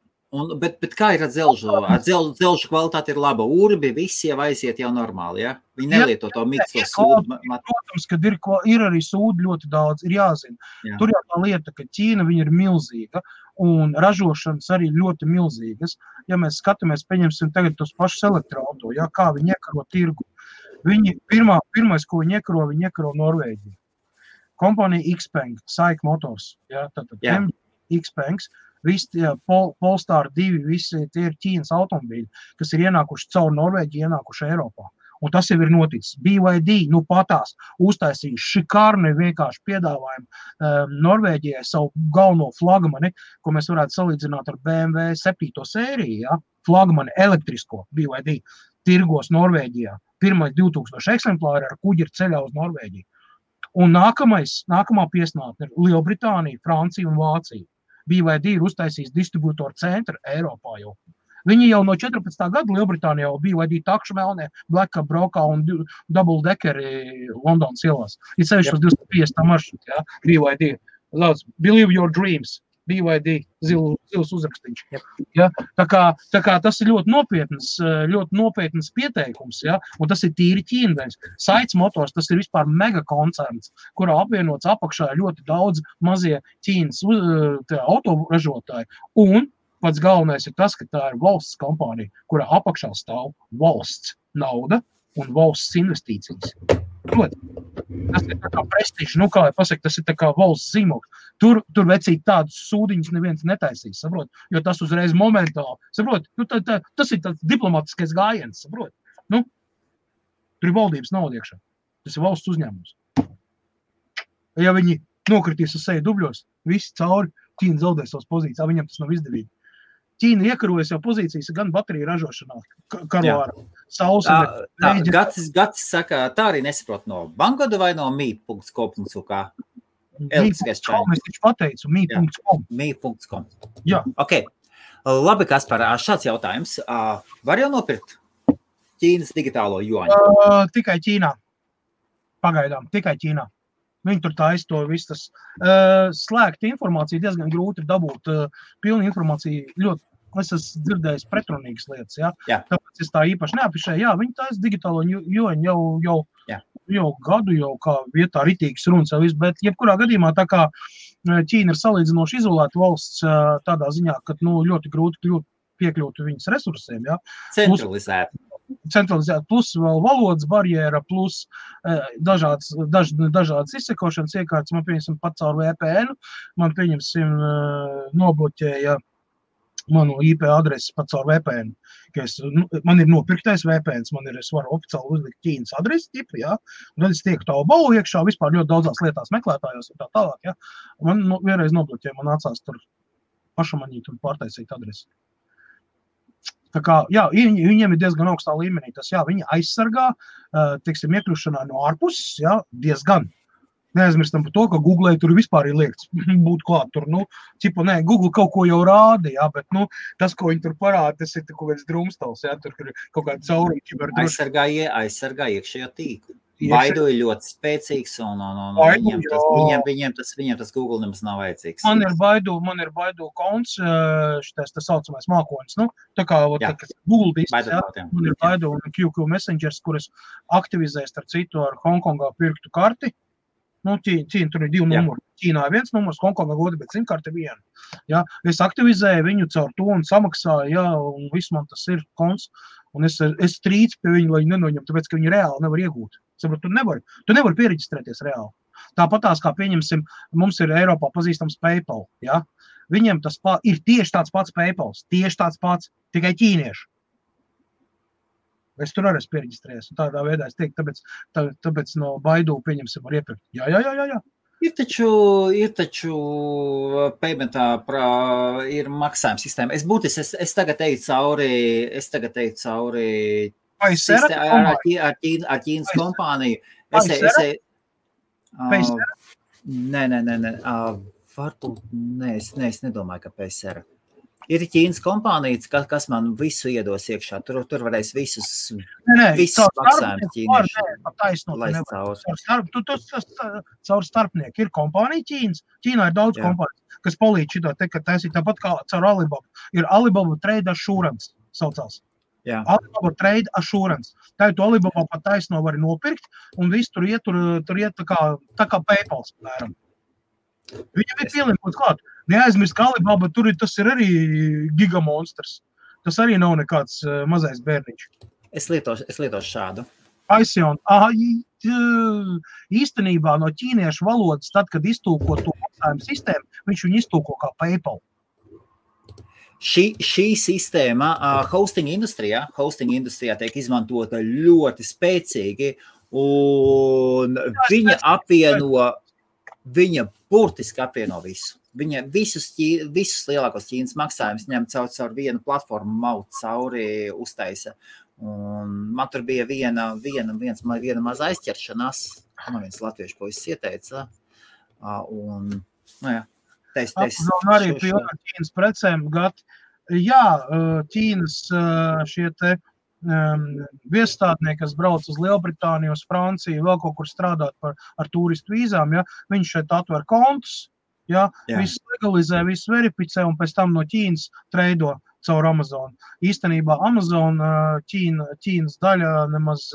Bet kā ir ar dzelžu? Ar dzelžu kvalitāte ir laba. Urbi visi jau aiziet jau normāli, ja? Viņi nelieto to mikso sūdu. Protams, kad ir arī sūdu ļoti daudz, ir jāzina. Jā. Tur jau tā lieta, ka Ķīna viņa ir milzīga un ražošanas arī ļoti milzīgas. Ja mēs skatāmies, pieņemsim tagad tos pašus elektroauto, ja, kā viņi iekaro tirgu. Viņi pirmais, ko viņi iekaro Norvēģiju. Kompānija Xpeng, SAIC Motors, ja, tātad Xpengs. Visi Polestar 2, visi tie ir Ķīnas automobīļi, kas ir ienākuši caur Norvēģiju, ienākuši Eiropā. Un tas jau ir noticis. BYD, patās, uztaisīja šikārni vienkārši piedāvājumu Norvēģijai savu galveno flagmani, ko mēs varētu salīdzināt ar BMW 7. sēriju, ja? Flagmani elektrisko BYD tirgos Norvēģijā. Pirmais 2000 eksemplāri ar kuģi ir ceļā uz Norvēģiju. Un nākamā piesnātne ir Lielbritānija, Francija un Vācija. BYD ir uztaisījis distribūtoru centru Eiropā jau. Viņi jau no 14. gada Lielbritānijā jau BYD takšu melnē, Blackup braukā un double deckeri Londonas ielās. Ir sevišķi uz 250 maršrutu, ja, BYD. Believe your dreams, BYD, zils uzrakstīņš. Ja, tā kā tas ir ļoti nopietnas pieteikums, ja, un tas ir tīri ķīnveņs. SAIC Motors, tas ir vispār megakoncerns, kurā apvienots apakšā ļoti daudz mazie Ķīnas autoražotāji. Un pats galvenais ir tas, ka tā ir valsts kompānija, kurā apakšā stāv valsts nauda un valsts investīcijas. Proti, tas ir tā kā prestiži, kā lai pasaka, tas ir tā kā valsts zīmogs. Tur vecīt tādus sūdiņus neviens netaisīs, saprot, jo tas uzreiz momentāli, saprot, tas ir tāds diplomatiskais gājiens, saprot. Tur ir valdības nauda iekšā, tas ir valsts uzņēmums. Ja viņi nokritīs uz seju dubļos, visi cauri, Ķīna zaudē savas pozīcijas, viņam tas nav izdevīgi. Ķīna iekarojas jau pozīcijas gan bateriju ražošanā, karo ar saules. Gatis saka, tā arī nesaprot no Bangoda vai no mi.com.uk? Elektriskais čaini. Es pateicu, mi.com. Mi.com. Jā. Ok. Labi, Kaspar, šāds jautājums. Var jau nopirkt Ķīnas digitālo juaņu? Tikai Ķīnā. Pagaidām, tikai Ķīnā. Viņi tur taisa to visu tas. Slēgta informācija diezgan grūti ir dabūt. Pilna informācija ļoti, es esmu dzirdējis pretrunīgas lietas, ja? Tāpēc es tā īpaši neapišēju. Jā, viņi taisa digitālo juaņu jau gadu, jau kā vietā ritīgas runas jau visu, bet jebkurā gadījumā tā kā Ķīna ir salīdzinoši izolēta valsts tādā ziņā, ka ļoti grūti piekļūt viņas resursiem, ja? Centralizēt, plus vēl valodas barjēra, plus dažādas izsekošanas iekārtas. Man pieņemsim pat caur VPN, man pieņemsim nobloķēja manu IP adresi pat caur VPN. Man ir nopirktais VPN, es varu oficiāli uzlikt Ķīnas adresi tipu, ja? Un tad es tieku Taobao iekšā, vispār ļoti daudzās lietās meklētājos un tā tālāk, ja? Man vienreiz nobloķēja, man nācās tur pašamanīt un pārtaisīt adresi. Tā kā, jā, viņiem ir diezgan augstā līmenī. Tas, jā, viņi aizsargā, teiksim, iekļūšanā no ārpuses, jā, diezgan. Neaizmirstam par to, ka Google tur vispār ir liekts būt klāt tur, Google kaut ko jau rāda, jā, bet, tas, ko viņi tur parāda, tas ir kaut kāds drumstals, jā, tur ir kaut kāda cauruma kiberdrošība. Aizsargā iekšējo tīklu. Baidu ir ļoti spēcīgs un viņiem tas Google nemaz nav vajadzīgs. Man ir Baidu konts, šitais tā saucamais mākonis, nu, tā kā Google disks, man ir Baidu un QQ Messengers, kuras aktivizēs ar citu ar Hongkongā pirktu karti. Nu, Ķīna tur ir 2 numuri. Ķīnā ir 1 numurs, Hongkongā 2, bet simkarti 1. Ja? Es aktivizēju viņu caur to un samaksāju, ja, un viss man tas ir konts. Un es strīcu pie viņu, lai viņi nenoņem, tāpēc, ka viņi reāli nevar iegūt. Saprot, tu nevari piereģistrēties reāli. Tāpatās, kā pieņemsim, mums ir Eiropā pazīstams PayPal. Ja? Viņiem tas ir tieši tāds pats PayPals, tieši tāds pats, tikai ķīnieši. Es tur arī esmu piereģistrējies. Tādā veidā es teiktu, tāpēc no Baidu pieņemsim var iepirkt. Jā. Ir taču paymentā ir maksājuma sistēma. Es tagad eju cauri ar Ķīnas kompāniju. Nē. Es nedomāju, ka PSR. Ir Ķīnas kompānijas, kas man visu iedos iekšā. Tur varēs visus maksājumus ķīnieši laist cauri. Caur starpnieku ir kompānija Ķīnas. Ķīnā ir daudz kompāniju, kas palīdz šitā te, ka taisīt tāpat kā caur Alibaba. Ir Alibaba Trade Assurance saucās. Jā. Alibaba Trade Assurance. Tā ir to Alibaba pat taisno var nopirkt un viss tur iet tā kā PayPals, piemēram. Viņam ir pieliekot klāt. Neaizmirst, ka Alibaba tas ir arī gigamonstrs. Tas arī nav nekāds mazais bērniņš. Es lietošu šādu. Aision. Īstenībā no ķīniešu valodas, tad, kad iztulko to maksājumu sistēmu, viņš viņu iztulko kā PayPal. Šī sistēma hosting industrijā tiek izmantota ļoti spēcīgi, un viņa burtiski apvieno visu. Viņa visus lielākos Ķīnas maksājumus ņem caur vienu platformu, maut cauri, uztaisa. Un man tur bija viena maza aizķeršanās, man viens latviešu puisis ieteica. Un, arī pilna Ķīnas precēm gati. Jā, Ķīnas šie te viesstādnieki, kas brauc uz Lielbritāniju, uz Franciju, vēl kaut kur strādāt ar turistu vīzām, ja, viņš šeit atver kontus, ja, viss legalizē, viss verificē un pēc tam no Ķīnas treido caur Amazon. Īstenībā Amazon Ķīnas daļa nemaz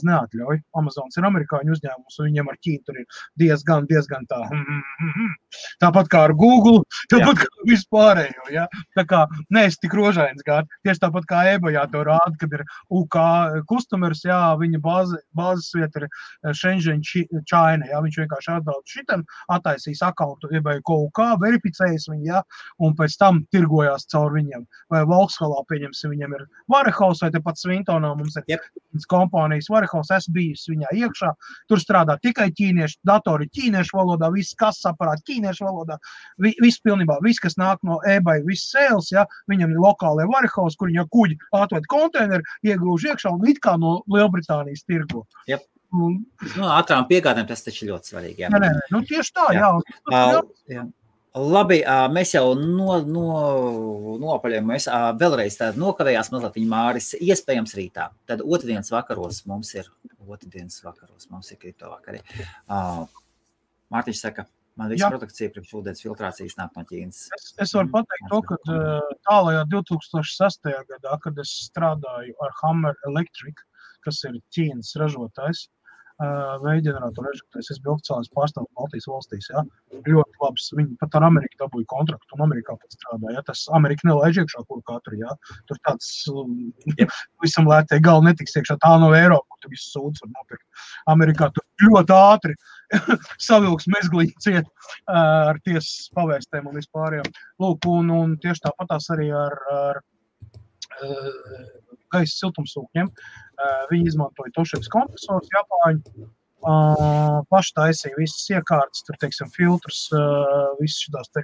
neatļauj. Amazons ir amerikāņu uzņēmums, un viņiem ar Ķīnu tur ir diezgan tā. Tāpat kā ar Google, tāpat kā vispārējo. Ja? Tā kā neesi tik rožains gādi. Tieši tāpat kā eBayā to rāda, kad ir UK customers, jā, viņa bāzes vieta ir Shenzhen, China. Ja? Viņš vienkārši atbrauc šitam, attaisīs akauntu eBay UK, verificējas viņu, ja? Un pēc tam tirgojās caur viņiem. Vai Volkshalā pieņemsim, viņiem ir Warehouse, vai tepat Svintonā mums ir kompānijas Warehouse, es bijusi viņā iekšā, tur strādā tikai ķīnieši, datori ķīniešu valodā, viss kases aparāti ķīniešu valodā, viss pilnībā, viss, kas nāk no eBay, viss sales, ja, viņam ir lokālie Warehouse, kur viņa kuģi atved konteineri, iegrūž iekšā un it kā no Lielbritānijas tirgo. Yep. Ātrām piegādēm tas taču ļoti svarīgi. Jā. Nē, tieši tā, jā. Labi, mēs jau nopaļējam, vēlreiz tāda nokavējās mazliet viņa Māris, iespējams rītā. Tad otrdienas vakaros mums ir kripto vakari. Mārtiņš saka, man viss produkcija priekš ūdens filtrācijas nāk no Ķīnas. Es varu pateikt to, ka tālajā 2006. gadā, kad es strādāju ar Hammer Electric, kas ir Ķīnas ražotājs, veiģeneratoru ražotājs, es biju oficiālais pārstāvs Baltijas valstīs, ja, ļoti labs, viņi pat ar Ameriku dabūja kontraktu un Amerikā pat strādā, ja, tas Amerika nelaiž iekšā kur katru, ja, tur tāds visam lētē galva netiks iekšā, tā no Eiropa, kur tu visu sūdz var nopirkt. Amerikā tur ļoti ātri savilks mezglīgi ciet ar tiesas pavēstēm un vispārējām. Lūk, un tieši tāpatās arī ar gaisa siltumsūkņiem. Viņi izmantoja Toshibas kompresors, Japāņu, paši taisīja visas iekārtas, tur, teiksim, filtrus, visas šitās te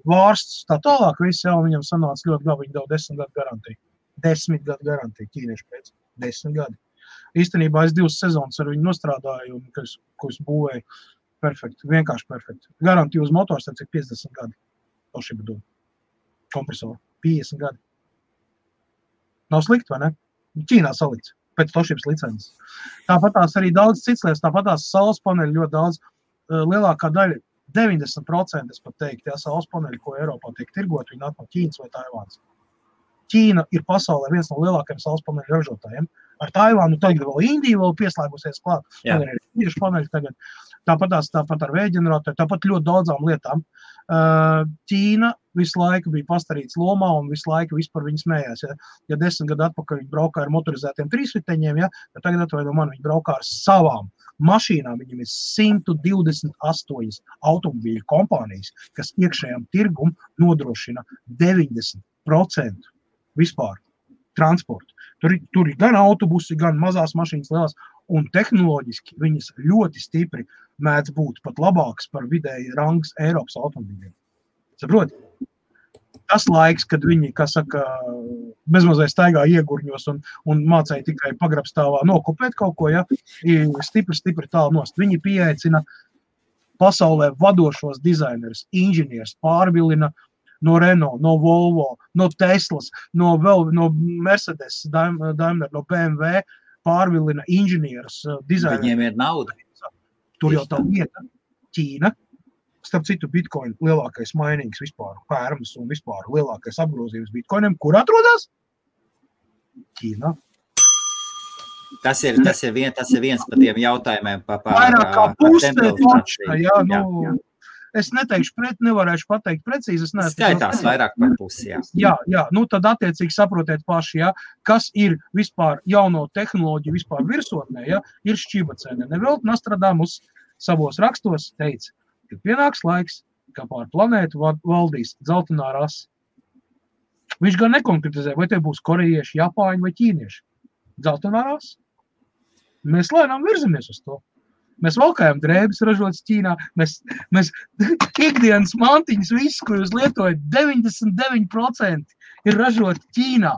vārstus, tā tālāk, visi jau viņam sanāca ļoti labi, viņi deva 10 gadu garantiju. 10 gadu garantiju, ķīnieši pēc 10 gadi. Īstenībā es 2 sezonas ar viņu nostrādāju, un ko es būvēju, perfekti, vienkārši perfekti. Garantiju uz motors, tad cik 50 gadi Toshiba dod kompresoru, 50 gadi. Nav slikti, vai ne? Ķīnā salikts. pēc tošības licences. Tāpat tās arī daudz cits lietas, tāpat tās saules paneļi ļoti daudz, lielākā daļa, 90% es pat teiktu, tie saules paneļi, ko Eiropā tiek tirgot, viņi nāk no Ķīnas vai Taivāns. Ķīna ir pasaulē viens no lielākajiem saules paneļu ražotājiem. Ar Taivānu tagad vēl Indija vēl pieslēgusies klāt. Tagad ir tieši paneļi tagad. Tāpat ar vējģeneratoru, tāpat ļoti daudzām lietām. Ķīna visu laiku bija pastarīts lomā un visu laiku vispār viņi smējās. Ja 10 gadu atpakaļ viņi braukā ar motorizētiem trīsriteņiem, tad tagad atvaino man viņi braukā ar savām mašīnām. Viņam ir 128 automobīļu kompānijas, kas iekšējām tirgum nodrošina 90% vispār transportu. Tur ir gan autobusi, gan mazās mašīnas lielās, un tehnoloģiski viņas ļoti stipri mēdz būt pat labāks par vidēji rangs Eiropas automobīļiem. Saproti? Tas laiks, kad viņi, kā saka, bezmazliet staigā iegurņos un mācēja tikai pagrabstāvā nokopēt kaut ko, ja, ir stipri tālu nost. Viņi pieaicina pasaulē vadošos dizainerus, inženierus, pārvilina no Renault, no Volvo, no Teslas, no Mercedes, Daimler, no BMW, pārvilina inženierus, dizainerus. Viņiem ir nauda. Tur jau tā vieta, Ķīna, starp citu Bitcoin lielākais mainīgs vispār, pērmas un vispār lielākais apgrozījums Bitcoiniem, kur atrodas? Ķīnā. Tas ir viens par tiem jautājumiem par vairāk kā puse, jā. Es neteikšu, nevarēšu pateikt precīzi. Skaitās vairāk par pusi, jā. Jā, tad attiecīgi saprotiet paši, jā, kas ir vispār jauno tehnoloģiju vispār virsotnē, jā, ir šķibacēne. Nevēl Nostradamus savos rakstos teica, ka pienāks laiks, ka pār planētu valdīs dzeltenā rasa. Viņš gan nekonkretizē, vai te būs korejieši, japāņi vai ķīnieši. Dzeltenā rasa. Mēs lēnām virzamies uz to. Mēs valkājam drēbes ražotas Ķīnā, mēs ikdienas mantiņas visu, ko jūs lietojat, 99% ir ražoti Ķīnā.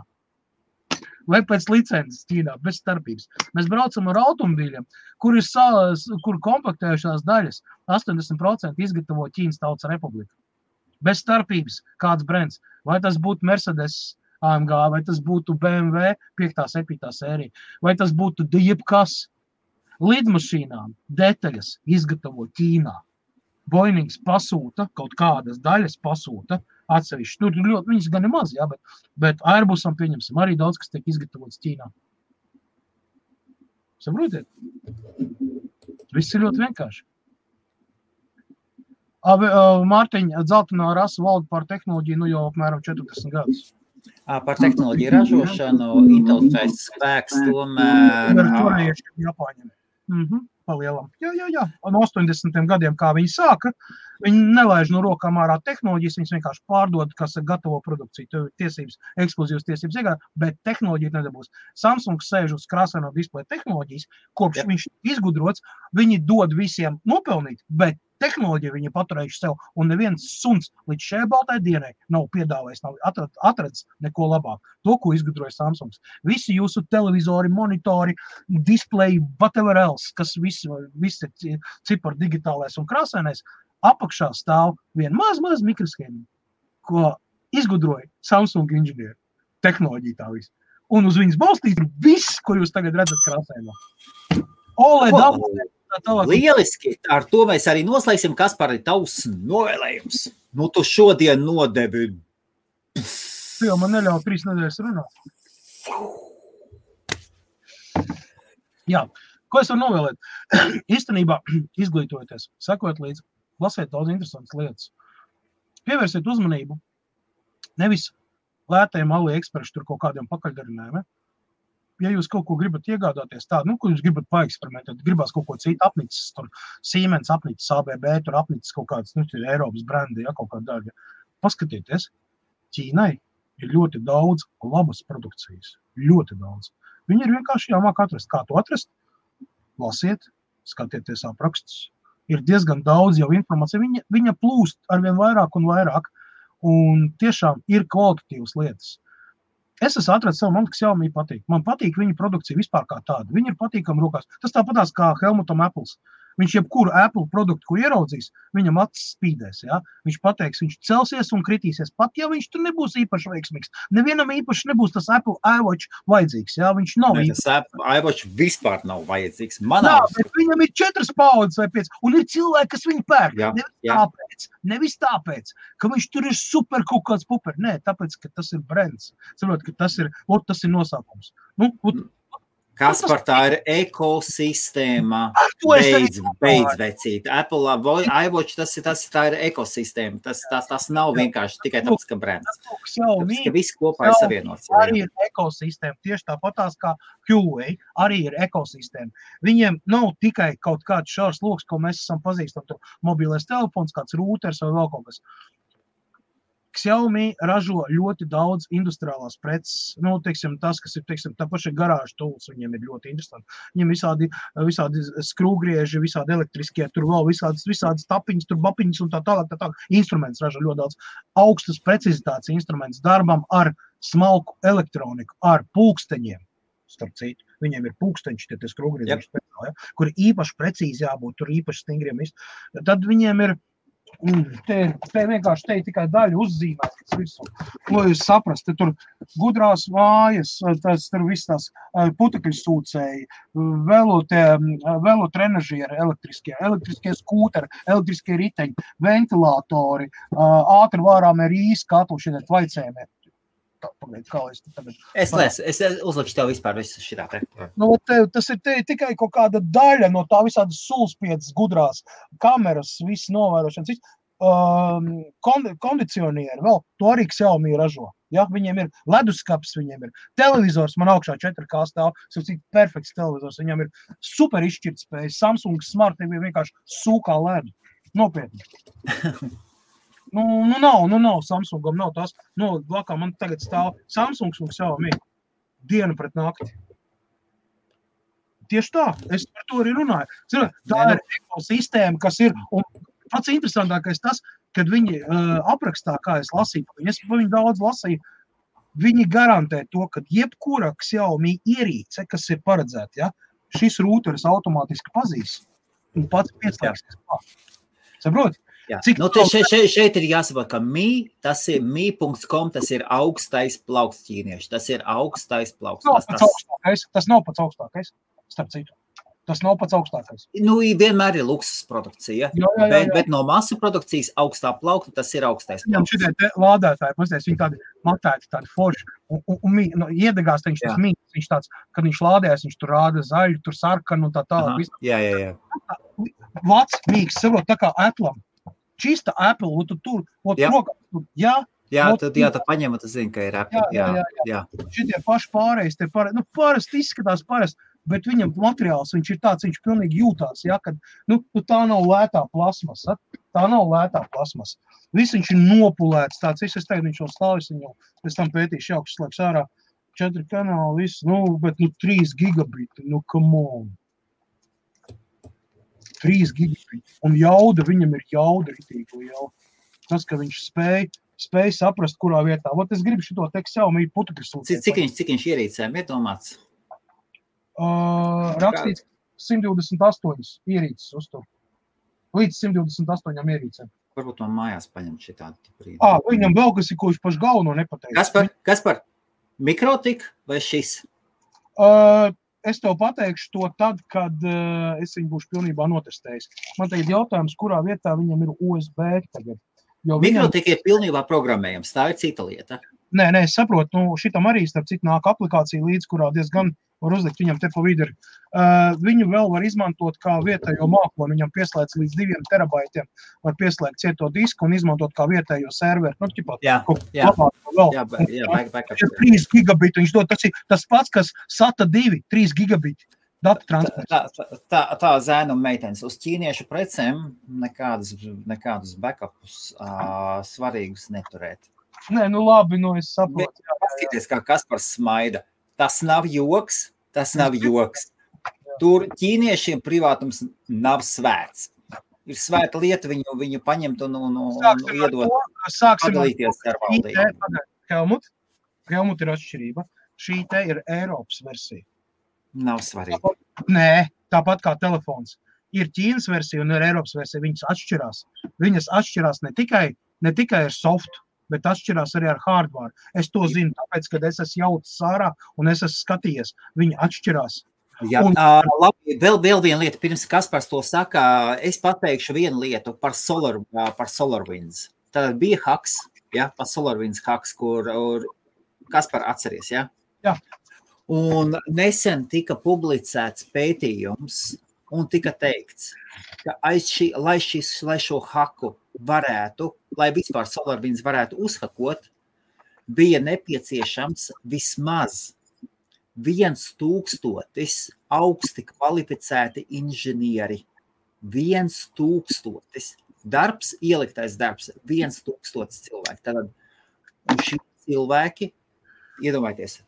Vai pēc licences Ķīnā, bez starpības. Mēs braucam ar automobīļiem, kur kompaktējušās daļas 80% izgatavo Ķīnas Tautas Republika. Bez starpības kāds brands. Vai tas būtu Mercedes AMG, vai tas būtu BMW 5. 7. sērija, vai tas būtu jebkas. Lidmašīnām detaļas izgatavo Ķīnā. Boeings pasūta, kaut kādas daļas pasūta atsevišķi. Tur ļoti, viņas gan ir maz, jā, bet Airbusam pieņemsim arī daudz, kas tiek izgatavots Ķīnā. Saprotiet? Viss ir ļoti vienkārši. Mārtiņa, dzeltenā rasa valda par tehnoloģiju jau apmēram 40 gadus. Par tehnoloģiju ražošanu, intelektuālais spēks tomēr... Korejieši Japāņiem. Palielam. Jā. No 80. gadiem, kā viņi sāka, viņi nelaiž no rokām ārā tehnoloģijas, viņas vienkārši pārdod, kas gatavo produkciju, tev ir tiesības, ekskluzīvas tiesības iegādāt, bet tehnoloģija nedabūs. Samsung sēž uz krāsaino displeja tehnoloģijas, kopš viņš izgudrots, viņi dod visiem nopelnīt, bet tehnoloģiju viņi paturējuši sev, un neviens suns līdz šai baltai dienai nav piedāvājis, nav atrads neko labāk. To, ko izgudroja Samsungs. Visi jūsu televizori, monitori, displeji, whatever else, kas visi cipar digitālais un krāsainais, apakšā stāv vien maz mikroshēmiņu, ko izgudroja Samsung inženieri. Tehnoloģija tā viss. Un uz viņas balstīt ir viss, ko jūs tagad redzat krāsainā. OLED Lieliski, ar to mēs arī noslēgsim, Kaspar, ir tavs novēlējums. Tu šodien nodevi. Tu jau man neļauj 3 nedēļas runāt. Jā, ko es varu novēlēt? Īstenībā izglītojoties, sakot līdzi, lasiet daudz interesantas lietas. Pievērsiet uzmanību nevis lētajiem AliExpress tur kaut kādiem pakaļdarinājumiem. Ja jūs kaut ko gribat iegādāties tādu, ko jūs gribat paeksperimentēt, gribās kaut ko citu apnicis, tur Siemens apnicis, ABB, tur apnicis kaut kāds, Eiropas brendi, ja, kaut kāda daļa. Paskatieties, Ķīnai ir ļoti daudz labas produkcijas, ļoti daudz. Viņi ir vienkārši jāmāk atrast. Kā to atrast? Lasiet, skatieties aprakstus. Ir diezgan daudz jau informācija, viņa plūst arvien vairāk un vairāk, un tiešām ir kvalitatīvas lietas. Es esmu atradis savu man, kas jau patīk. Man patīk viņa produkcija vispār kā tāda. Viņa ir patīkama rokās. Tas tāpatās kā Helmutam Apples. Viņš jebkuru Apple produktu, kur ieraudzīs, viņam acis spīdēs, ja? Viņš pateiks, viņš celsies un kritīsies, pat ja viņš tur nebūs īpaši veiksmīgs. Nevienam īpaši nebūs tas Apple iWatch vajadzīgs, ja? Viņš nav īpaši. Tas Apple iWatch vispār nav vajadzīgs. Bet viņam ir 4 paudzes vai 5, un ir cilvēki, kas viņu pērk. Nevis tāpēc, ka viņš tur ir super kaut kāds puper. Nē, tāpēc, ka tas ir brands. Saprot, ka tas ir nosaukums. Kaspar, tā ir ekosistēma. Beidz vecīt. Apple iWatch, tā ir ekosistēma. Tas nav vienkārši tikai tāpēc, ka brands. Tāpēc, ka viss kopā ir savienots. Arī ir ekosistēma. Tieši tāpatās kā Huawei arī ir ekosistēma. Viņiem nav tikai kaut kāds šārs loks, ko mēs esam pazīstam. Tur mobilais telefons, kāds rūters vai vēl kaut kas. Xiaomi ražo ļoti daudz industriālās preces. Tas, kas ir, tā paša garāža tools, viņiem ir ļoti interesanti. Viņiem visādi skrūgrieži, visādi elektriskie, tur vēl visādas tapiņas, tur bapiņas un tā tālāk. Instruments ražo ļoti daudz. Augstas precizitātes instruments darbam ar smalku elektroniku, ar pulksteņiem. Starp citu, viņiem ir pulksteņi, tie skrūgrieži, kur īpaši precīzi jābūt, tur īpaši stingriem. Tad viņiem ir te vienkārši te tikai daļa uzzīmētas visu. Lai jūs saprast, te tur gudrās mājas, tur viss tās putekļu sūcēji, velotrenažieri elektriskie skūteri, elektriskie riteņi, ventilatori, ātri vārāmie rīsi katlu šiet vaicējumiem. Es uzlikšu tev vispār visu šitā te. Tas ir tikai kaut kāda daļa no tā visādas sulspiedas gudrās kameras, viss novērošanas, kondicionieri, vēl to arī Xiaomi ražo. Ja? Viņiem ir leduskapis, viņiem ir televizors, man augšā 4K stāv, perfekts televizors, viņam ir super izšķirtspējas, Samsung Smart TV vienkārši sūkā ledu. Nopietni. Nav, Samsungam nav tās, blakā man tagad stāv Samsungs un Xiaomi dienu pret nakti. Tieši tā, es par to arī runāju. Tā ir ekosistēma, kas ir, un pats interesantākais tas, kad viņi aprakstā, kā es lasīju, es par viņu daudz lasīju, viņi garantē to, ka jebkura Xiaomi ierīce, kas ir paredzēta, ja, šis rūteris automātiski pazīs un pats pieslēgsies klāt. Saproti? Šeit ir jāsaprot, ka tas ir mi.com, tas ir augstais plauksts ķīnieši. Tas ir augstais plauksts. Tas nav pats augstākais, starp citu. Tas nav pats augstākais. Vienmēr ir luksus produkcija, bet no masu produkcijas augstā plaukta tas ir augstais plauksts. Viņam šitie lādētāji, viņi tādi matēti, tādi forši, un iedegās viņš tas mīgs, viņš tāds, kad viņš lādējas, viņš tur rāda zaļu, tur sarkanu un tā tālāk. Jā. Vats mīgs, saprot, tā kā Apple'am. Čista Apple, un tu tur, rokā, tad paņem, tu zini, ka ir Apple. Jā. Šitie paši pārējais, parasti izskatās parasti, bet viņam materiāls, viņš ir tāds, viņš pilnīgi jūtās, ja, kad, tā nav lētā plasmasa, Viss viņš ir nopulēts, tāds, es teiktu, viņš vēl stāvis, viņu pēc tam pētīšu jaukšas slēgs ārā, 4 kanāli, viss, bet 3 gigabiti, come on. 3 gigabiti. Un jauda, viņam ir jauda ritīgi liela. Tas, ka viņš spēj saprast, kurā vietā. Es gribu šito tekstu Xiaomi putekļu sūtīt. Cik viņš ierīcēm ir domāts? Rakstīts 128 ierīces uztur. Līdz 128 ierīcēm. Varbūt man mājās paņem šitādi brīdi. Viņam vēl kas ir, ko viņš paši galveno nepateica. Kaspar, mikrotik vai šis? Es tev pateikšu to tad, kad es viņu būšu pilnībā notestējis. Man tagad jautājums, kurā vietā viņam ir USB tagad. Mikrotik ir pilnībā programmējams, tā ir cita lieta. Nē, es saprotu, šitam arī starp citu nāk aplikācija līdz, kurā diezgan var uzlikt viņam te pa vidu. Viņu vēl var izmantot kā vietējo mākoni, viņam pieslēdz līdz 2 terabaitiem, var pieslēgt cieto disku un izmantot kā vietējo serveri. Backup. 3 gigabiti, viņš dod, tas pats, kas SATA 2, 3 gigabiti. Data transports. Tā zēna un meitenes uz ķīniešu precēm nekādus backupus svarīgus neturēt. Nē, labi, es saprotu. Paskaties, kā Kaspars smaida. Tas nav joks. Tur ķīniešiem privātums nav svēts. Ir svēta lieta, viņu paņemt un iedot padalīties ar valdību. Helmut ir atšķirība. Šī te ir Eiropas versija. Nav svarīgi. Nē, tāpat kā telefons. ir Ķīnas versija un ir Eiropas versija, viņas atšķirās. Viņas atšķirās ne tikai ar softu, bet atšķirās arī ar hardware. Es to zinu, tāpēc, kad es esmu jaucis ārā un es esmu skatījies, viņi atšķirās. Jā, labi, vēl viena lieta, pirms Kaspars to saka, es pateikšu vienu lietu par SolarWinds. Tad bija haks, ja, par SolarWinds haks, kur Kaspar atceries, ja? Jā. Un nesen tika publicēts pētījums un tika teikts, ka lai šo haku varētu, lai vispār SolarWinds varētu uzhakot, bija nepieciešams vismaz 1000 augsti kvalificēti inženieri. 1000 darbs, ieliktais darbs, 1000 cilvēki. Tātad, un šie cilvēki, iedomājieties,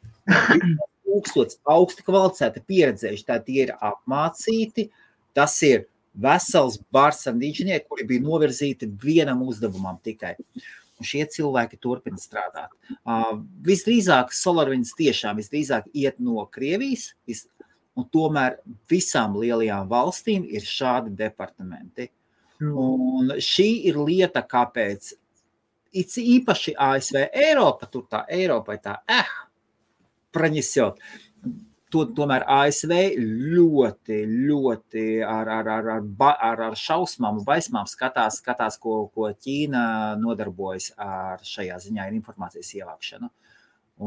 1000 augsti kvalificēti pieredzējuši, tā tie ir apmācīti, tas ir vesels bars ar inženieri, kuri bija novirzīti vienam uzdevumam tikai. Un šie cilvēki turpina strādāt. Visdrīzāk SolarWinds tiešām visdrīzāk iet no Krievijas, un tomēr visām lielajām valstīm ir šādi departamenti. Un šī ir lieta, kāpēc īpaši ASV Eiropa, tur tā Eiropai tā, praņesjot. Tomēr ASV ļoti ar šausmām un baismām skatās, ko Ķīna nodarbojas ar šajā ziņā ir informācijas ievākšanu.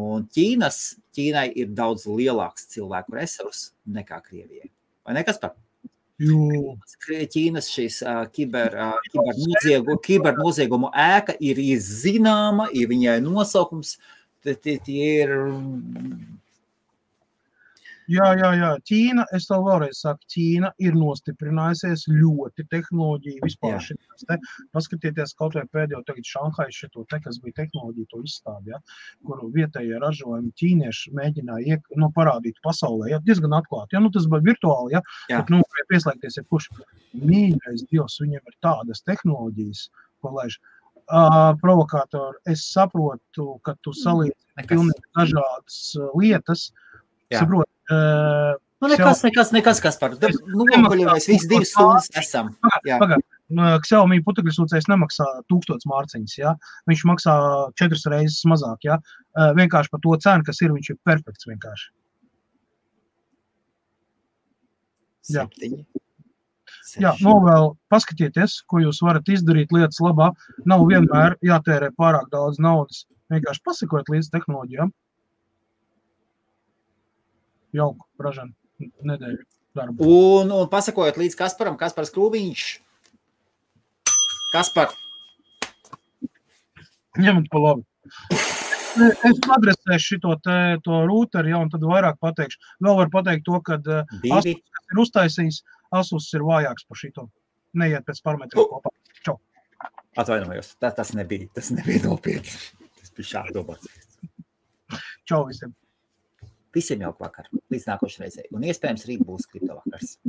Un Ķīnai ir daudz lielāks cilvēku resurs nekā Krievijai. Vai ne, Kaspar? Ķīnas šīs kibernoziegumu ēka ir zināma, ir viņai nosaukums, tie ir... Jā. Ķīna, es tev vēlreiz saku, Ķīna ir nostiprinājusies ļoti tehnoloģiju vispār šitās te. Paskatieties kaut vai pēdējo tagad Šanhai šito te, kas bija tehnoloģija to izstādi, ja, kuru vietējie ražojumi ķīnieši mēģināja parādīt pasaulē, ja, diezgan atklāti. Ja, tas bija virtuāli, ja, bet, pieslēgties ir kurš mīļais Dievs, viņiem ir tādas tehnoloģijas, ko laiž. Provokātori, es saprotu, ka tu salīdzi pilnīgi dažādas lietas, saprotu, nekas, Kaspar. Mēs visi 2 stundas esam. Pagad, Xiaomi putekļsūcējs nemaksā 1000 mārciņas, ja? Viņš maksā 4 reizes mazāk, ja? Vienkārši par to cenu, kas ir, viņš ir perfekts vienkārši. 7. Jā, vēl paskatieties, ko jūs varat izdarīt lietas labā. Nav vienmēr jātērē pārāk daudz naudas. Vienkārši pasakot līdz tehnoloģijām. Jauku, ražanu, nedēļu darbu. Un pasakojot līdz Kasparam, Kaspars Krūviņš. Kaspar. Ņemt pa labi. Es adresēšu to rūteri, un tad vairāk pateikšu. Vēl var pateikt to, ka Asus ir uztaisījis, Asus ir vājāks par šito. Neiet pēc parametriem kopā. Čau. Atvainojos, tas nebija nopietni. Tas bija šādi domāts. Čau visiem. Visiem jauku vakaru, līdz nākošai reizei. Un iespējams rīt būs kriptovakars.